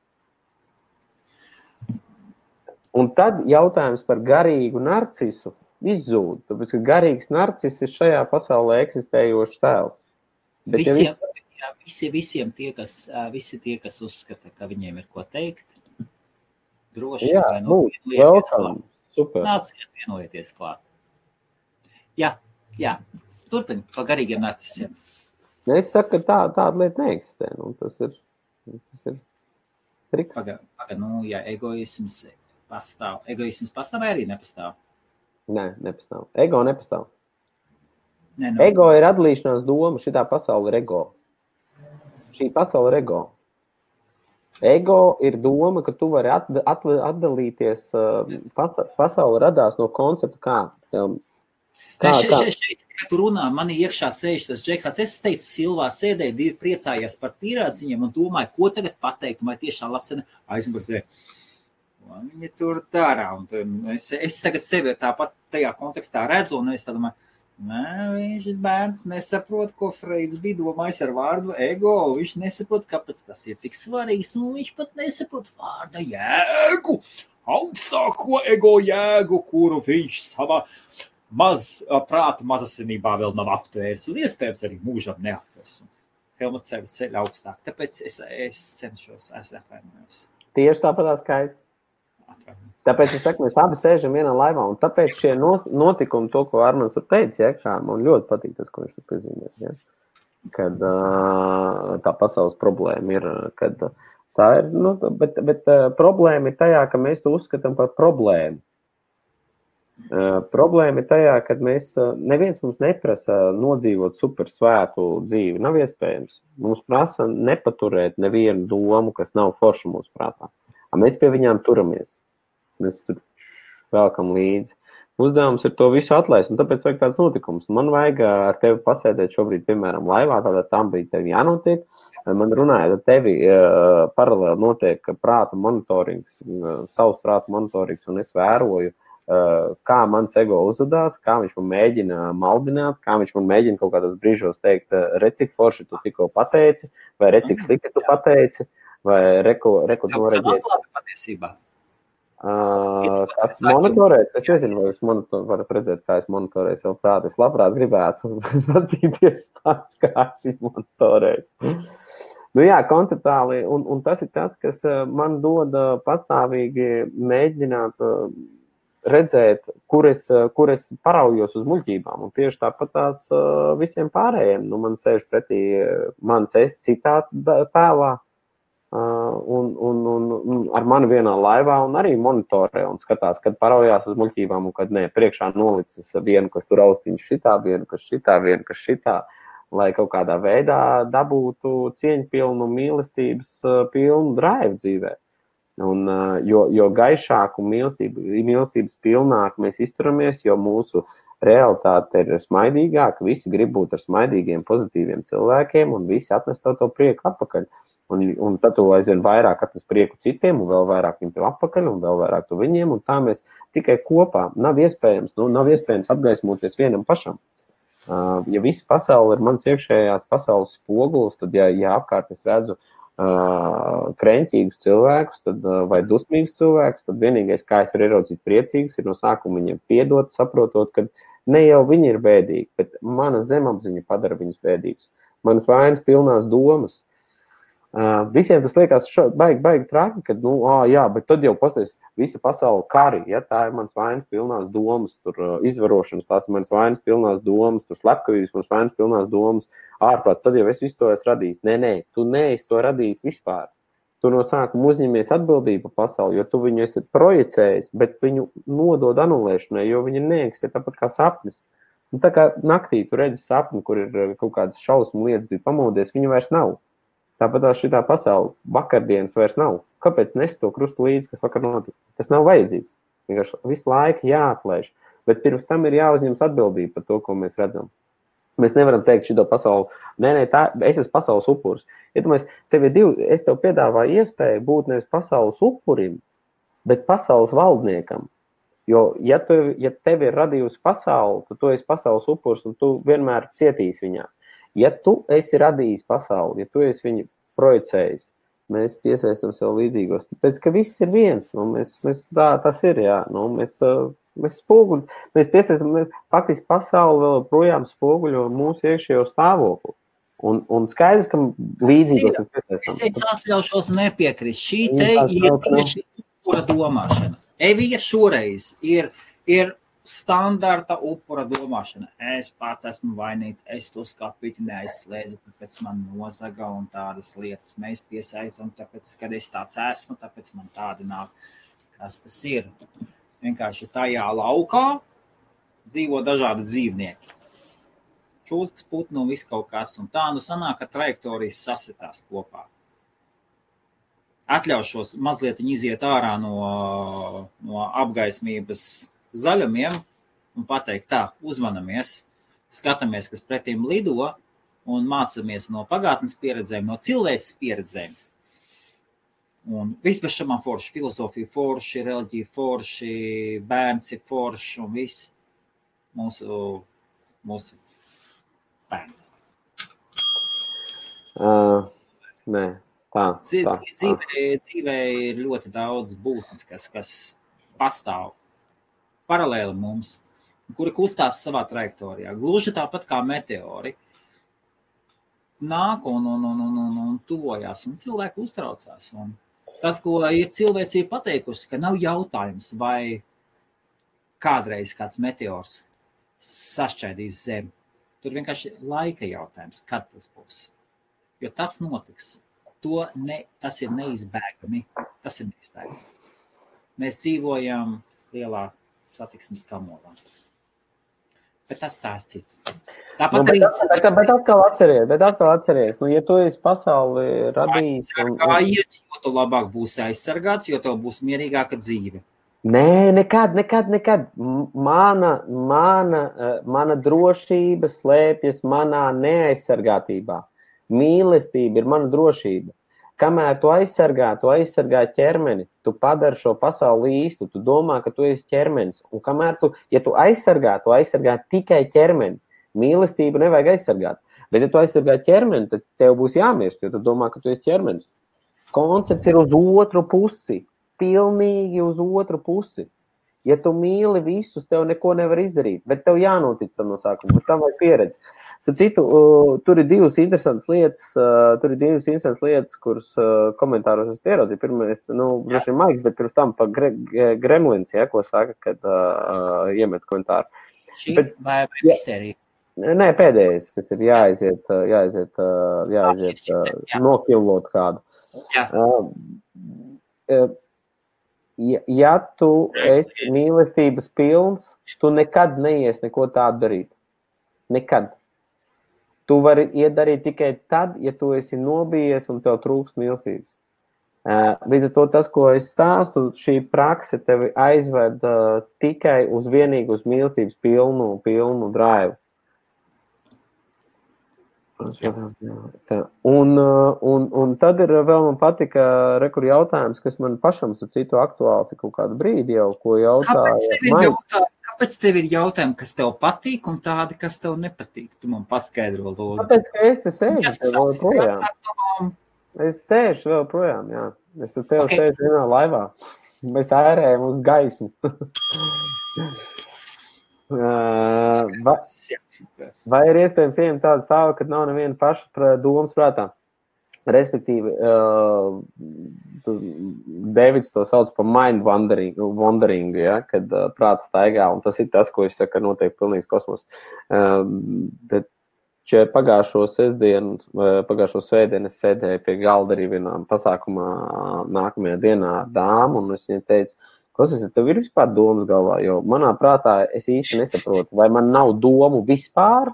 Un tad jautājums par garīgu narcisu izzūd, tāpēc, ka garīgs narcis ir šajā pasaulē eksistējošs tēls. Bet Visiem visi tie, kas uzskata, ka viņiem ir ko teikt, droši super. Nāciet vienojieties klāt. Jā, turpini par garīgiem narcisiem. Es saku, ka tāda lieta neeksistē. Tas ir triks. Ja egoisms pastāv. Egoisms pastāv vai arī nepastāv? Nē, nepastāv. Ego nepastāv. Ego ir atdalīšanās doma. Šitā pasaule ir ego. Šī pasaule ir ego. Ego ir doma, ka tu vari atdalīties. Pasaule radās no koncepta kā. Šeit, kad tu runā, man iekšā sēž tas Džeks. Es teicu, Silvā sēdēju, divi priecājās par pīrādziņiem un domāju, ko tagad pateikt. Vai tiešām labs aizmurzē. Viņi tur dara, un es tagad sevi tāpat tajā kontekstā redzu, un es domāju, viņš bērns nesaprot, ko Freids bija domājis ar vārdu ego, viņš nesaprot, kāpēc tas ir tik svarīgs, un viņš pat nesaprot vārda jēgu, augstāko ego jēgu, kuru viņš savā prāta mazasinībā vēl nav aptvērs, un iespējams arī mūžam neaptvers. Helmuts ceļ augstāk, tāpēc es cenšos, es atvainojos. Tieši tāpatās kā es. Tāpēc es saku, mēs abi sēžam vienā laivā, un tāpēc šie notikumi, to, ko Armans teica, man ļoti patīk tas, ko viņš tur piezīmē, ja? Kad tā pasaules problēma ir, kad tā ir, bet problēma ir tajā, ka mēs to uzskatām par problēmu. Problēma ir tajā, kad neviens mums neprasa nodzīvot super svētu dzīvi, nav iespējams. Mums prasa nepaturēt nevienu domu, kas nav forša mūsu prātā. Mēs pie viņām turamies. Mēs tur vēlkam līdzi. Uzdevums ir to visu atlaist, un tāpēc vajag tāds notikums. Man vajag ar tevi pasēdēt šobrīd, piemēram, laivā, tādā tam brīdī tevi jānotiek. Man runājot ar tevi, paralēli notiek prāta monitorings, savs prāta monitorings, un es vēroju, kā mans ego uzvedās, kā viņš man mēģina maldināt, kā viņš man mēģina kaut kādos brīžos teikt, recik forši tu tikko pateici, vai recik slikti tu pateici, vai reku noreģēt. Patiesībā. Kas monitorēt? Es nezinu, vai jūs varat redzēt, kā es monitorēju savu prātu. Es labprāt gribētu patīties pats, kā es monitorēju. Konceptuāli, un tas ir tas, kas man dod pastāvīgi mēģināt redzēt, kur es paraujos uz muļķībām. Un tieši tāpat tās visiem pārējiem. Man sēž pretī mans es citā tēlā. Un ar mani vienā laivā un arī monitorē un skatās, kad paraujās uz muļķībām un kad nē, priekšā nolicis vienu, kas tur austiņš šitā, vienu, kas šitā, lai kaut kādā veidā dabūtu cieņpilnu, mīlestības pilnu drive dzīvē. Un, jo gaišāku mīlestības pilnāk mēs izturamies, jo mūsu realitāte ir smaidīgāka, visi grib būt ar smaidīgiem, pozitīviem cilvēkiem un visi atnest to prieku atpakaļ. Un tad tu aizvien vairāk atnes prieku citiem, un vēl vairāk viņiem tev atpakaļ, un vēl vairāk tu viņiem, un tā mēs tikai kopā nav iespējams apgaismoties vienam pašam. Ja visa pasaule ir mans iekšējās pasaules spogulis, tad, ja apkārt es redzu kreņķīgus cilvēkus, vai dusmīgus cilvēkus, tad vienīgais, kā es varu ieraudzīt priecīgus, ir no sākuma viņiem piedot, saprotot, ka ne jau viņi ir bēdīgi, bet mana zemapziņa padara viņus bēdīgus. Manas vainas pilnās domas. Visiem tas liekas baigi traki, kad, bet tad jau pasties visa pasaule kari, ja tā ir mans vainas pilnās domas, tur izvarošanas, tās ir manas vainas pilnās domas, tur slepkavības, manas vainas pilnās domas, ārprāt, tad jau es visu to esmu radījis. Nē, tu neesi to radījis vispār. Tu no sākuma uzņemies atbildību pasauli, jo tu viņu esi projicējis, bet viņu nodod anulēšanai, jo viņi neeksistē tāpat kā sapnis. Tā kā naktī tu redzi sapni, kur ir kaut kādas šausmu lietas bija pamodies, viņu vairs nav. Tāpat šitā pasaule vakardienas vairs nav. Kāpēc nes to krustu līdzi, kas vakar notika? Tas nav vajadzīgs. Vienkārši visu laiku jāatlaiž. Bet pirms tam ir jāuzņemas atbildība par to, ko mēs redzam. Mēs nevaram teikt šito pasauli, es esmu pasaules upuris. Iedomājies, es tev piedāvāju iespēju būt nevis pasaules upurim, bet pasaules valdniekam. Jo, ja tev ir radījusi pasauli, tad tu esi pasaules upuris un tu vienmēr cietīsi viņā. Ja tu esi radījis pasauli, ja tu esi viņu projicējis, mēs piesaistam sev līdzīgos. Tāpēc, ka viss ir viens. Tas ir, jā. Mēs spoguļu, mēs piesaistam, faktiski pasauli vēl projām spoguļo mūsu iekšējo stāvokli. Un skaidrs, ka līdzīgos mēs piesaistam. Es atļaušos nepiekrist. Šī te ir tieši upura domāšana. Evija šoreiz ir standarta upura domāšana. Es pats esmu vainīgs, es to skapīti neaizslēdzu, tāpēc man nozaga un tādas lietas mēs piesaistam, tāpēc, kad es tāds esmu, tāpēc man tādi nāk. Kas tas ir? Vienkārši tajā laukā dzīvo dažādi dzīvnieki. Čūskas, putnu un viss kaut kas. Un tā sanāk, ka trajektorijas sasitās kopā. Atļaušos mazliet iziet ārā no apgaismības zaļumiem un pateikt tā, uzmanamies, skatāmies, kas pretīm lido un mācamies no pagātnes pieredzēm, no cilvēces pieredzēm. Un viss bez šamām forši, filozofija forši, reliģija forši, bērns ir forši un viss mūsu bērns. Nē, tā. Dzīvē ir ļoti daudz būtnes, kas pastāv paralēli mums, kuri kustās savā trajektorijā. Gluži tāpat kā meteori. Nāk un tuvojās, un cilvēki uztraucās. Un tas, ko ir cilvēcība pateikusi, ka nav jautājums, vai kādreiz kāds meteors sašķaidīs zemi. Tur vienkārši laika jautājums, kad tas būs. Jo tas notiks. Tas ir neizbēgami. Mēs dzīvojam lielā satiksmes kamolā. Bet tas tās citu. Bet atkal atceries. Ja tu esi pasauli radījis... Aizsargājies, jo tu labāk būsi aizsargāts, jo tev būs mierīgāka dzīve. Nē, nekad. Mana drošība slēpjas manā neaizsargātībā. Mīlestība ir mana drošība. Kamēr tu aizsargā ķermeni, tu padari šo pasauli īstu, tu domā, ka tu esi ķermenis. Un kamēr tu aizsargā tikai ķermeni. Mīlestību nevajag aizsargāt. Bet, ja tu aizsargā ķermeni, tad tev būs jāmirst, jo tu domā, ka tu esi ķermenis. Koncepts ir uz otru pusi. Pilnīgi uz otru pusi. Ja tu mīli visus, tev neko nevar izdarīt, bet tev jānotic tam no sākuma, bet tam vajag pieredzi. Tur ir divas interesantas lietas, kuras komentāros es ieraudzīju. Pirmais, droši vien Maiks, bet pirms tam pa Gremlins, ko saka, kad iemet komentāru. Šī vai misterija? Nē, pēdējais, kas ir jāaiziet nokilot kādu. Ja tu esi mīlestības pilns, tu nekad neies neko tādu darīt. Nekad. Tu vari iedarīt tikai tad, ja tu esi nobijies un tev trūks mīlestības. Līdz ar to tas, ko es stāstu, šī prakse tevi aizved tikai vienīgi uz mīlestības pilnu drive. Un tad ir vēl man patika rekur jautājums, kas man pašam su citu aktuāls ir kaut kādu brīdi jau, ko jautāja. Kāpēc tev ir jautājumi, kas tev patīk un tādi, kas tev nepatīk? Tu man paskaidro, lūdzu. Tāpēc, ka es te sēžu vēl projām. Es sēžu vēl projām, jā. Es ar tevi sēžu vienā laivā. Mēs ērējam uz gaismu. Vai ir iespējams ieņemt tādu stāvu, kad nav neviena paša domas prātā? Respektīvi, Deivids to sauc par mind wandering, ja, kad prāts staigā, un tas ir tas, ko es saku, noteikti pilnīgs kosmos. Bet pagājušo svētdienu es sēdēju pie galda arī vienā pasākumā nākamajā dienā ar dāmu, un es viņai teicu, klausies, tev ir vispār domas galvā, jo manā prātā es īsti nesaprotu, vai man nav domu vispār,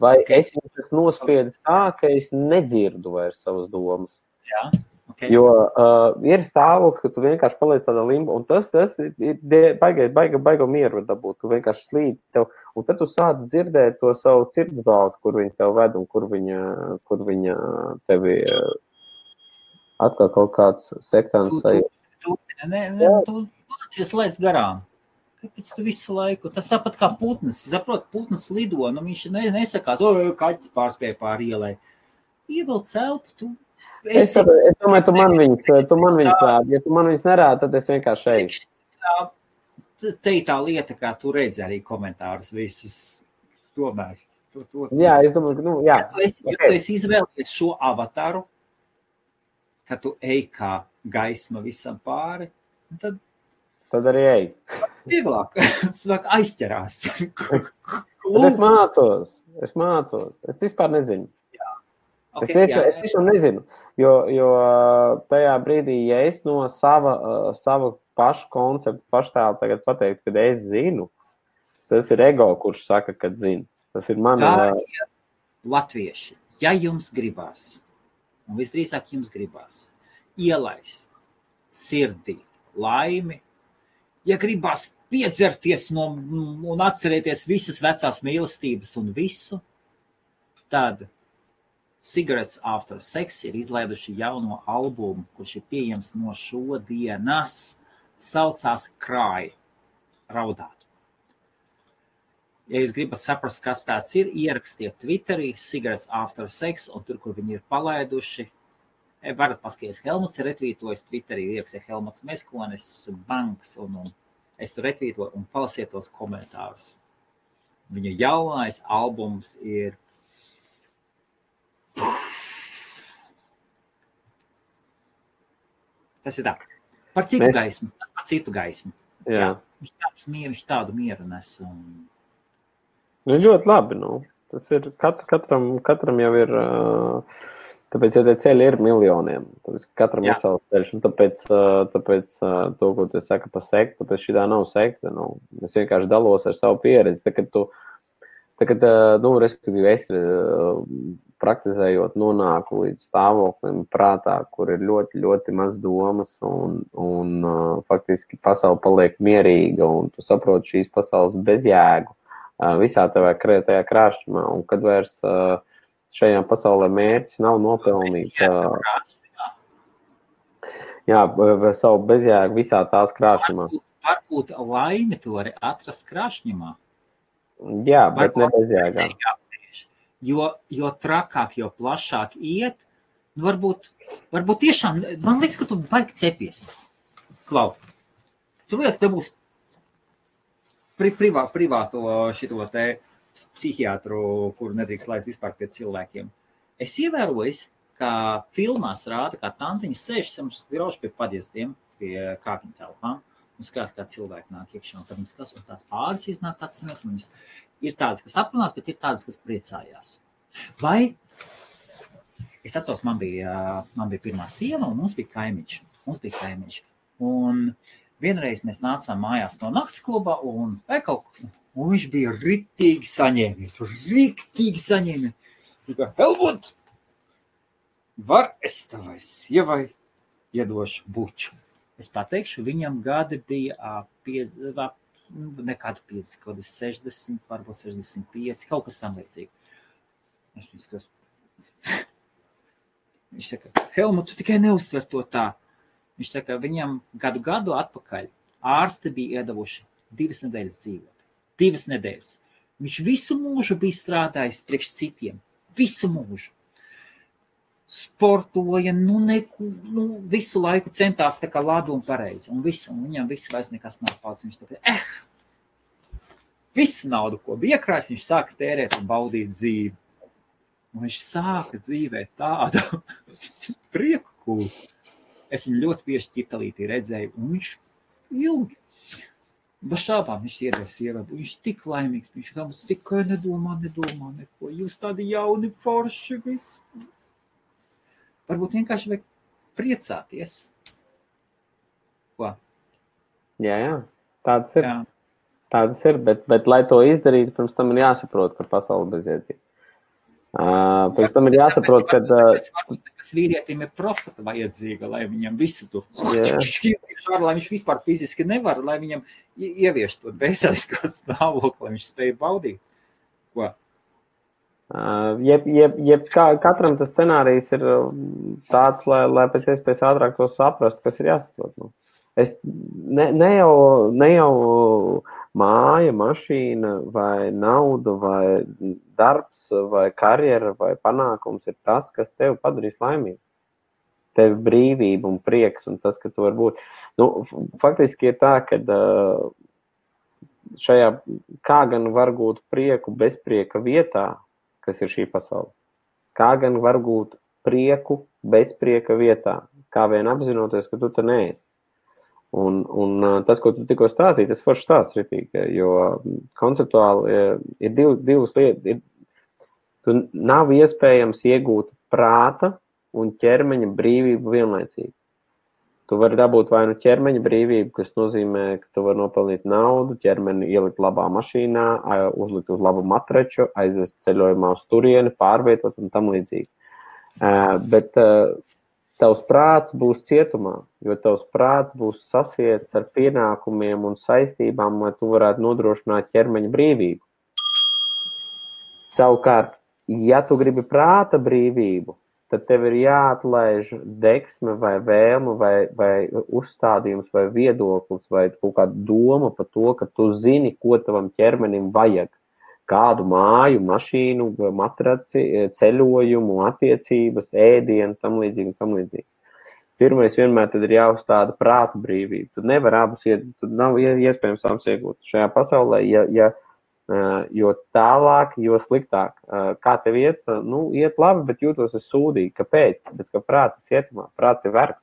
Vai okay. es viņu nospiedis tā, ka es nedzirdu vairs savas domas. Jā, okay. Jo ir stāvoklis, ka tu vienkārši paliec tādā limbo, un tas ir baiga mieru dabūt. Tu vienkārši slīd tev, un tad tu sāc dzirdēt to savu sirdsbalsi, kur viņa tev ved, un kur viņa tevi atkal kaut kāds sektāns sajūt. Tu mācies laist garām. Kāpēc tu visu laiku? Tas tāpat kā putns. Saprot, putns lido, nu viņš nesakās, kaķis pārspēja pāri ielai. Ievilc elpu, tu esi... Es domāju, tu man viņus rādi. Ja tu man viņus nerādi, tad es vienkārši eju. Te ir tā lieta, kā tu redzi arī komentārus visus. Tomēr. Jā, es domāju, jā. Ja tu esi izvēlējies šo avataru, ka tu ej kā gaisma visam pāri, tad arī ej. Vieglāk, aizķerās. Es mācos. Es vispār nezinu. Okay, es tiešām nezinu, jo tajā brīdī, ja es no sava pašu konceptu paštēlu tagad pateiktu, kad es zinu, tas ir ego, kurš saka, kad zinu. Tas ir man... Latvieši, ja jums gribās, un visdrīzāk jums gribās, ielaist sirdī laimi, ja gribās piedzerties un atcerēties visas vecās mīlestības un visu, tad Cigarettes After Sex ir izlaiduši jauno albumu, kurš ir pieejams no šodienas, saucās Cry, raudāt. Ja jūs gribat saprast, kas tāds ir, ierakstiet Twitterī Cigarettes After Sex, un tur, kur viņi ir palaiduši, varat paskatīties, Helmuts ir retvītojis Twitterī, ierakstīja Helmuts Meskonis, Banks, un es tur retvītoju un palasiet tos komentārus. Viņa jaunais albums ir tas ir tā. Par citu gaismu. Tas par citu gaismu. Jā. Viņš tādu mieru nes. Nu, ļoti labi, nu. Tas ir, katram jau ir, tāpēc, ja tie ceļi ir miljoniem, tāpēc, katram ir savs ceļš, un tāpēc to, ko tu saka par sektu, tāpēc šitā nav sekta, nu. Es vienkārši dalos ar savu pieredzi, respektīvi es praktizējot nonāku līdz stāvoklim prātā, kur ir ļoti, ļoti maz domas un faktiski pasaule paliek mierīga un tu saproti šīs pasaules bezjēgu visā tajā krāšņumā. Un kad vairs šajā pasaulē mērķis nav nopelnīt savu bezjēgu visā tās krāšņumā. Varbūt laimi to arī atrast krāšņumā. Jā, bet ne bezjēgā. Jo trakāk, jo plašāk iet, nu varbūt tiešām, man liekas, ka tu baigi cepies. Klau, tu liekas, te būs privāto šito te psihiatru, kuru nedrīkst laist vispār pie cilvēkiem. Es ievēroju, ka filmās rāda, kā tantiņa sēž grauž pie padiezdiem, pie kāpņu telpām, un skatās, kā cilvēki nāk iekšā, un tad viņi skatās, un tāds pāris iznāk tāds samies, un viņas ir tādas, kas aprunās, bet ir tādas, kas priecājās. Vai, es atceros, man bija pirmā sieva, un mums bija kaimiņš. Un vienreiz mēs nācām mājās no nakts klubā, un viņš bija riktīgi saņēmies. Helmut, var es tavai sievai iedošu buču? Es pateikšu, viņam gadi bija nekādu 60, varbūt 65, kaut kas tam līdzīgi. Viņš saka, Helmut, tu tikai neuztver to tā. Viņš saka, viņam gadu atpakaļ ārsti bija iedavuši 2 nedēļas dzīvot. 2 nedēļas. Viņš visu mūžu bija strādājis priekš citiem. Visu mūžu. Sportoja, visu laiku centās tā kā labi un pareizi. Un viņam viss vairs nekas nav palicis. Viņš tāpēc, visu naudu, ko bija iekrājis, viņš sāka tērēt un baudīt dzīvi. Un viņš sāka dzīvēt tādu prieku kūtu. Es viņu ļoti bieži ķitalītī redzēju, un viņš ilgi. Bez šābām viņš iedeva sievai. Viņš tik laimīgs, viņš tikai nedomā neko. Jūs tādi jauni forši visi. Varbūt vienkārši vajag priecāties. Ko? Jā, tādas ir. Tādas ir, bet lai to izdarītu, pirms tam ir jāsaprot, ka pasaule bezjēdzīga. Pirms tam ir jāsaprot, ka... Tāpēc vīrietim ir prostata vajadzīga, lai viņam visu tur lai viņš vispār fiziski nevar, lai viņam ievieš to veselisko stāvokli, lai viņš spēj baudīt. Ko? Katram tas scenārijs ir tāds, lai pēc iespējas ātrāk to saprast, kas ir jāsaprot. Nu. Ne jau māja, mašīna vai nauda vai darbs vai karjera vai panākums ir tas, kas tevi padarīs laimīgu. Tev brīvība un prieks un tas, ka tu var būt. Nu, faktiski ir tā, ka šajā kā gan var gūt prieku bezprieka vietā, kas ir šī pasaule. Kā gan var gūt prieku bezprieka vietā, kā vien apzinoties, ka tu te neesi. Un tas, ko tu tikko stāstīji, tas forši stāsts ritīgi, jo konceptuāli ir divas lietas. Tu nav iespējams iegūt prāta un ķermeņa brīvību vienlaicīgi. Tu vari dabūt vai nu ķermeņa brīvību, kas nozīmē, ka tu vari nopelnīt naudu, ķermeni ielikt labā mašīnā, uzlikt uz labu matraču, aizvest ceļojumā uz turieni, pārvietot un tam līdzīgi. Bet tavs prāts būs cietumā, jo tavs prāts būs sasiets ar pienākumiem un saistībām, lai tu varētu nodrošināt ķermeņa brīvību. Savukārt, ja tu gribi prāta brīvību, tad tev ir jāatlaiž deksme vai vēlme vai uzstādījums vai viedoklis vai kaut kāda doma par to, ka tu zini, ko tavam ķermenim vajag. Kādu māju, mašīnu, matraci, ceļojumu, attiecības, ēdienu, tam līdzīgi. Pirmais vienmēr tad ir jāuzstāda prāta brīvība. Tu nevar abus tu nav iespējams abus iegūt šajā pasaulē, jo tālāk, jo sliktāk. Kā tev iet? Nu, iet labi, bet jūtos es sūdīgi. Kāpēc? Tāpēc, ka prāts ir cietumā, prāts ir vergs.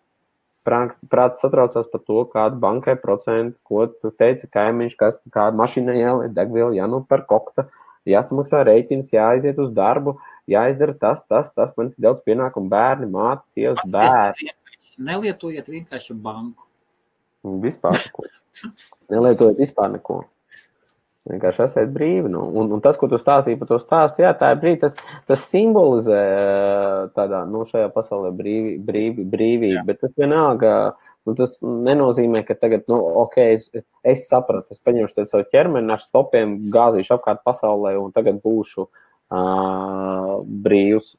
Prāts satraucās par to, kādu bankai procentu, ko tu teici kaimiņš, kādu mašīnai jāliet degvielu, jānopērk kokta, jāsamaksā rēķins, jāaiziet uz darbu, jāizdara tas, man ir daudz pienākumu, bērni, mātes, sievas, bērni. Nelietojiet vienkārši banku. Vispār neko. Nelietojiet vispār neko. Vienkārši esiet brīvi. Nu. Un tas, ko tu stāstīji par to stāstu, jā, tā ir brīvi, tas simbolizē tādā, nu, šajā pasaulē brīvību, bet tas vienalga, nu, tas nenozīmē, ka tagad, nu, ok, es sapratu, es paņemšu te savu ķermeni ar stopiem, gāzīšu apkārt pasaulē un tagad būšu brīvs.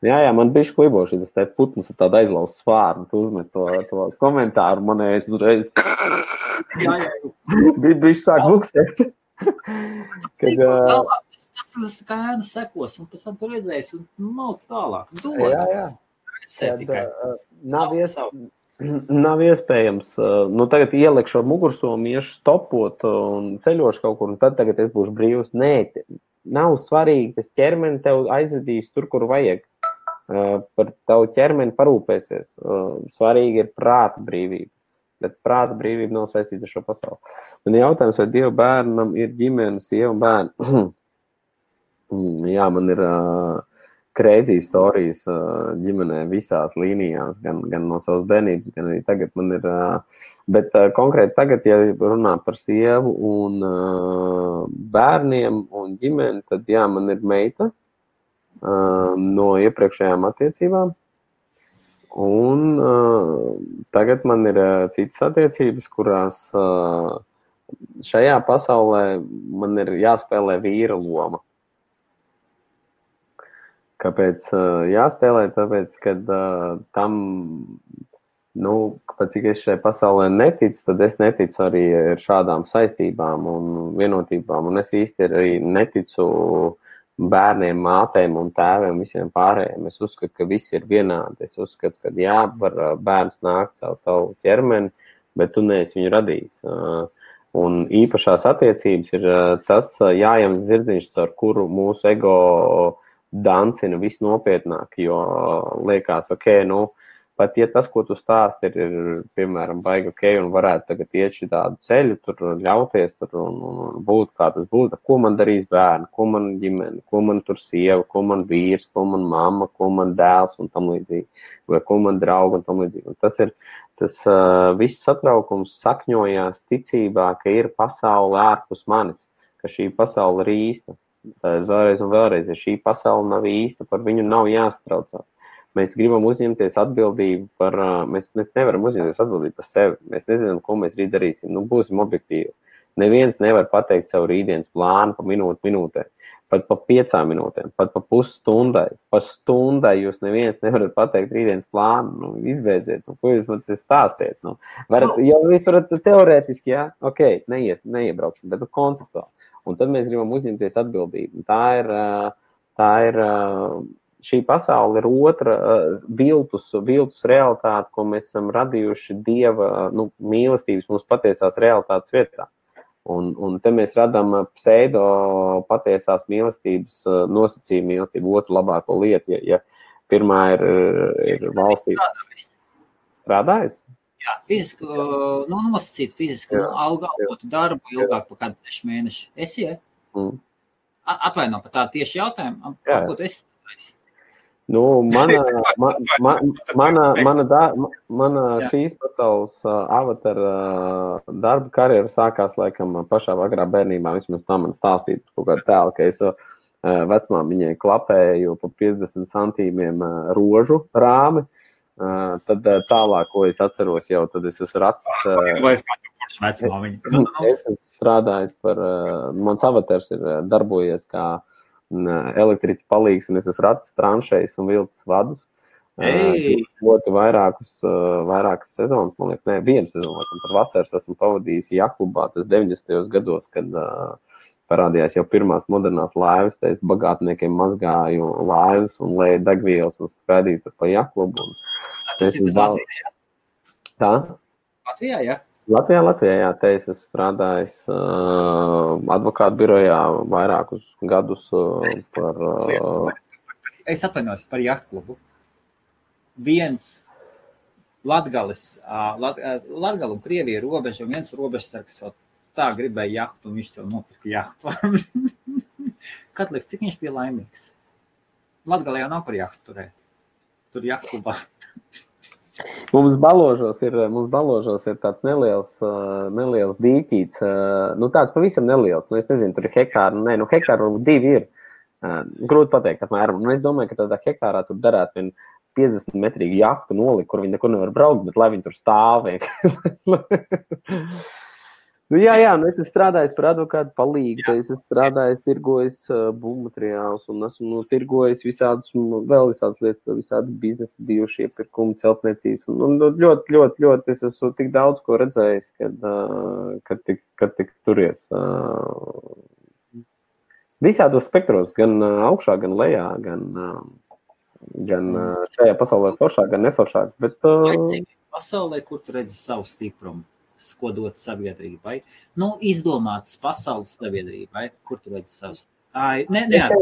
Jā, man bišķi kliboši, tas te putns ar tādu aizlauz svārnu, tu uzmet to komentāru, manējais uzreiz. Bišķi sāk buksēt. Tas kā ēna sekos, un pēc tam tu redzēsi, un mauc tālāk. Jā. Nav iespējams. Nu, tagad ielikšu ar mugursomu, iešu stopot un ceļošu kaut kur, un tad tagad es būšu brīvs. Nē, nav svarīgi, tas ķermeni tev aizvedīs tur, kur vajag. Par tavu ķermeni parūpēsies. Svarīgi ir prāta brīvība. Bet prāta brīvība nav saistīta ar šo pasauli. Man jautājums, vai Dieva bērnam ir ģimene, sieva un bērni? Jā, man ir crazy stories ģimenē visās līnijās, gan no savas bērnības, gan arī tagad man ir. Bet konkrēti tagad, ja runā par sievu un bērniem un ģimeni, tad jā, man ir meita no iepriekšējām attiecībām. Un tagad man ir citas attiecības, kurās šajā pasaulē man ir jāspēlē vīra loma. Kāpēc jāspēlē? Tāpēc, kad tam, nu, pat cik es šai pasaulē neticu, tad es neticu arī šādām saistībām un vienotībām. Un es īsti arī neticu bērniem, mātēm un tēviem, visiem pārējiem. Es uzskatu, ka visi ir vienādi. Es uzskatu, ka jā, var bērns nākt savu tavu ķermeni, bet tu neesi viņu radījis. Un īpašās attiecības ir tas jājams zirdziņš, ar kuru mūsu ego dancina visnopietnāk, jo liekas, ok, nu, pat ja tas, ko tu stāsti, ir piemēram, baigi ok, un varētu tagad iet šī tādu ceļu, tur ļauties tur un būt, kā tas būtu, ko man darīs bērni, ko man ģimene, ko man tur sieva, ko man vīrs, ko man mamma, ko man dēls un tam līdzīgi, vai ko man draugi un tam līdzīgi. Un tas ir, viss satraukums sakņojās ticībā, ka ir pasaule ārpus manis, ka šī pasaule ir īsta. vēlreiz un vēlreiz, ja šī pasaule nav īsta, par viņu nav jāstraucās. Mēs gribam uzņemties atbildību mēs nevaram uzņemties atbildību par sevi. Mēs nezinām, ko mēs rīt darīsim. Būsim objektīvi. Neviens nevar pateikt savu rītdienas plānu pa minūtē, pat pa 5 minūtēm, pat pa pusstundai. Pa stundai jūs neviens nevarat pateikt rītdienas plānu. Izbeidziet, ko jūs man te stāstiet. Jūs varat teorētiski, jā, ok, neiebrauksim, bet konceptuāli. Un tad mēs gribam uzņemties atbildību. Tā ir šī pasaule ir otra viltus realitāte, ko mēs esam radījuši Dieva mīlestības mums patiesās realitātes vietā. Un te mēs radām pseido patiesās mīlestības nosacījumu mīlestību, otru labāko lietu. Ja pirmā ir valstī. Strādājis? Jā, fizisku, nosacīt fizisku, algotu darbu ilgāk par kādu 6 mēneši. Esi, ja? Atvaino par tādu tieši jautājumu, ko tu esi strādājis? Mana šīs pasaules avatara darba karjera sākās laikam pašā agrā bērnībā. Vismaz tā man stāstīja kaut kādu tēlu, ka es vecmāmiņai klapēju pa 50 centīmiem rožu rāmi. Tad tālāk, ko es atceros jau, tad es esmu strādājis par, mans avatars ir darbojies kā elektriķa palīgs, un es esmu racis tranšējis un vilcis vadus. Ļoti vairākas sezonas, man liekas, vienu sezonu, par vasaras esmu pavadījis jaklubā, tas 90. gados, kad parādījās jau pirmās modernās laivas, tā es bagātniekiem mazgāju laivas un lēju degvielas un skraidīju pa jaklubu. Tas ir Latvijā? Tā? Latvijā, jā? Latvijā, jā, te es esmu strādājis advokātu birojā vairākus gadus par... Es atvainojos par jahtklubu. Viens Latgales un Krievija robeža, un viens robežsargs tā gribēja jahtu, un viņš sev nopirka jahtu. Kad liekas, cik viņš bija laimīgs? Latgalē jau nav par jahtu turēt. Tur jahtklubā. Mums Baložos ir tāds neliels dīķīts, tāds pavisam neliels, es nezinu, tur ir hektāri, hektāri 2 ir, grūti pateikt apmēram, es domāju, ka tādā hektārā tur darētu vien 50 metrīgu jahtu nolikt, kur viņi nekur nevar braukt, bet lai viņi tur stāv. Jā, es esmu strādājis par advokātu palīgu, es esmu strādājis, tirgojis būvmateriālus un esmu tirgojis visādas lietas, visādi biznesi bijuši iepirkumi, celtniecības. Un ļoti es esmu tik daudz ko redzējis, kad tik turies. Visādos spektros, gan augšā, gan lejā, gan šajā pasaulē foršāk, gan neforšāk. Bet, pasaulē, kur tu redzi savu stiprumu? Ko dot sabiedrībai. Izdomāts pasaules sabiedrībai, kur tu redzi savus. Es neesmu.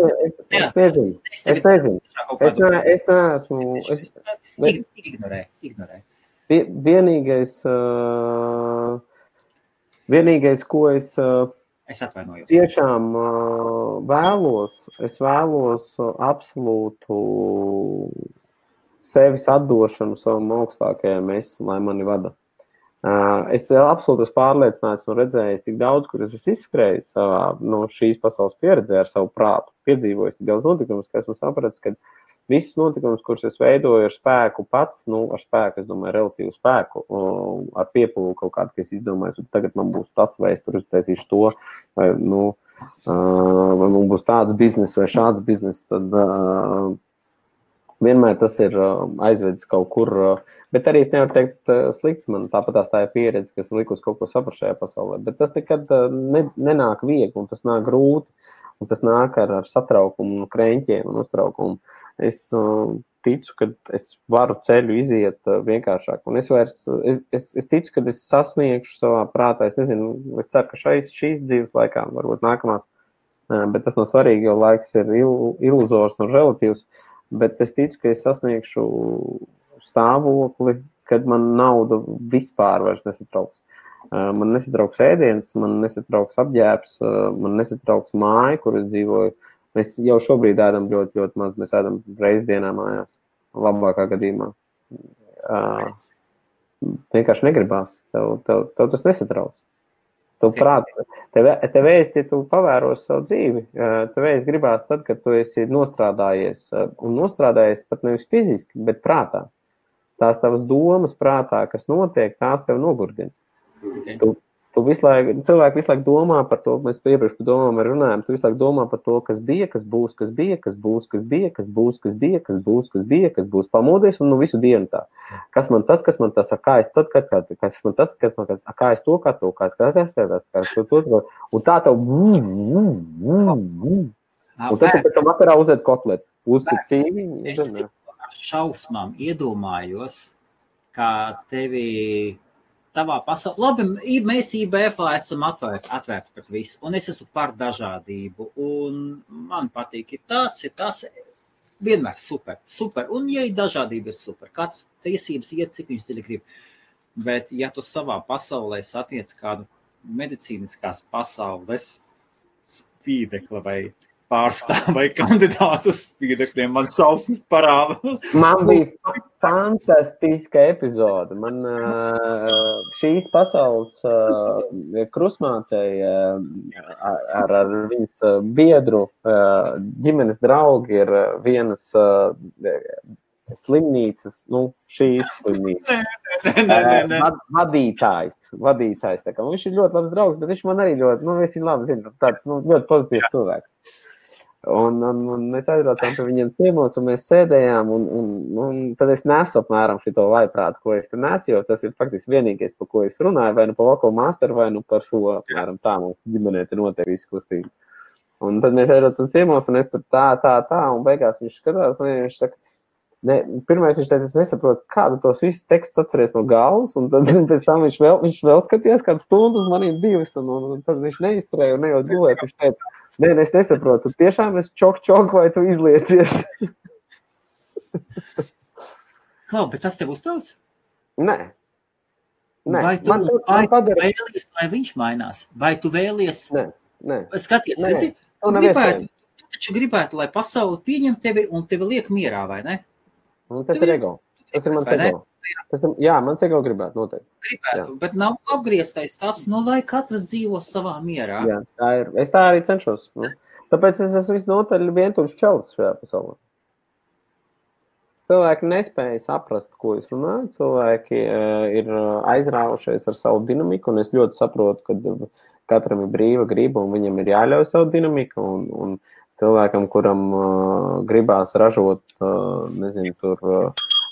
Ignorē. Vienīgais, ko es atvainojos. Tiešām vēlos absolūtu sevis atdošanu savam augstākajam lai mani vada. Es absolūti esmu pārliecināts un redzējis tik daudz, kur es esmu izskrējis savā šīs pasaules pieredzē ar savu prātu, piedzīvojis tik daudz notikumus, ka esmu sapratis, ka visas notikumus, kurus es veidoju ar spēku pats, ar spēku, es domāju, relatīvu spēku, ar piepūli kaut kādu, ka es izdomāju, tagad man būs tas, vai es tur uztaisīšu to, vai man būs tāds biznes vai šāds biznes, tad vienmēr tas ir aizvedis kaut kur, bet arī es nevaru teikt slikti, man tāpatās tā ir pieredze, kas likus kaut ko saprast šajā pasaulē, bet tas nekad nenāk viegli, un tas nāk grūti, un tas nāk ar satraukumu, kreņķiem un uztraukumu. Es ticu, ka es varu ceļu iziet vienkāršāk, un es ticu, ka es sasniegšu savā prātā, es nezinu, es ceru, ka šīs dzīves laikā, varbūt nākamās, bet tas nav svarīgi, jo laiks ir iluzors un relatīvs. Bet es ticu, ka es sasniegšu stāvokli, kad man nauda vispār vairs nesatrauks. Man nesatrauks ēdiens, man nesatrauks apģērbs, man nesatrauks māja, kur es dzīvoju. Mēs jau šobrīd ēdam ļoti, ļoti maz. Mēs ēdam reizi dienā mājās, labākā gadījumā. Vienkārši negribās. Tev tas nesatrauks. Tu prāt, tev ēst, ja tu pavēros savu dzīvi, tev ēst gribās tad, kad tu esi nostrādājies, un nostrādājies pat nevis fiziski, bet prātā. Tās tavas domas prātā, kas notiek, tās tev nogurdina. Okay. Cilvēki visu laiku domā par to, mēs iepriekš par domām runājam, tu visu laiku domā par to, kas bija, kas būs, kas bija, kas būs, kas bija, kas būs, kas bija, kas būs, kas bija, kas būs, pamodies un visu dienu tā. Kas man tas, kā es tad, kas man tas, kā es to, kā to, un tā tev, un tad tu pēc tam vakarā uzēd kotletu, uzcīt cīviņu. Es ar šausmām iedomājos, kā tevi tavā pasaulē. Labi, mēs IBF-ā esam atvērti pret visu, un es esmu par dažādību, un man patīk, tas vienmēr super, un ja dažādība ir super, katrs tiesības iet, cik viņš dziļi grib, bet ja tu savā pasaulē satiec kādu medicīniskās pasaules spīdekla vai pārstāv vai kandidātu spīdekļiem, man šausmas parāda. Man bija fantastiska epizode. Man šīs pasaules krusmātei ar viņas biedru ģimenes draugi ir vienas slimnīcas, šīs slimnīcas. Vadītājs. Tā kā, viņš ir ļoti labs draugs, bet viņš man arī ļoti, es viņu labi zinu, tāds ļoti pozitīvs cilvēks. Un mēs aizbraucām pie viņiem ciemos, un mēs sēdējām, un tad es nesu apmēram šito vaiprātu, ko es te nesu, jo tas ir faktiski vienīgais, par ko es runāju, vai nu par Voko Masteru, vai nu par šo, apmēram tā mums ģimenē te notiek izkustība. Un tad mēs aizbraucām ciemos, un es tur tā, un beigās viņš skatās, un viņš saka, pirmais viņš teica, es nesaprotu, kādu tos visus tekstus atceries no galvas, un tad pēc tam viņš vēl skatījās kādu stundu uz maniem divas, un tad viņš neizturēja un nejūt gulēt, viņš teica, es nesaprotu, tiešām es čok, vai tu izliecies? Klau, bet tas tev uztrauc? Nē. Vai tu vēlies, vai viņš mainās? Vai tu vēlies? Nē. Skaties, redzi, tu taču gribētu, lai pasauli pieņem tevi un tevi liek mierā, vai ne? Tas ir ego. Tas ir mans ego. Jā, mans ego gribētu noteikti. Gribētu, bet nav apgrieztais tas, lai katrs dzīvo savā mierā. Jā, tā ir. Es tā arī cenšos. Tāpēc es esmu visnotaļ vientuļš čalis šajā pasaulē. Cilvēki nespēja saprast, ko es runāju. Cilvēki ir aizrāvušies ar savu dinamiku, un es ļoti saprotu, ka katram ir brīva griba, un viņam ir jāļauj savu dinamiku, un cilvēkam, kuram gribās ražot,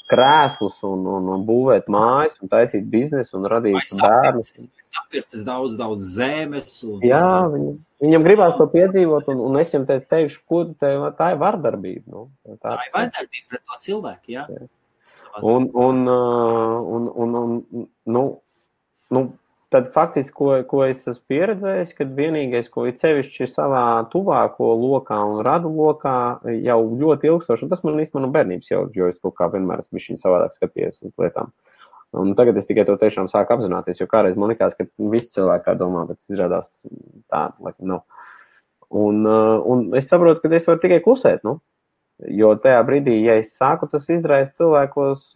krēslus un būvēt mājas un taisīt biznesu un radīt bērnus. Sapircis daudz zemes. Jā, viņam gribās to piedzīvot, un es viņam teikšu, ko tā ir vardarbība. Tā ir vardarbība pret to cilvēku, jā. Tad faktiski, ko es esmu pieredzējis, kad vienīgais, ko ir sevišķi savā tuvāko lokā un radu lokā jau ļoti ilgstoši, un tas man īstenībā no bērnības jau, jo es kaut kā vienmēr esmu bišķiņ savādāk skatījies uz lietām. Un tagad es tikai to tiešām sāku apzināties, jo kādreiz man likās, ka visi cilvēki tā domā, bet es izrādās tā, laikam nav. Un es saprotu, ka es varu tikai klusēt, jo tajā brīdī, ja es sāku, tas izraisa cilvēkos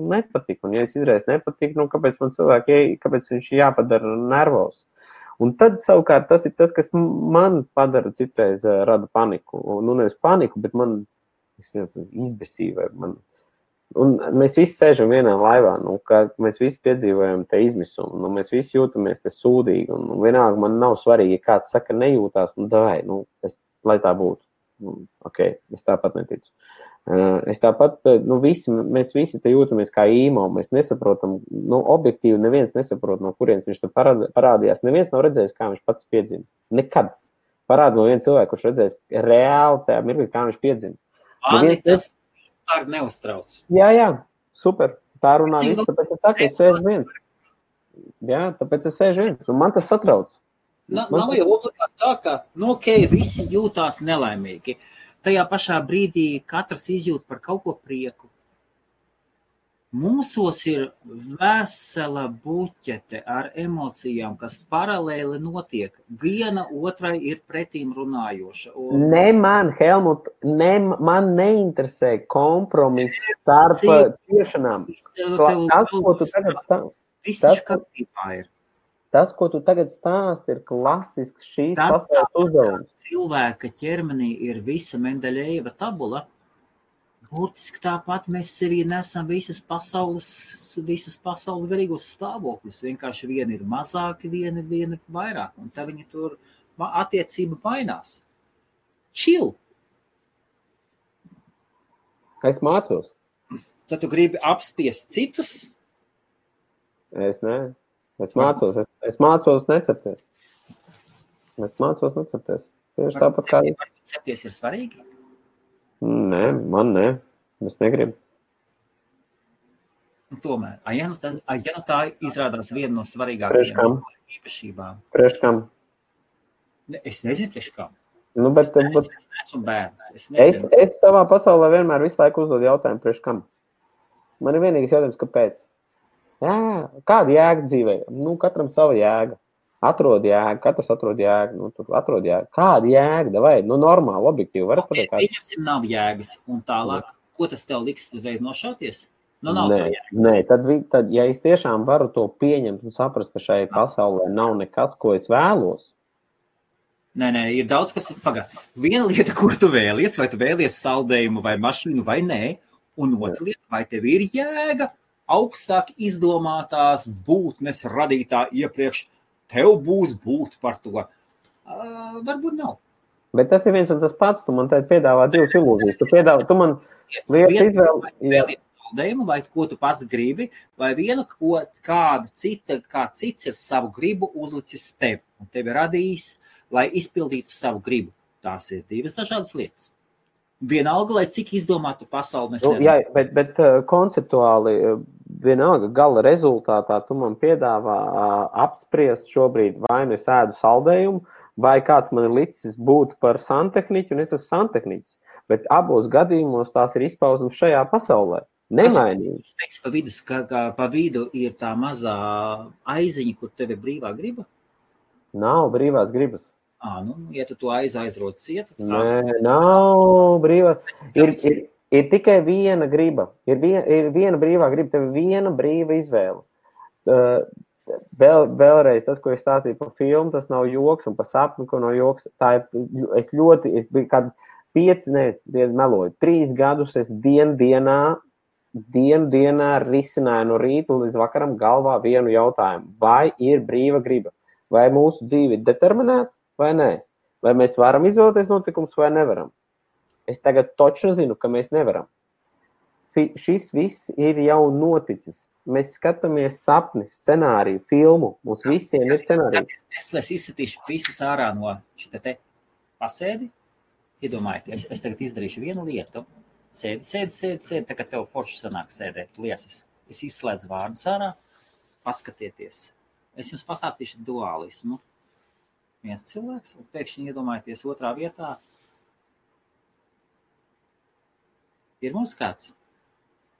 nepatik, un ja es izraisa nepatik, kāpēc man kāpēc viņš jāpadara nervos. Un tad savukārt tas ir tas, kas man padara citreiz rada paniku. Nevis paniku, bet man izbesīja. Un mēs visi sēžam vienā laivā, ka mēs visi piedzīvojam te izmisumu, mēs visi jūtamies te sūdīgi, un vienalga man nav svarīgi, ja kāds saka nejūtās, lai tā būtu. Ok, es tāpat neticu. Es tāpat, mēs visi te jūtamies kā īmo, mēs nesaprotam, objektīvi neviens nesaprot, no kurienes viņš te parādījās. Neviens nav redzējis, kā viņš pats piedzima. Nekad. Parāda no viena cilvēka, kurš redzējis reāli tajā mirklī, kā viņš piedzima. Mani tas vispār neuztrauc. Jā, super. Tā runā viss, tāpēc es saku, es sēžu viens. Jā, tāpēc es sēžu viens. Un man tas satrauc. Nav jau obligāti tā, ka visi jūtās nelaimīgi. Tajā pašā brīdī katrs izjūt par kaut ko prieku. Mūsos ir vesela buķete ar emocijām, kas paralēli notiek. Viena otrai ir pretīm runājoša. Ne man, Helmut, man neinteresē kompromiss starp ciešanām. Viss kārtībā ir. Tas, ko tu tagad stāsti, ir klasisks šīs pasaules uzdevums. Cilvēka ķermenī ir visa Mendeļejeva tabula. Burtiski tāpat mēs sevī nesam visas pasaules garīgos stāvokļus. Vienkārši viena ir mazāki, viena vairāk. Un tā viņa tur attiecība mainās. Chill. Es mācos. Tad tu gribi apspiest citus? Es ne. Es mācos necepties. Tieši tāpat kā es. Cepties ir svarīgi? Nē, man ne. Es negribu. Un tomēr, ja nu tā izrādās viena no svarīgākajām īpašībām. Priekš kam? Es nezinu, priekš kam. Nu, es neesmu bērns. Es savā pasaulē vienmēr visu laiku uzdodu jautājumu, priekš kam. Man ir vienīgais jautājums, kāpēc? Jā, kāda jēga dzīvē? Nu, katram sava jēga. Atrod jēgu, katrs atrod jēgu. Nu, tur atrod jēgu. Kāda jēga? Vai? Nu, normāli, objektīvi. Varat pateikt, pieņemsim, nav jēgas. Un tālāk, ko tas tev liks uzreiz nošauties? Nu, nav tev jēgas. Nē, tad, ja es tiešām varu to pieņemt un saprast, ka šai pasaulē nav nekas, ko es vēlos. Nē, ir daudz, kas ir pagā. Viena lieta, kur tu vēlies, vai tu vēlies saldējumu vai mašīnu vai nē, un otra lieta, vai tev ir jēga augstāk izdomātās būtnes radītā iepriekš, tev būs būt par to. Varbūt nav. Bet tas ir viens un tas pats, tu man te piedāvā divas ilūzijas. Tu man lietas izvēli. Vēlies saldējumu, vai ko tu pats gribi, vai vienu, kāds cits ir savu gribu uzlicis tev, un tevi radījis, lai izpildītu savu gribu. Tās ir divas dažādas lietas. Vienalga, lai cik izdomātu pasauli mēs jā, bet konceptuāli vienalga gala rezultātā tu man piedāvā apspriest šobrīd vai nu es ēdu saldējumu, vai kāds man ir licis būt par santehniķu, un es esmu santehniķis. Bet abos gadījumos tās ir izpausmes šajā pasaulē. Nemainīgi. Pa vidu ir tā mazā aiziņa, kur tev ir brīvā griba? Nav brīvās gribas. Ja tu to aizrot ciet? Nē, nav brīvā. Ir tikai viena griba. Ir viena brīvā griba, tev ir viena brīva izvēle. Vēlreiz tas, ko es stāstīju par filmu, tas nav joks, un par sapni, ko nav joks. Tā ir, es biju kādu 3 gadus es dienā risināju no rīta līdz vakaram galvā vienu jautājumu. Vai ir brīva griba? Vai mūsu dzīve ir determinēta? Vai nē? Vai mēs varam izvēlēties notikumus vai nevaram? Es tagad toču zinu, ka mēs nevaram. Šis viss ir jau noticis. Mēs skatāmies sapni, scenāriju, filmu. Mums visiem ir scenārijs. Es izsatīšu visus ārā no šita te pasēdi. Iedomājieties, es tagad izdarīšu vienu lietu. Sēdi, tagad tev forši sanāk sēdēt liesas. Es izslēdzu vārdus ārā, paskatieties. Es jums pastāstīšu dualismu. Viens cilvēks, un pēkšņi iedomājieties otrā vietā. Ir mums kāds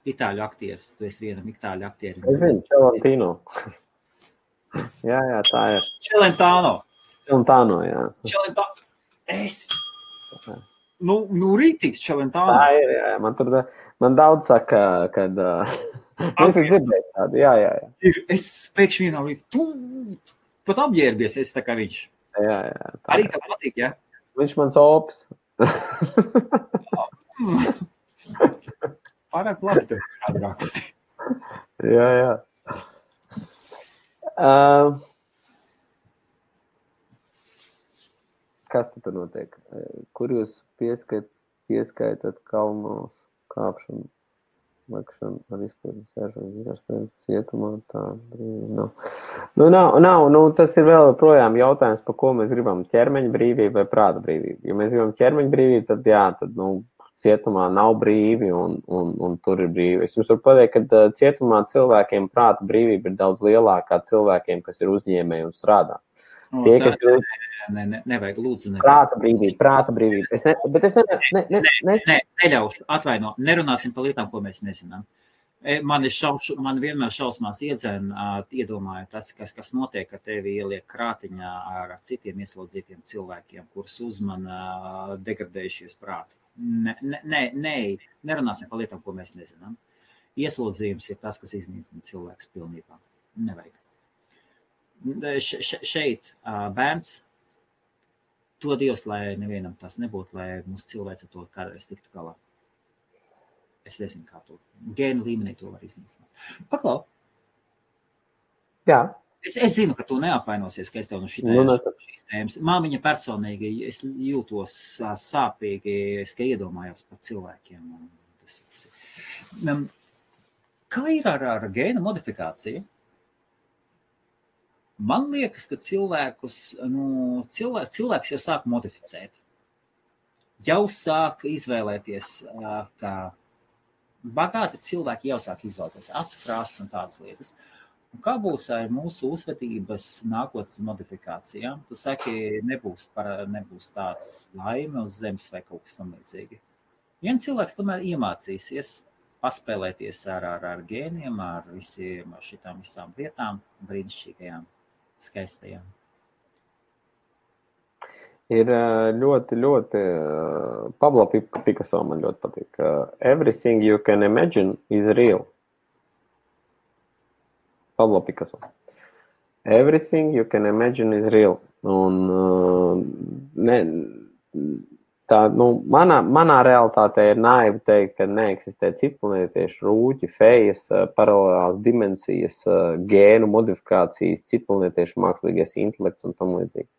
itāļu aktieris. Tu esi vienam itāļu aktierim. Es zinu, Celentino. jā, tā ir. Celentano, jā. Nu rītīgs Celentano. Tā ir, jā. Man daudz saka, kad... Es dzirdēju tādu, jā. Es pēkšņi vienā rīt, tu pat apģērbies, esi tā kā viņš. Jā. Arī tev patīk, jā? Viņš mans opis. Pārāk labi tev kādu raksti. Jā. Kas tur notiek? Kur jūs pieskaitat kalnos kāpšanu? Lakšana ar izpildu sēžanu, cietumā, tā brīvi nav. Tas ir vēl projām jautājums, par ko mēs gribam, ķermeņa brīvība vai prāta brīvība. Ja mēs gribam ķermeņa brīvību, tad cietumā nav brīvi un tur ir brīvi. Es jums varu pateikt, ka cietumā cilvēkiem prāta brīvība ir daudz lielākā cilvēkiem, kas ir uzņēmēji un strādā. Nevajag, lūdzu. Prāta brīvība. Neļaušu, atvaino, nerunāsim par lietām, ko mēs nezinām. Man vienmēr šausmās iedomāju tas, kas notiek, ka tevi ieliek krātiņā ar citiem ieslodzītiem cilvēkiem, kurus uzmana degradējušies prāti. Nerunāsim par lietām, ko mēs nezinām. Ieslodzījums ir tas, kas iznīcina cilvēks pilnībā. Nevajag. šeit bērns, to Dievs, lai nevienam tas nebūtu, lai mūsu cilvēks ar to kādreiz tiktu galā. Es nezinu, kā to gēnu līmenī to var iznīcināt. Paklau. Jā. Es zinu, ka tu neapvainosies, ka es tev no šīs tēmas. Māmiņa personīgi, es jūtos sāpīgi, es ka iedomājos par cilvēkiem. Kā ir ar gēnu modifikāciju? Man liekas, ka cilvēks jau sāk modificēt. Jau sāk izvēlēties, ka bagāti cilvēki jau sāk izvēlēties acu krāsas un tādas lietas. Un kā būs ar mūsu uzvedības nākotnes modifikācijām? Tu saki, nebūs tāds laime uz zemes vai kaut kas tam līdzīgi. Vien cilvēks tomēr iemācīsies paspēlēties ar gēniem, ar šitām visām lietām, brīnišķīgajām, skaistajām. Ir ļoti, Pablo Picasso man ļoti patīk. Everything you can imagine is real. Pablo Picasso. Everything you can imagine is real. Un manā realitātē ir naivi teikt, ka neeksistē citplanētieši rūķi, fejas, paralēlās dimensijas, gēnu modifikācijas, citplanētieši mākslīgais intelekts un tam līdzīgi.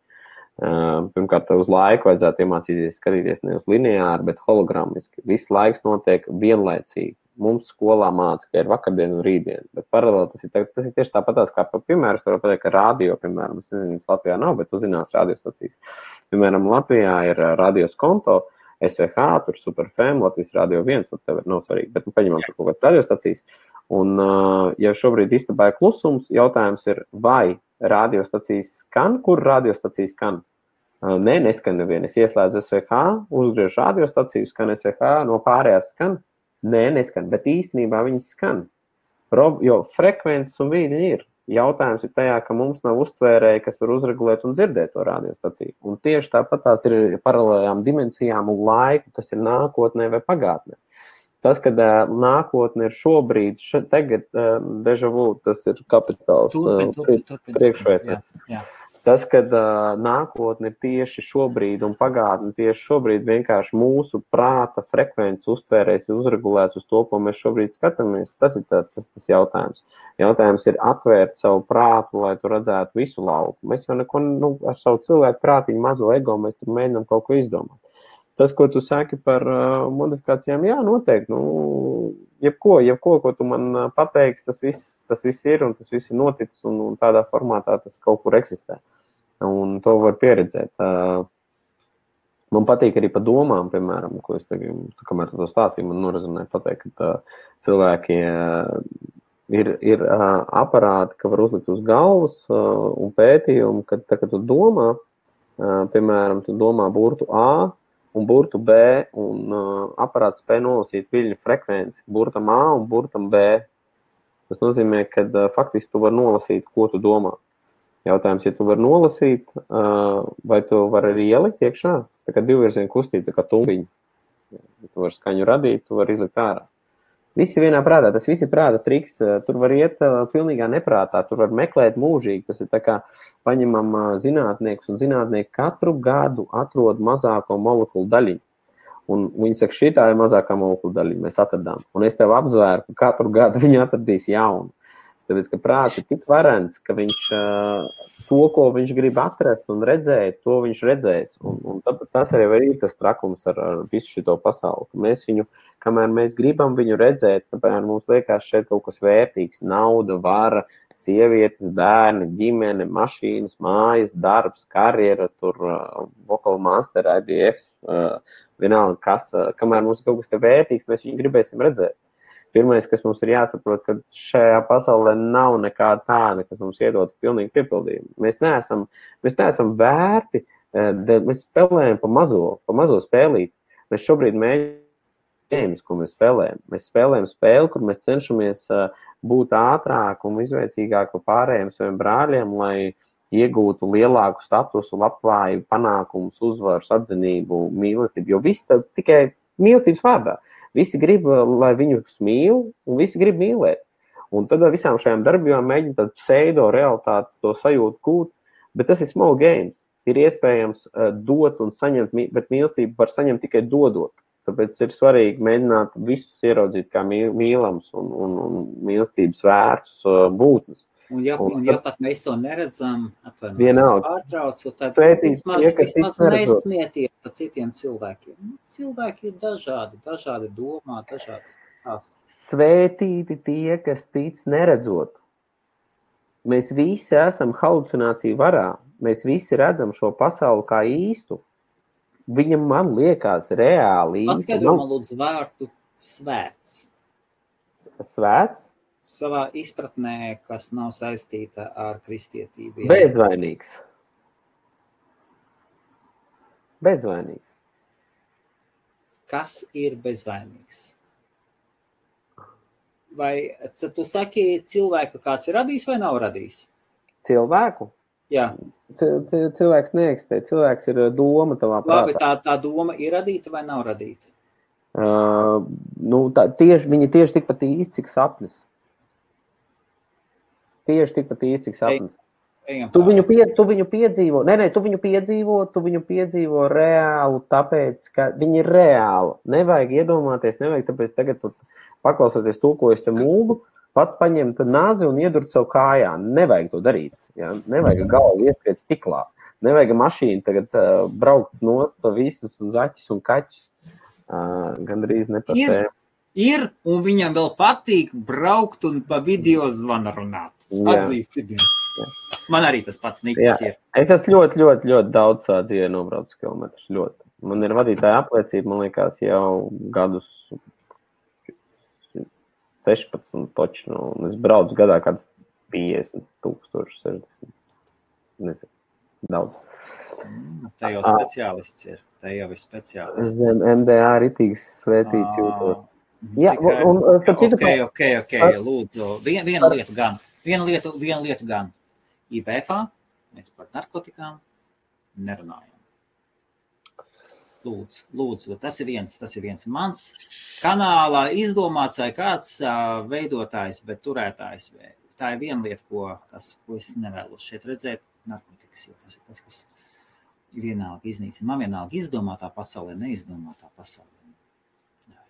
Pirmkārt, uz laiku vajadzētu iemācīties skatīties ne uz lineāri, bet hologrammiski. Viss laiks notiek vienlaicīgi. Mums skolā māca, ka ir vakardiena un rītdiena, bet paralēli tas ir tieši tāpatās, kā piemēram, es varu pateikt, ka radio, piemēram, es nezinu, Latvijā nav, bet uzzinās radiostacijas. Piemēram, Latvijā ir radios konto, SVH, tur Superfm, Latvijas radio 1, tad tev nav svarīgi, bet paņemam tur kaut kādas radiostacijas. Un, ja šobrīd istabā ir klusums, jautājums ir, vai radiostacijas skan, kur radiostacijas skan? Nē, neskan neviena. Es ieslēdzu SVH, uzgriežu radiostaciju, skan SVH, no pārējās skan. Nē, neskan, bet īstenībā viņas skan. Jo frekvences un vīdi ir. Jautājums ir tajā, ka mums nav uztvērēji, kas var uzregulēt un dzirdēt to radiostaciju. Un tieši tāpat tās ir paralēlajām dimensijām un laiku, kas ir nākotnē vai pagātnē. Tas, kad nākotne ir šobrīd, tagad deja vu, tas ir kapitāls priekšvērtības. Tas, kad nākotne ir tieši šobrīd un pagātne tieši šobrīd, vienkārši mūsu prāta frekvences uztvērēs ir uzregulēts uz to, ko mēs šobrīd skatāmies, tas ir tas jautājums. Jautājums ir atvērt savu prātu, lai tu redzētu visu lauku. Mēs jau neko, ar savu cilvēku prātiņu mazo ego, mēs tur mēģinām kaut ko izdomāt. Tas, ko tu saki par modifikācijām, jā, noteikti, jebko, ko tu man pateiksi, tas viss ir un tas viss ir noticis un tādā formātā tas kaut kur eksistē. Un to var pieredzēt. Man patīk arī pa domām, piemēram, ko es tagad, kamēr to stāstīju, man norazumēja pateikt, ka cilvēki ir aparāti, ka var uzlikt uz galvas un pētījumi, kad tu domā, piemēram, tu domā burtu A un burtu B, un aparāts spēj nolasīt viļņu frekvenci burtam A un burtam B. Tas nozīmē, ka faktiski tu vari nolasīt, ko tu domā. Jautājums, ja tu vari nolasīt, vai tu vari arī ielikt iekšā, tā kā divvirziena kustība, tā kā tumbiņa. Ja tu vari skaņu radīt, tu vari izlikt ārā. Visi vienā prātā, tas visi prāta triks, tur var iet pilnīgā neprātā, tur var meklēt mūžīgi, tas ir tā kā paņemam zinātniekus, un zinātnieki katru gadu atrod mazāko molekulu daļiņu. Un viņi saka, šitā ir mazākā molekulu daļiņa, mēs atradām. Un es tev apzvēru, ka katru gadu viņi atradīs jaunu. Tāpēc, ka prāts ir tik varens, ka viņš to, ko viņš grib atrast un redzēt, to viņš redzēs. Un tas arī ir tas trakums ar visu šito pasauli. Mēs viņu, kamēr mēs gribam viņu redzēt, tāpēc mums liekas šeit kaut kas vērtīgs. Nauda, vara, sievietes, bērni, ģimene, mašīnas, mājas, darbs, karjera, tur vocal master, IBF, vienalga kas. Kamēr mums kaut kas te vērtīgs, mēs viņu gribēsim redzēt. Pirmais, kas mums ir jāsaprot, ka šajā pasaulē nav nekā tāda, kas mums iedod pilnīgi piepildījumu. Mēs neesam vērti, mēs spēlējam pa mazo spēlīt. Mēs šobrīd mēģinām, ko mēs spēlējam. Mēs spēlējam spēli, kur mēs cenšamies būt ātrāk un izveicīgāk par pārējiem saviem brāļiem, lai iegūtu lielāku statusu, labklājību, panākumus, uzvaras, atzinību, mīlestību. Jo viss tikai mīlestības vārdā. Visi grib, lai viņus mīl, un visi grib mīlēt. Un tad ar visām šajām darbībām mēģina tādu pseido realitātes to sajūtu gūt, bet tas ir small games. Ir iespējams dot un saņemt, bet mīlestību var saņemt tikai dodot. Tāpēc ir svarīgi mēģināt visus ieraudzīt kā mīlams un mīlestības vērtus būtnes. Un ja pat mēs to neredzam, pārtraucu, tad vismaz nesmieties par citiem cilvēkiem. Cilvēki ir dažādi domā, dažādas tās. Svētīti tie, kas tic neredzot. Mēs visi esam halucināciju varā. Mēs visi redzam šo pasauli kā īstu. Viņam man liekas reāli īsti. Paskaidro man lūdzu vārdu svēts. Svēts? Savā izpratnē, kas nav saistīta ar kristietību. Bezvainīgs. Bezvainīgs. Kas ir bezvainīgs? Vai tu saki cilvēku, kāds ir radījis vai nav radījis? Cilvēku? Jā. Cilvēks neeksistē. Cilvēks ir doma tavā prātā. Labi, tā doma ir radīta vai nav radīta? Viņa tieši tikpat īsti, cik sapnis. Tieši tikpat īsti, cik sapnis. Tu viņu piedzīvo. Tu viņu piedzīvo reālu, tāpēc, ka viņi ir reāli. Nevajag iedomāties, tāpēc tagad tu paklausoties to, ko es te mūgu, pat paņemt nazi un iedurt savu kājā. Nevajag to darīt. Ja? Nevajag galvu ieskriet stiklā. Nevajag mašīnu tagad braukt nost pa visus zaķus un kaķus. Gandrīz nepasēm. Ir, un viņam vēl patīk braukt un pa video zvanu runāt. Atzīsimies. Man arī tas pats niks ir. Es esmu ļoti daudz dzīvē nobraucis kilometrus. Ļoti. Man ir vadītāja apliecība, man liekas, jau gadus 16 toči. Un es braucu gadā kāds 50 000, 60. Nezinu. Daudz. Te jau speciālists ir. Te jau ir speciālists. Zem MDA ritīgs svētīts jūtos. Jā, Ok. Lūdzu, viena lieta gan. IBFā mēs par narkotikām nerunājam. Lūdzu, tas ir viens mans kanālā izdomāts vai kāds veidotājs, bet turētājs. Tā ir viena lieta, ko es nevēlos šeit redzēt, narkotikas, jo tas ir tas, kas vienalga iznīcina. Man vienalga izdomātā pasaulē, neizdomātā pasaulē. Jā.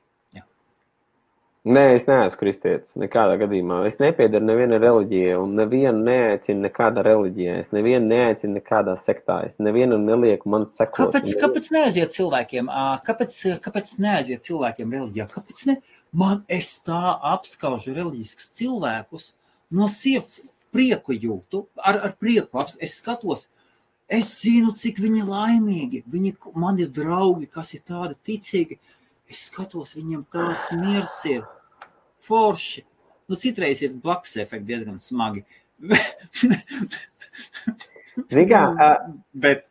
Nē, es neesmu kristietis nekādā gadījumā. Es nepiedaru neviena reliģija un nevienu neaicinu nekādā reliģijā. Es nevienu neaicinu nekādā sektā. Es nevienu nelieku man sekot. Kāpēc neaiziet cilvēkiem? Kāpēc neaiziet cilvēkiem reliģijā? Kāpēc ne? Es tā apskaužu reliģiskus cilvēkus no sirds prieku jūtu, ar prieku es skatos. Es zinu, cik viņi laimīgi. Man ir draugi, kas ir tādi ticīgi. Es skatos, viņiem tāds miers ir. Forši. Citreiz ir blakus efekti diezgan smagi. Bet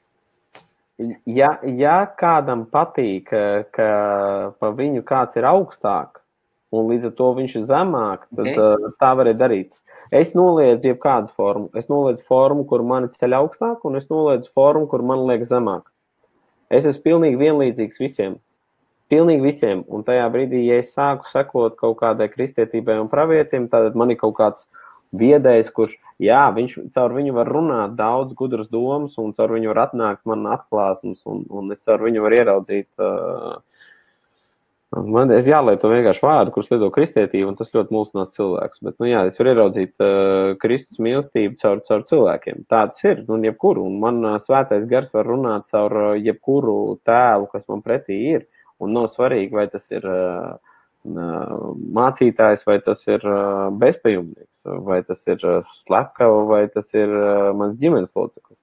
ja kādam patīk, ka pa viņu kāds ir augstāk, un līdz ar to viņš ir zemāk, tad tā varēja darīt. Es noliedzu jebkādu formu. Es noliedzu formu, kur mani ceļ augstāk, un es noliedzu formu, kur man liek zemāk. Es esmu pilnīgi vienlīdzīgs visiem. Pilnīgi visiem. Un tajā brīdī, ja es sāku sekot kaut kādai kristietībai un pravietim, tad man ir kaut kāds viedējs, kurš, caur viņu var runāt daudz gudras domas, un caur viņu var atnākt man atklāsums, un es caur viņu var ieraudzīt. Man ir jālieto vienkārši vārdu, kurus lieto kristietību, un tas ļoti mulsinās cilvēks. Bet, es varu ieraudzīt Kristus mīlestību caur cilvēkiem. Tāds ir, jebkuru. Un man svētais gars var runāt caur jebkuru tēlu, kas man pretī ir. Un nav svarīgi, vai tas ir mācītājs, vai tas ir bezpajumnieks, vai tas ir slepkava, vai tas ir mans ģimenes loceklis.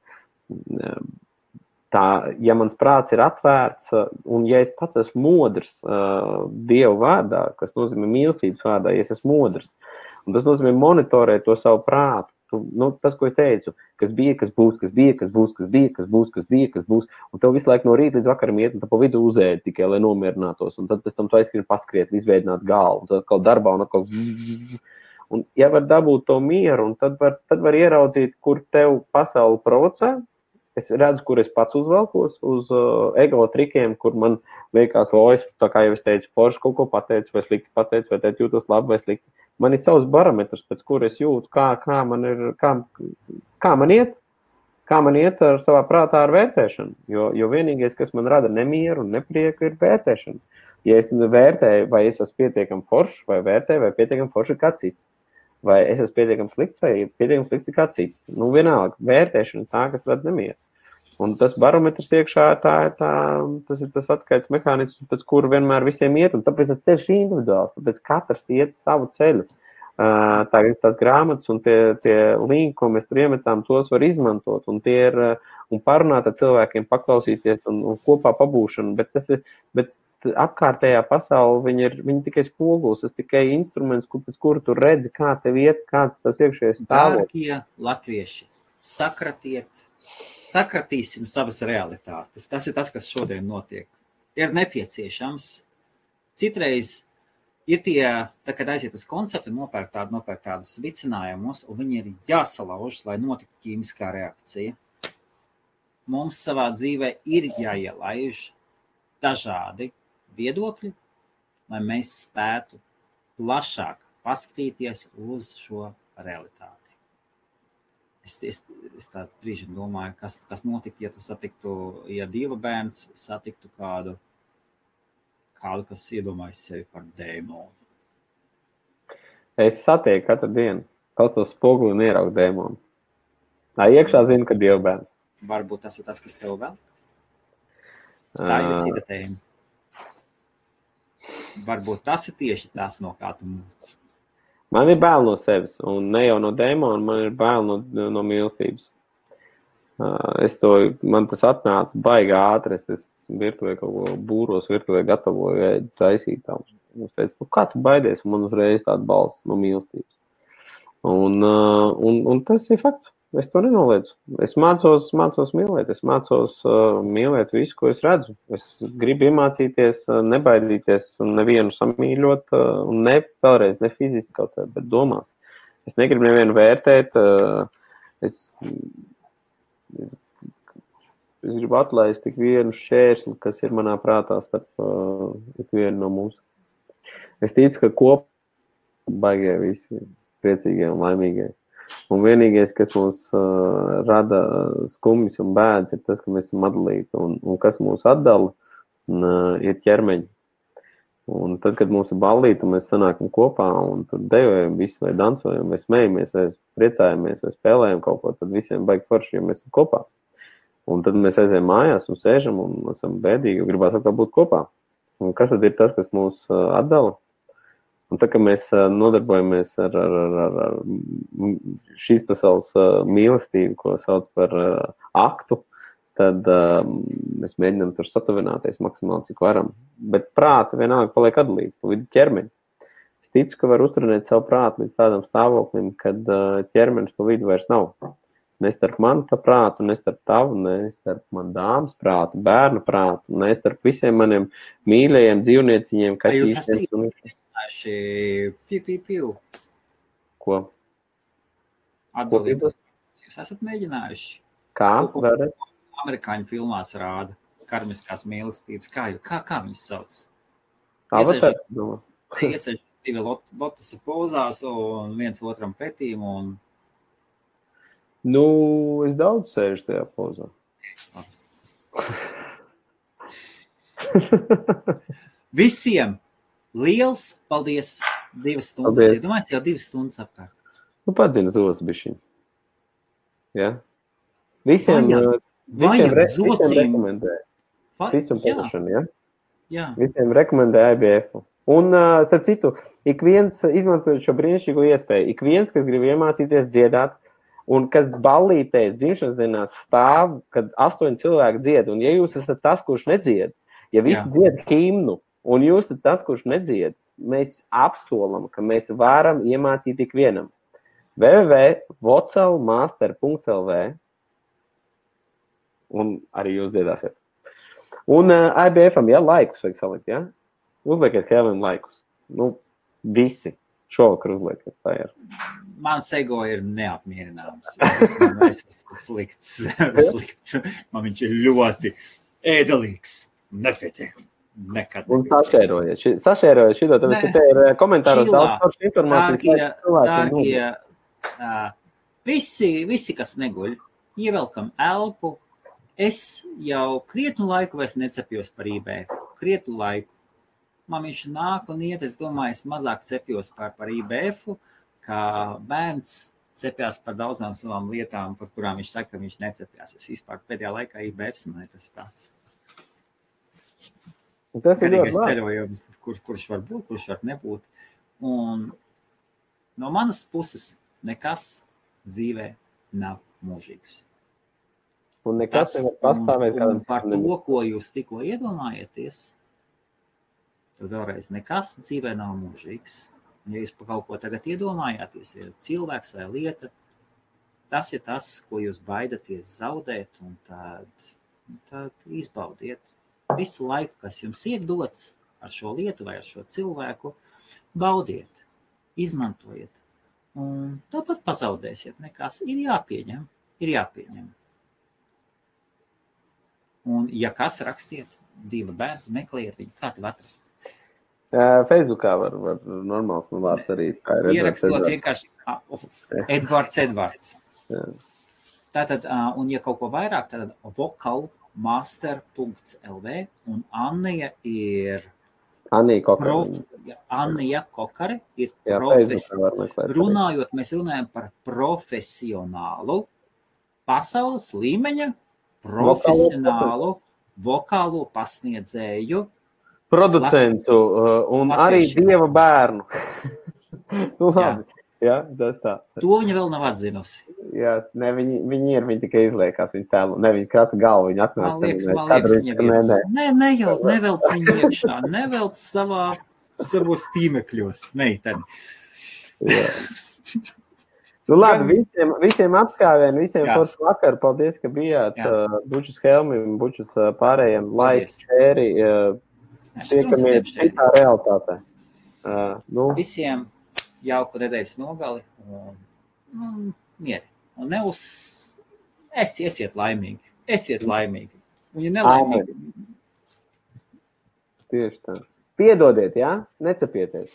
Tā, ja mans prāts ir atvērts, un ja es pats esmu modrs Dievu vārdā, kas nozīmē mīlestības vārdā, ja es esmu modrs, un tas nozīmē monitorēt to savu prātu, tas, ko es teicu, kas bija, kas būs, un tev visu laiku no rīta līdz vakaram iet, un tu pa vidu uzēdi tikai, lai nomierinātos, un tad pēc tam tu aizskrini paskriet, izveidināt galvu, un tad atkal darbā, un atkal... Un ja var dabūt to mieru, un tad var ieraudzīt, kur tev pasauli provocē. Es redzu, kur es pats uzvelkos uz ego trikiem, kur man liekas, es, tā kā jau es teicu, forši kaut ko pateicu, vai slikti pateicu, vai teicu jūtos labi vai slikti. man ir savs barometrs, pēc kura es jūtu, kā man iet ar savā prātā ar vērtēšanu. Jo vienīgais, kas man rada nemieru un neprieku, ir vērtēšana. Ja es vērtēju, vai es esmu pietiekami foršs, vai vērtēju, vai pietiekami foršs ir kāds cits. Vai es esmu pietiekami slikts, vai pietiekami slikts ir kāds cits. Vienalga, vērtēšana tā, kas rada nemieru. Un tas barometrs iekšā tas ir tas atskaites mehānisms, pēc kura vienmēr visiem iet, un tāpēc tas ceļš ir individuāls, tāpēc katrs iet savu ceļu. Tās grāmatas un tie linki, ko mēs tur iemetām, tos var izmantot, un tie ir, un parunāt ar cilvēkiem, paklausīties un kopā pabūšanu, bet apkārtējā pasaule, viņi tikai spogulis, tas tikai instruments, pēc kura tu redzi, kā tev iet, kāds tas iekšējais stāvoklis. Dārgie latvieši, sakratīsim savas realitātes. Tas ir tas, kas šodien notiek. Ir nepieciešams. Citreiz ir tie, kad aiziet uz koncertu, nopērk tādas vicinājumus, un viņi ir jāsalauž, lai notiktu ķīmiskā reakcija. Mums savā dzīvē ir jāielaiž dažādi viedokļi, lai mēs spētu plašāk paskatīties uz šo realitāti. Es tā brīžiem domāju, kas notiktu, ja tu satiktu, ja Dieva bērns satiktu kādu, kas iedomājas sevi par dēmonu. Es satieku katru dienu, pastos spoguli un ieraugu dēmonu. Iekšā zinu, ka Dieva bērns. Varbūt tas ir tas, kas tev vēl? Tā ir cita tēma. Varbūt tas ir tieši tas, no kā tu mūc. Man ir bail no sevis, un ne jau no dēmona, man ir bail no mīlestības. Man tas atnāca baigi ātri, es virtuvē kaut ko būros, virtuvē gatavoju taisīt tam. Es teicu, kā tu baidies, un man uzreiz tāda balss no mīlestības. Un tas ir fakts. Es to nenoliedzu. Es mācos mīlēt, es mācos mīlēt visu, ko es redzu. Es gribu iemācīties, nebaidīties un nevienu samīļot, un vēlreiz ne fiziski kaut kā, bet domās. Es negribu nevienu vērtēt, es gribu atlaist tik vienu šķērsli, kas ir manā prātā starp tik vienu no mums. Es ticu, ka kopā baigie visi priecīgie un laimīgie. Un vienīgais, kas mūs rada skumjas un bēdas, ir tas, ka mēs esam atdalīti. Un kas mūs atdala, ir ķermeņi. Un tad, kad mums ir ballīte, mēs sanākam kopā un tur dejojam visu, vai dansojam, vai smejamies, vai priecājamies, vai spēlējam kaut ko, tad visiem baigi forši, jo mēs esam kopā. Un tad mēs aizējam mājās un sēžam un esam bēdīgi, jo gribās atkal būt kopā. Un kas tad ir tas, kas mūs atdala? Un tā, ka mēs nodarbojamies ar šīs pasaules mīlestību, ko sauc par aktu, tad mēs mēģinām tur satuvināties maksimāli, cik varam. Bet prāti vienalga paliek atdalīti, pa vidu ķermeņi. Es ticu, ka var uzturēt savu prātu līdz tādam stāvoklim, kad ķermenis pa vidu vairs nav. Ne starp manu prātu, ne starp tavu, ne starp man dāmas prātu, bērnu prātu, ne starp visiem maniem mīļajiem dzīvnieciņiem, kaķīšiem. Piu. Ko? Atdalītos. Jūs esat mēģinājuši? Kā? Vēlreiz? Amerikāņu filmās rāda karmiskās mīlestības. Kā viņas sauc? Avatar? Iesaļ divi lotusa pozās un viens otram pretīm un... Es daudz sēžu tajā pozā. Visiem! Liels paldies! 2 stundas. Iedomājies jau 2 stundas apkārt. Padzina zos bišķiņ. Ja? Visiem rekomendē. Visam padošanu, ja? Jā. Visiem rekomendē IBF. Un, starp citu, ik viens izmantojot šo brīnišķīgo iespēju, ik viens, kas grib iemācīties dziedāt, un kas ballītēs dzimšanas dienās stāv, kad 8 cilvēki dzied, un ja jūs esat tas, kurš nedzied, ja visi dzied himnu, un jūs esat tas, kurš nedzied, mēs apsolam, ka mēs varam iemācīt tik vienam. www.vocelmaster.lv un arī jūs dziedāsiet. Un IBF-am, laikus vajag salikt, ja? Uzliekiet Helvim laikus. Visi. Šovakar uzliekiet. Tā ir. Mans ego ir neapmierināms. Es esmu slikts. Man viņš ir ļoti ēdelīgs. Nepietiek. Nekad. Un sašērojiet šito, tāpēc, ka te ir komentāros daudz foršas informācijas. Dārgie, visi, kas neguļ, ievelkam elpu. Es jau krietnu laiku vairs necepjos par IBF. Krietnu laiku. Man viņš nāk un iet, es domāju, es mazāk cepjos par IBF-u, kā bērns cepjās par daudzām savām lietām, par kurām viņš saka, ka viņš necepjās. Es vispār pēdējā laikā IBF, man tas tāds. Tas ir garīgais ceļojums, kurš var būt, kurš var nebūt. Un no manas puses nekas dzīvē nav mūžīgs. Un nekas nevar pastāvēt kādam par to, ko jūs tikko iedomājieties, tad vēlreiz nekas dzīvē nav mūžīgs. Ja jūs par kaut ko tagad iedomājāties, ja cilvēks vai lieta, tas ir tas, ko jūs baidaties zaudēt, un tad izbaudiet visu laiku, kas jums ir dots ar šo lietu vai ar šo cilvēku, baudiet, izmantojiet. Un tāpat pazaudēsiet, nekas ir jāpieņem. Un ja kas, rakstiet, 2 bērns, meklējiet viņu, kā tev atrast? Facebookā var normāls man vārds arī. Ierakstot vienkārši Edvards. Jā. Tātad, un ja kaut ko vairāk, tad vokalmaster.lv un Annija ir Annija Kokare ir runājot, mēs runājam par profesionālu, pasaules līmeņa, profesionālu, vokālo pasniedzēju, producentu un arī Dieva bērnu. Labi, jā, tas tā. To viņa vēl nav atzinusi. Jā, ne, viņi tikai izliekās viņu tēlu, ne viņa krata galvu, viņa atnāca. Man liekas, viņa nevelc viņu iekšā, nevelc savos tīmekļos, meiteni. Nu labi, visiem apskāvien, visiem foršu vakaru, paldies, ka bijāt. Bučus Helmim, Bučus pārējiem, laiks, šēri, tiekamies šitā realitātē. Visiem jauku nedēļas nogali un mieri. Un esiet laimīgi. Un ja nelaimīgi. Tieši tā. Piedodiet, jā? Necepieties.